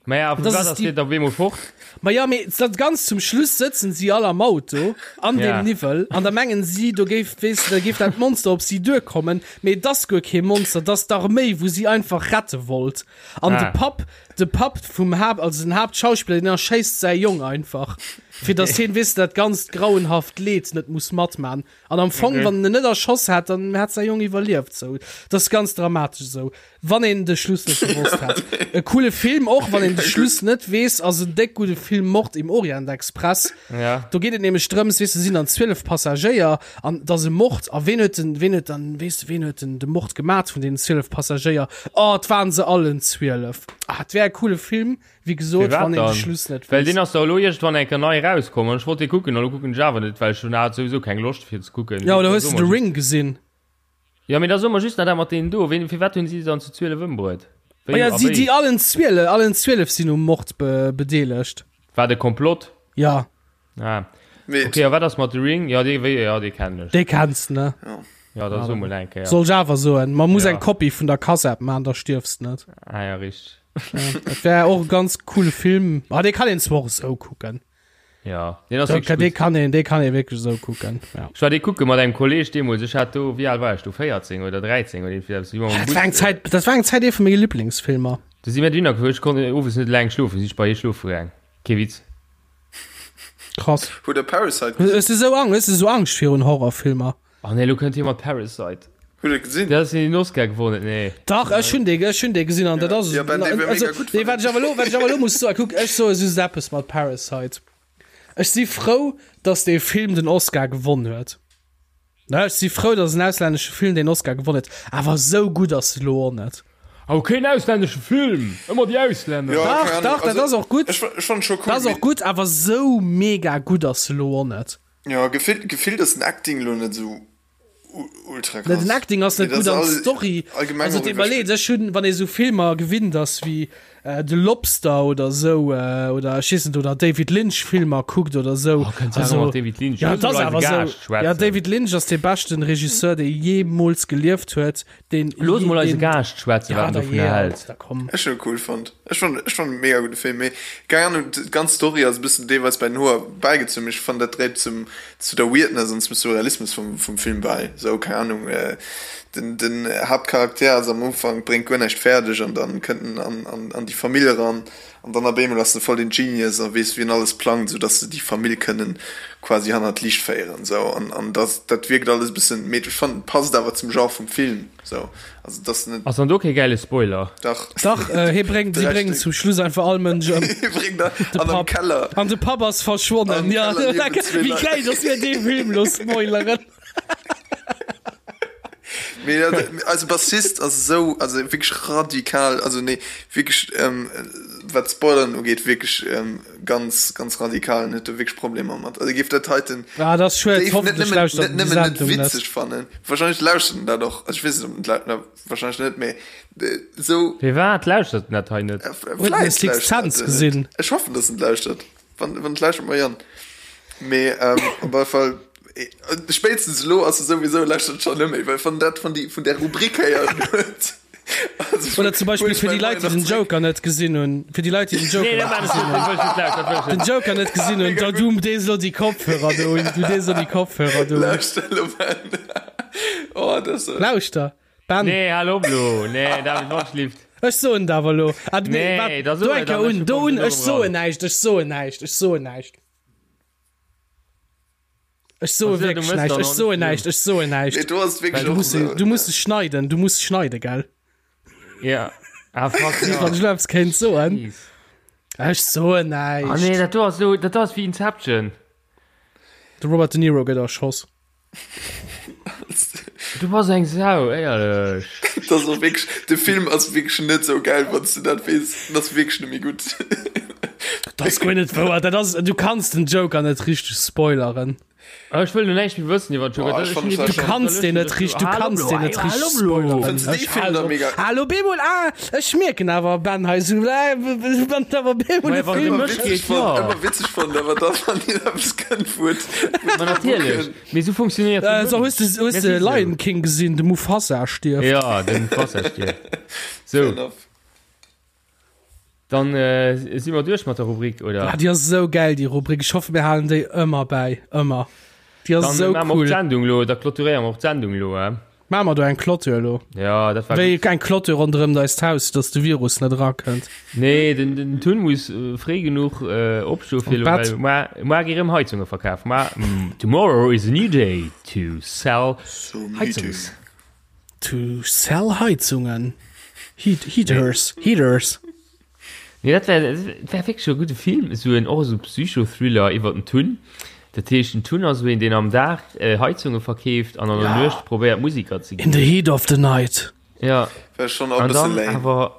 Maja, vu Das wat ist ass die- deen da op eemol fort? Ma ja, mee dat ganz zum Schluss sëtzen si all am Auto an Ja. dem Niwwel an da mengen si, do géif, weess de, da géif dat Monster op si duerkommen, mee et ass guer kee Monster, et ass d'Arméi, wou si einfach rette wollt. An Ah. de Papp, de Papp vum Haapt, also den Haaptschauspiller, deen erschéisst säi Jong einfach, fir datt hien, weess de, dat ganzt grauenhaft Leed net muss matman. An am Fong, Okay. wann en en net erschoss hätt, dann hätt säi Jong iwwerlieft. Sou, dat ass ganz dramatesch esou. Wann een de Schluss net gewosst hätt. E coole Film, och wann een de Schluss net weess, ass en déck gudde Film Mord im Orient Express. Ja. Do geet et nämlech drëms, weess de, sinn dann 12 Passagéier an et ass e Mord a ween huet den, ween huet dann, weess de, ween huet den de Mord gemat vun deenen 12 Passagéier? Oh, et waren se allen 12. Ah, et wär e coole Film, wéi gesot, Firwat wann een de dann? Schluss net Well weess. deen ass da elo iergendwann eng Kéier nei erauskomm an ech wollt dee kucken an elo kucken ech awer net, well ech hunn hat souwisou keng Loscht fir ze kucken. Ja, oder hues de The Ring gesinn? Jo, mee da soe mer just nach dat mat deenen do. Ween, firwat hunn si se dann zu 12 ëmbruet? Wéi Ma ja, a si, wéi? déi allen 12, allen 12 sinn um Mord be, bedeelegt. War de Komplott? Ja. Ah. Mee Okay, a wat ass mat The Ring? Ja, dee, wéi, ja, dee kennen ech. Dee kenns ne? Ja, da so mol eng Kéier. Soll ech awer soen, man muss Ja. eng Kopie vun der Kass-App man, da stierfs net. Ah ja, richteg. Ja, dat wär och e ganz coole Film. Ah, dee kann een zwar och esou kucken. Ja, deen ass Dee wierklech gutt. kann een, dee kann ee wierklech esou kucken. Ja. Ech war dee kucke mat engem Kolleg deemools, ech hat do, wéi al war ech do, 14 oder 13 oder iergendwéi eppes, si mer mam Dat Bus, war eng Zäit, dat war eng Zäit ee vu menge Liblingsfilmer. Du si mir dohinner gefuer, ech konnt owes net eleng schlofen, si ech bei hie schlofe gaang. Kee Witz. Krass. Hutt der Parasite gesinn? Hues du esou Ang, hues du esou Angscht virun Horrorfilmer? Oh nee, elo kënnt hie mat Parasite. Hutt der gesinn? Dat ass deen den Oscar gewonnen huet, nee. Dach, ech hunn dee, ech hunn dee gesinn an dat ass. Ja, Ben, dee war mega gutt, Nee, wat ech awer elo, wat ech awer elo muss soen, kuck, ech soe just eppes mat Parasite. Ech si frou, datt dee Film den Oscar gewonn huet. Ne, ech si frou, datt en auslännesche Film deen Oscar gewonn huet, awer esou gutt ass e lo och net. Oh, keen auslännesche Film! Ëmmer déi Auslänner! Ja, Dach, keng Ahnung. dach, dat Also, ass och gutt. Ech, ech fand scho cool. Dat ass och mee- gutt, awer esou mega gutt ass e lo och net. Ja, gefillt, gefillt ass den Acting lo net esou ultra krass. Den Acting ass net gutt an d'Story. Also et iwwerleet, ech hunn, wann ee sou Filmer gewinnt ass wéi The Lobster oder sou oder ech weess net oder David Lynch Filmer kuckt oder sou. Oh, kënnt also, mat David Lynch. Ja, dat ass awer sou. Ja, David Lynch ass dee beschten Regisseur, dee jeemools gelieft huet. Deen Looss mol eise Gaascht schwätzen, wat en dovunner hält. Ech hunn e cool fonnt. Ech fand, ech fand e mega gudde Film, mee keng Ahnung, d'ganz Story ass e bëssen deelweis bei den Hoer bäigezunn, mee ech fand dat dréit zum, zu der Weirdness an zum Surrealismus vum, vum Film bäi. Sou, keng Ahnung, den, den Haaptcharakter ass am Ufank, bréngt guer näischt fäerdeg an dann kënnt en an, an, an déi Famill eran an dann op eemol ass en voll den Genius a weess wéi en alles plangt, sou dass se déi Famill kënnen quasi hannert d'Liicht féieren, sou an, an dat, dat wierkt alles e bëssen, mee ech fand et passt awer zum Genre vum Film. So, also das net. Ass dann do kee gäile Spoiler? Dach. Dach, äh, hie bréngt, si bréngen zum Schluss einfach all Mënsch ëm. Hie bréngt a, De an am Papp. Keller. An de Papp ass verschwonnen. Am Ja, Keller liewen zwee wéi Leit. geil, dass mir dee Film lo spoileren. Mee dat, eise Bassist ass esou, also wierklech radikal, also nee, wierklech, ähm, wat Spoileren ugeet, wierklech, ähm, ganz, ganz radikal en huet do wierklech Problemer mat. Also géif dat heiten Ah, dat ass schued. géif net Hoffentlech nëmmen, lauschtert net en déi nëmmen net Sendung net. witzeg fannen. Wahrscheinlech lauschtert en dat och. Also ech weess net, ob en dat lau-, wahrscheinlech net, mee esou. Firwat lauschtert en dat hei net? Huet en Vläicht Sixth lauschtert Sense en net. gesinn? Ech hoffen, dass en lauschtert. Wann, wann et lauschtert, Marianne. Mee ähm, op alle Fall, spéitstens elo ass e souwisou, lauschtert schonn net méi, well wann dat vun, déi, vun där Rubrik héieren huet. Also, Oder zum Beispill fir déi Leit, déi den Joker net gesinn hunn, fir déi Leit, déi den Joker net gesinn hunn, den Joker net gesinn hunn, da du dees elo déi Kopfhörer do un, du dees elo déi Kopfhörer do un. Lauschter elo, Ben. Oh, dat ass. Lauschter, Ben. Nee, hal op elo. Nee, David, wann schlift. Ech soen et awer elo. Ah, nee, Nee, wat, da do so eng et Kéier an, un, ech do kommen un, elo ech soen ran. näischt, ech soen näischt, ech soen näischt. Ech soe Also, du wierklech mëss näischt, dann ech och soen net näischt, ech soen Nee, näischt. do ass et wierklech Du och muss, esou. du muss schneiden, du muss schneiden, gell? Ja. Ah, fuck, Wann ja. ech elo eppes kéint soen. Jeez. Ech soen Ah, nee, näischt. dat do ass elo, dat do ass wéi Inception. De Robert De Niro gëtt erschoss. Du bass eng Sau, éierlech. Dat ass och wierklech, de Film ass wierklech net esou gäil, wann s du dat weess. En ass wierklech net méi gutt. Dat ass guer net wouer. Dat ass, du kanns den Joker net richteg spoileren. Ah, ech wëll lo näischt méi wëssen iwwer den Joker. Boah, ech Dat- fand ech das Du schon- kanns deen net richteg, du kanns deen net richteg spoileren. Fënns du dee Film dann mega- Hallo Bemol, ah, ech mierken awer Ben hei sou, äh, wann awer Bemol Maja, de wann de Film Ëmmer mech witzeg geet, fonnt, ja. ëmmer witzeg fonnt, awer da wann een eppes kënnt, wou et, wou Ma natierlech. Mee sou funktionéiert Äh, de so Mënsch. hues de, hues Mir de si sou. Lion King gesinn, de Mufasa stierft. Ja, de Mufasa stierft. Sou, Fair enough. dann äh, si mer duerch mat der Rubrik, oder? Ah, déi ass esou gäil, déi Rubrik. Ech hoffe, mir halen déi ëmmer bäi. Ëmmer. Déi ass Dann esou maache mer och cool. d'Sendung lo, da clôturéiere mer och d'Sendung lo, eh? Maache mer do eng Clôture elo? Ja, dat war Wéi gutt. eng Clôture ronderëm eist Haus, dass de Virus net erakënnt. Nee, den, den Tun muss äh, fréi genuch äh, opstoe fir An lo, d'Bett. well mar, mar gi rëm Heizunge verkaf. Mar, mm, tomorrow is a new day to sell So müde. Heizungs. To sell Heizungen. Heat, heaters, heaters. Nee, dat wär, dat wär wierklech e gudde Film, esou en, och esou Psychothriller iwwer den Tun. Dat heescht, den Tun ass esou een, deen am Dag Heizunge verkeeft an an der Ja. Nuecht probéiert, Musiker ze In ginn. the heat of the night. Ja, Wär schon och e an bësse dann lame, awer,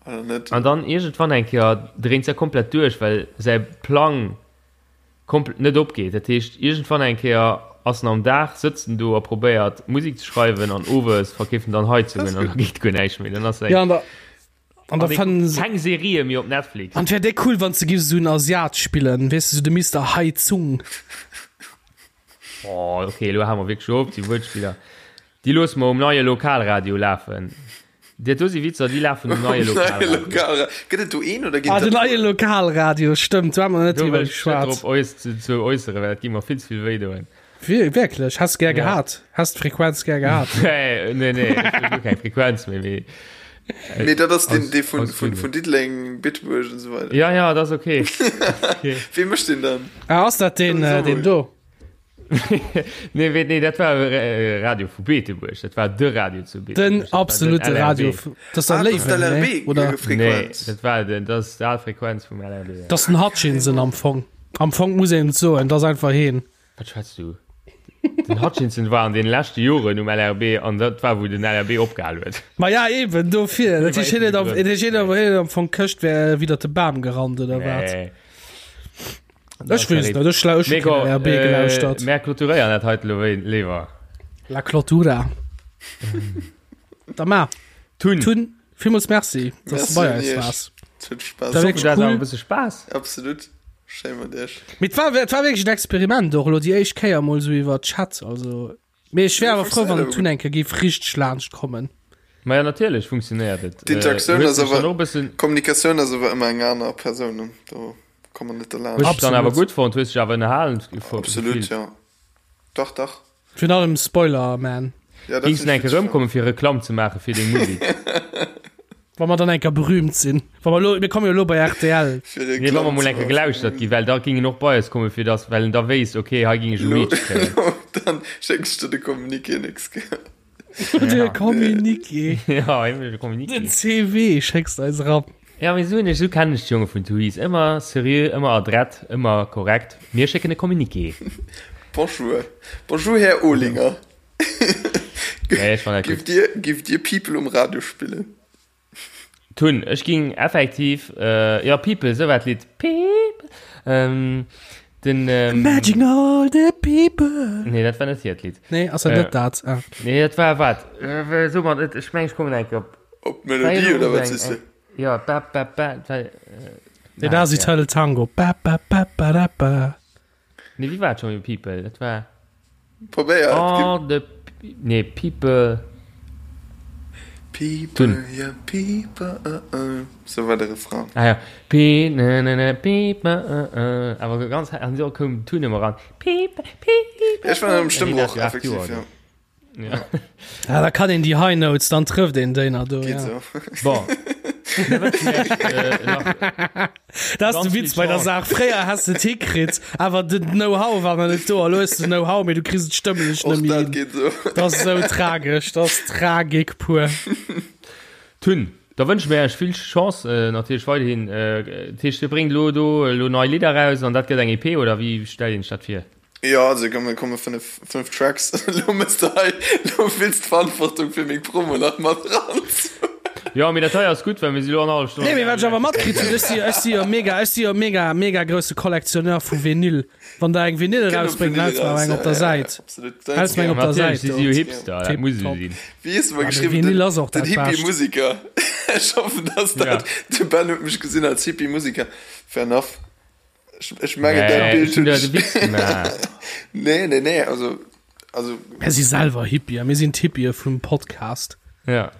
oder net? an dann iergendwann eng Kéier dréint se komplett duerch, well säi Plang kompl net opgeet. Dat heescht, iergendwann eng Kéier ass en am Dag, sëtzt en do a probéiert, Musek ze schreiwen an owes verkeeft en dann Heizungen an da geet guer näischt méi. Dann ass eng. Ja, an der, an der fannen se. Keng Serië méi op Netflix. An wär déi cool, wann se giff esou en Asiat spillen, weess de, esou de Mister Heizung. Oh, ok, elo hale mer wierklech op, déi Wuertspiller, déi loosse mer um neie Lokalradio lafen. Dat do si Witzer, déi lafen um neie Lokalradio. Lokalradio. Gëtt et do een oder ginn Ah, den dat neie Lokalradio, stëmmt, do hu mer net Do driwwer wëll ech net geschwat. drop eus ze, ze äusseren, well dat gi mer vill ze vill wéi doen. Wierklech? Häss gär Ja. gehat? Häss d'Frequenz gär gehat? Nee, nee, nee, ech wëll guer keng Frequenz méi, mee. Nee, dat ass den, Aus- dee vun, aus vun, Gründen. vun Diddeleng, Bitburg und so weiter. Ja, ja, dat ass okay. okay. Wee mécht den dann? Ah, ass dat deen, Das ist äh, auch deen gut. do? Nee, nee, dat war äh, Radio vu Beetebuerg. Dat war de Radio zu Beetebuerg. Den absolute Radio. Das ist ah, Léiwen, LRB, oder? Nee, dat war den, das ist die Frequenz vum LRB. Ja. Das ist den Hutchinson am Fong. Am Fong muss een soen, das einfach heen. Wat schwätzt du? Den Hutchinson war an den leschte Joren um LRB an dat war wou den LRB opgehal huet. Ma ja eben dofir. Dat heescht, hien huet am, hien huet am Fong Këscht wär widder de Bam gerannt oder wat? Nee. Ech weess net, ech hu Mega, keen LRB gelauschtert. Äh, Mär clôturéieren dat heite lo léiwer. La Clôtura. Da ma. Tun. Tun, villmools Merci, dass du bei eis waars. Et huet Spaass. Dat war wierklech Dat cool. awer e bësse Spaass. Absolut. Schéi mat iech. Mee et war, et war wierklech en Experiment och elo déi éischt Kéier mol esou iwwer Chat, also. Mee ech wär awer frou, wann den Tun eng Kéier géif richteg laanscht kommen. Maja natierlech funktionéiert et. D'Interaktioun Hues ass dech dann awer, och e bëssen, Kommunikatioun ass awer ëmmer eng aner Persoun, do komme mer net hues derlaanscht. dech dann awer Absolut. gutt fonnt, hues dech awer ënnerhalen Absolut, gefillt? jo. Dach, dach. Virun allem Spoiler Man. Ja, dat Gings hunn du ech eng Kéier witzeg fonnt. erëmkommen fir Reklamm ze maache fir deng Musek? Wa mer dann eng Kéier berühmt sinn. Wa mer elo, mir komme jo elo bei rtl. Fir Nee, wa Reklamm mer mol ze eng Kéier maache fir gelauschtert meng ginn, well da ging en och bei eis kommen, fir dass, well en da wéisst, okay, hei ging ech e Lo, Reach kréien. lo, dann schécks de de Communiqué nächst Kéier. De Communiqué. Ja, de Communiqué. Den CV schécks de eis eran. Ja, mee esou, esou kennen ech d'Jonge vun Tuis. Ëmmer seriö, ëmmer adrett, ëmmer korrekt. Mir schécken e Communiqué. Bonjour. Bonjour, Här Olinger. Nee, ech fannen dat gutt. Giff Dir, giff Dir People um Radio spillen? Tun, ech ging effektiv, äh, ja, People, sou war d'Lidd. People. Ähm, den, ähm, Imagine all the people. Nee, dat war net hiert Lidd. Nee, ass dat Äh. net dat? Ah. Nee, dat war wat? Äh, so mat, ech meng, ech kommen eng Kéier op. Op d'Melodie oder wat sees de? Ja, ba, ba, ba, ba, äh, Nee, dat ass Eternal Tango. Ba, ba, ba, ba, da, ba. Nee, wéi war et scho People? Dat war. Probéier et. All the. Nee, People. People, yeah, people, uh, uh. Sou war de Refrain. Ah ja. Pe, ne, ne, ne, people, uh, uh. Awer ganz, an so koum d'Tun ëmmer ran. People, people. Ech war am Stëmmbroch, effektiv, ja. Ja. Ja, da kann een déi High Notes, dann trëfft een déi nach do. Geht Ja. so. Bon. Da wënschen wir iech, äh, nach Dat ass Ganz de vill Witz bei der Chance. Saach. Fréier has de et hikritt, awer den Know-how war nach net do. A lo hues de Know-how, mee du kriss et stëmmlech Och net méi dat hin. geht so. Dat ass esou tragesch, dat ass Tragik pur. Tun. Da wënsche mir iech vill Chance äh, natierlech weiderhin. Äh, dat heescht, Dir bréngt lo do lo nei Lidder raus an dat gëtt eng EP oder wéi stellt een sech dat vir? Jo, also komme komme 5, 5 Tracks. Lo mëss de hei, lo wills d'Verantwortung fir meng Promo nach mat eran. Jo, mee dat hei ass gutt, well mir si lo an hallef Stonn. Nee, mee wat ech awer matkritt hunn, ech si, ech si jo mega, ech si jo mega, mega grousse Kollektionneur vu Vinyl. Wann der eng Vinyl Kënnt op erausbréngt, Vinyl dann häls mer eraus, eng op der ja, ja, Säit. absolut. Häls mer eng op der Natierlech Säit si do. si jo Hipster, dat muss esou Tipptopp. sinn. Wéi hues de mer Ja, mee geschriwwen? Vinyl Den, ass och den dat Bescht. Hippie-Musiker. Ech hoffen, dass Ja. dat, de Ben huet mech gesinn als Hippie-Musiker. Fair enough. Ech, ech mengen, dat Nee, Bild ech hunn hunn der ech. de Witz gemaach. Nee, nee, nee, also, also. Mir si selwer Hippie, mir sinn d'Hippië vum Podcast. Ja.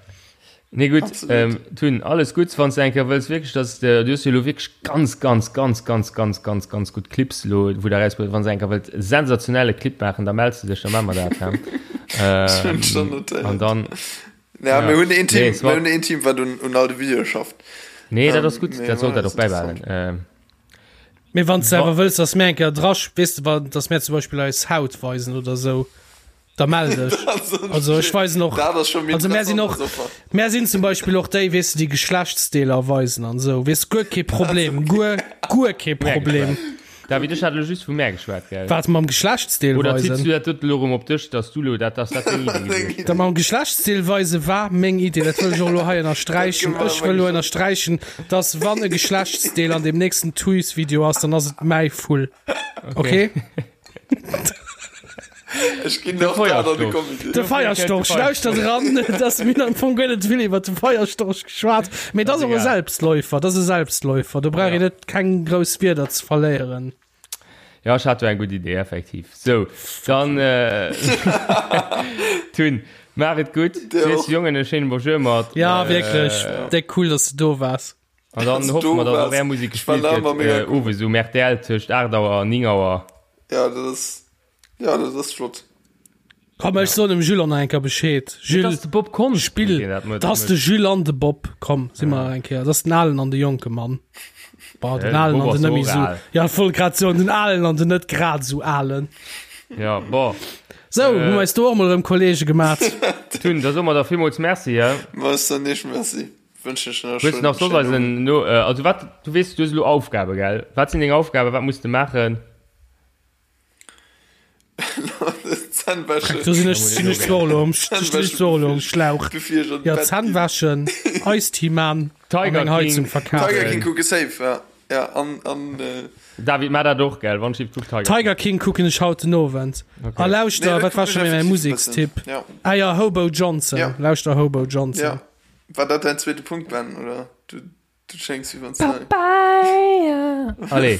Nee, gutt, Absolut. ähm, Tun, alles Gutts, wann s de eng Kéier wëlls wierklech, dass de, du hues jo elo wierklech ganz, ganz, ganz, ganz, ganz, ganz, ganz gutt Clips elo, wou der erausbruecht, wann s de eng Kéier wëllt e sensationelle Clip maachen, da mells de dech, da maache mer dat, hä? Ech hunn Ähm, schon notéiert. an dann, Ja, ja. mir hunn een Team, Nee, es mir war, hunn een Team, wat un, un all de Videoe schafft. nee, dat Ähm, ass gutt, mee dat sollt voilà, dat och ass interessant. bäibehalen. Ähm, Mee wann s de wa, awer wëlls, dass mir eng Kéier dra, weess de, wann, dass mir zum Beispill eis Haut weisen oder sou, da mell dech. Also ech weisen och, Dat ass scho méi also mär sinn interessant och, als Offer. mär sinn zum Beispill och déi, weess de, déi Geschlechtsdeeler weisen an sou, weess, guer kee Problem, guer, guer kee mär Problem. geschwat. David, ech hat elo just vu mär geschwat, gell? Wat, mam Geschlechtsdeel Oder zitts weisen? du dat doten elo erëm op dech, dass du elo dat, dass dat deng Idee gewiescht Dat ass? mam Geschlechtsdeel weise war meng Idee, dat wëll ech och elo hei Dat ënnersträichen. gëtt Ech awer wëll elo geschwat. ënnersträichen, dass wann e Geschlechtsdeel an deem nächsten Tuys-Video ass, dann ass et mäi Vull. Okay. Okay? Ech ginn De och dat an de Feierstorch. Comité. De Dofir kënnt de Feierstorch, Feierstorch. lauschtert eran, dass mir hunn am Fong guer net vill iwwer de Feierstorch geschwat, mee dat Ass ass och e egal. Selbstläufer, dat ass e Selbstläufer, do brauch Ja. een net keng grouss Wierder ze verléieren. Ja, ech hat do eng gutt Idee, effektiv. Sou, dann, äh, Tun, maach et gutt. Dir Sees och. Jongen e schéine Bonjour mat. Ja, Äh, wierklech, déck cool, dass du do waars. An dann Dass hoffe du mer, dass och waars. är Musek Ech war gespillt nach gëtt, ëmmer mega äh, cool. owes um RTL tëscht 8 Auer an 9 Auer. Ja, dat ass, ja, dat ass flott. Komm, ech soen dem Jules och nach eng Kéier Bescheed. Et Jules, ass de Bob Konst, spill. deen dat Dat ass de Jules an de Bob. Komm, si mer eng Kéier. Dat ass den alen an de jonke Mann. Bah, den De alen Bob an ass den net och méi sou. al. Ja, ech wollt grad soen, den alen an den net grad sou alen. Ja, bon. Sou, hu mer eis do och mol erëm Kollege gemat. Tun, da soe mer der villmools Merci, hä? Ma ech soen iech Merci. Wënschen iech nach e Hues du nach schéinen soss eisen Owend. no, also wat, du weess, du hues elo Aufgabe, gell? Wat sinn deng Aufgaben, wat muss de maachen? Zänn wäschen. Do sinn ech, sinn ech zwar elo am, stinn ech zwar elo am Schlauch. Bevir ech an Ja, d'Bett Zänn ginn. wäschen, Eistea man an Tiger eng Heizung King. verkafen. Tiger King kucke safe, ja. Ja, an, an, äh, David, maach dat och, gell? Wann ech kuck Tiger King. Tiger King kucken ech haut den Owend. Okay. A lauschter, Nee, dat wat war kucken scho ech méi mäi effektiv e bëssen. Musekstipp? Ja. Ah ja, Hobo Johnson. Ja. Lauschter Hobo Johnson. Ja. War dat däin zweete Punkt, Ben, oder? Du, du schéngs wéi wann s de. Papaya. Allez.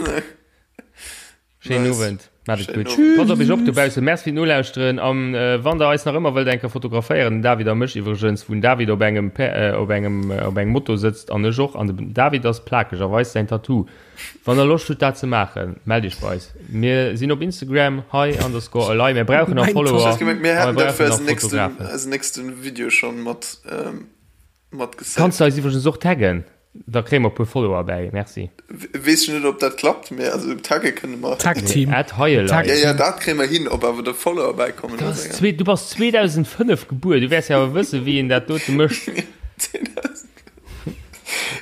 Schéinen Nice. Owend. Maat et Schéinen gutt. Owend. Passt op iech op dobaussen. Merci fir d'Nolauschteren. An wann der eis nach ëmmer wëllt eng Kéier fotograféieren, den David a mech iwwregens, wou den David op engem op engem op engem Moto sëtzt an ech och, an den David ass plakeg a weist säin Tattoo. Wann der Loscht hutt dat ze maachen, mellt iech bei eis. Mir sinn op Instagram hei underscore elei. Mir brauchen nach Mein Follower Ech hat gemengt, mir a mir hätten dat fir brauchen nach eisen nächsten, Fotografen. eisen nächsten Video schon mat, mat Kanns gesaved. de eis iwwregens och taggen? Da kréie mer e puer Follower bäi. Merci. Weess ech net op dat klappt, mee also tagge kënne mer. Tag Team. At Heielei. Tag Ja, ja, Team. dat kréie mer hin, ob awer der Follower bäikommen, Du ass ass eng zwee, du bass 2005 gebuer, du wäers jo awer wëssen, wéi een dat dote mécht.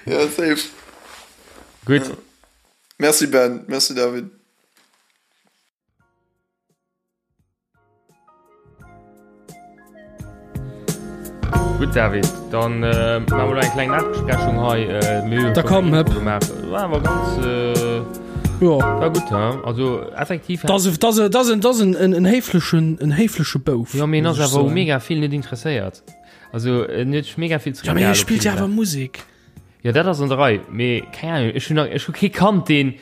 Ja, safe. Gutt. Merci Ben, merci David. Gutt David, dann äh, maache mer lo eng kleng Nachbesprechung hei. Äh, mir hu Da schon komm, eng Intro hëpp. gemaach. War awer ganz äh, Jo. war gutt, hä? Also effektiv. Das, das, das, das en, en, en héiflechen, en héifleche Bouf. Ja, mee en muss ass ech awer u soen. mega vill net interesséiert. Also en huet sech mega vill Ja, mee zeréckgehalen hie op spillt vill jo awer Saachen. Musek. Ja, dat ass an der Rei, mee keng Ahnung, ech hunn nach, ech hu kee kannt, deen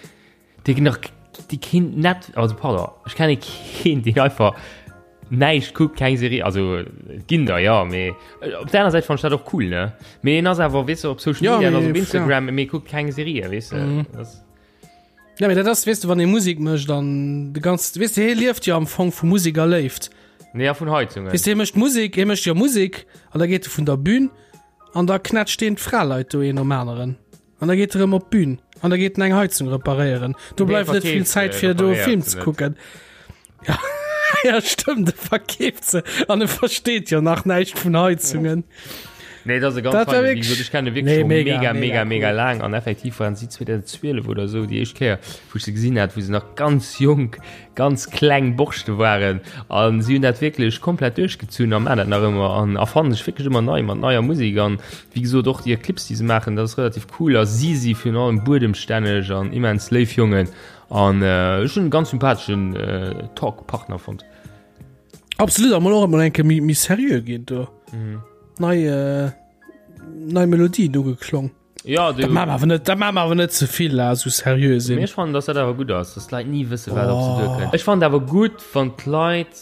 Dee nach déi keen net also pardon ech kenne keen deen einfach näischt kuckt keng Serie also et ginn der jo mee op der aner Säit fannen ech dat och cool ne mee en ass awer weess de op Social Ja, Media en ass mee, op Instagram mee kuckt keng Serie weess de Mhm. das Ja, mee dat ass weess de wann ee Musek mécht an de ganz weess de hie lieft jo am Fong vu Musek a Léift. nee a vun Heizungen Weess de hie mécht Musek hie mécht jo Musek an da geet e vun der Bühn an da knätscht deen d'Fraleit do een nom aneren. An da geet e rëm op d'Bün an da geet en eng Heizung reparéieren. Do bleift net vill Zäit fir do e Film ze kucken. Ja, ja stëmmt, e verkeeft se an e versteet jo nach näischt vun Heizungen. Nee, dat ass e ganz Dat war feinen, wéi wierklech- gesot, ech kenne wierklech Nee, scho mega, mega, mega mega, mega cool. laang an effektiv waren si 2012 oder esou déi éischt Kéier, wou ech se gesinn hat, wou se nach ganz jonk, ganz kleng Borschte waren an si hunn dat wierklech komplett duerchgezunn a maachen dat nach ëmmer an erfannen sech wierklech ëmmer nei mat neier Musek an wéi gesot och déi Clips déi se maachen, dat ass relativ cool a si si virun allem buedemstänneg an immens léif Jongen an ech hunn e ganz sympatheschen Talk-Partner fonnt. Absolut, a mol och emol eng Kéier méi méi seriö ginn do. Nei nei Melodien ugeklong. Ja, du, Dat maache mer awer net, dat maache mer awer net ze vill, la, esou seriö sinn. Mee ech fannen, dass dat awer gutt ass, dass d'Leit ni wësse wat op se duerkënnt. Ech fannen et awer gutt, wann d'Leit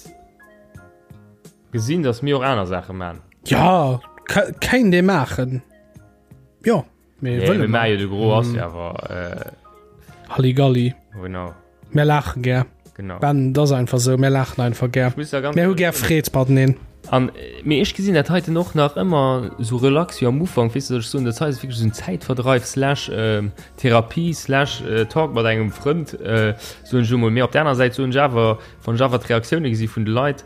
gesinn, dass mir och aner Saache man. Ja, kéint ee maachen. Jo, mee Nee, wëlle mir mer. maache jo de Gros ass jo awer, äh, Halligalli. genau, Mir laache gär. genau. Ben, dat ass einfach esou, mir laachen einfach gär. Ech muss da ganz Mir hu gär Freed mateneen. An, mee ech gesinn dat heiten och nach ëmmer esou relax wéi am Ufank, weess de, ech soen, dat hei ass wierklech esou en Zäitverdreif slash Therapie slash Talk mat engem Frënd, soen ech elo mol. Mee op der aner Säit soen ech awer, wann ech awer d'Reaktioune gesi vun de Leit,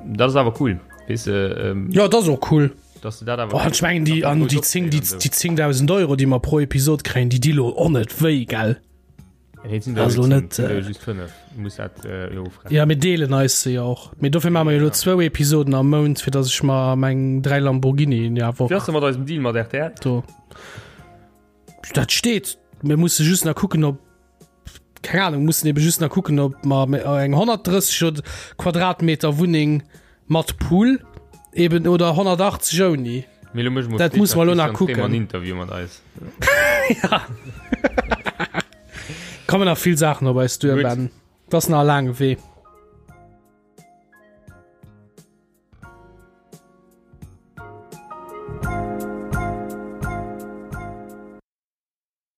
dat ass awer cool, weess de. Jo, dat ass och cool. Dass de dat awer. Boah, ech mengen déi, an déi 10, déi 10.000 Euro, déi mer pro Episod kréien, déi di lo och net wéi, gell? Nee, sind Also net net, äh, just 5 muss dat äh, lo ofrechnen. Ja, mir deelen eis se jo och. Mee dofir maache mer jo elo zwou Episoden am Mount, fir datt ech mer meng 3 Lamborghinien ja Wéi ass Woch de mat eisem Deal mat rtl? do. Dat steet. Mir musse just nach kucken, ob keng Ahnung, mussen ebe just nach kucken, ob mer eng 130 oder Quadratmeter Wunneng mat Pool eben oder 180 ouni. Mee lo méche mer Dat muss mer lo nach kucken. En Interview mat eis. Ja. Kommen nach vill Saachen op eis duer, Gutt. Ben. Dat ass nach e laange Wee.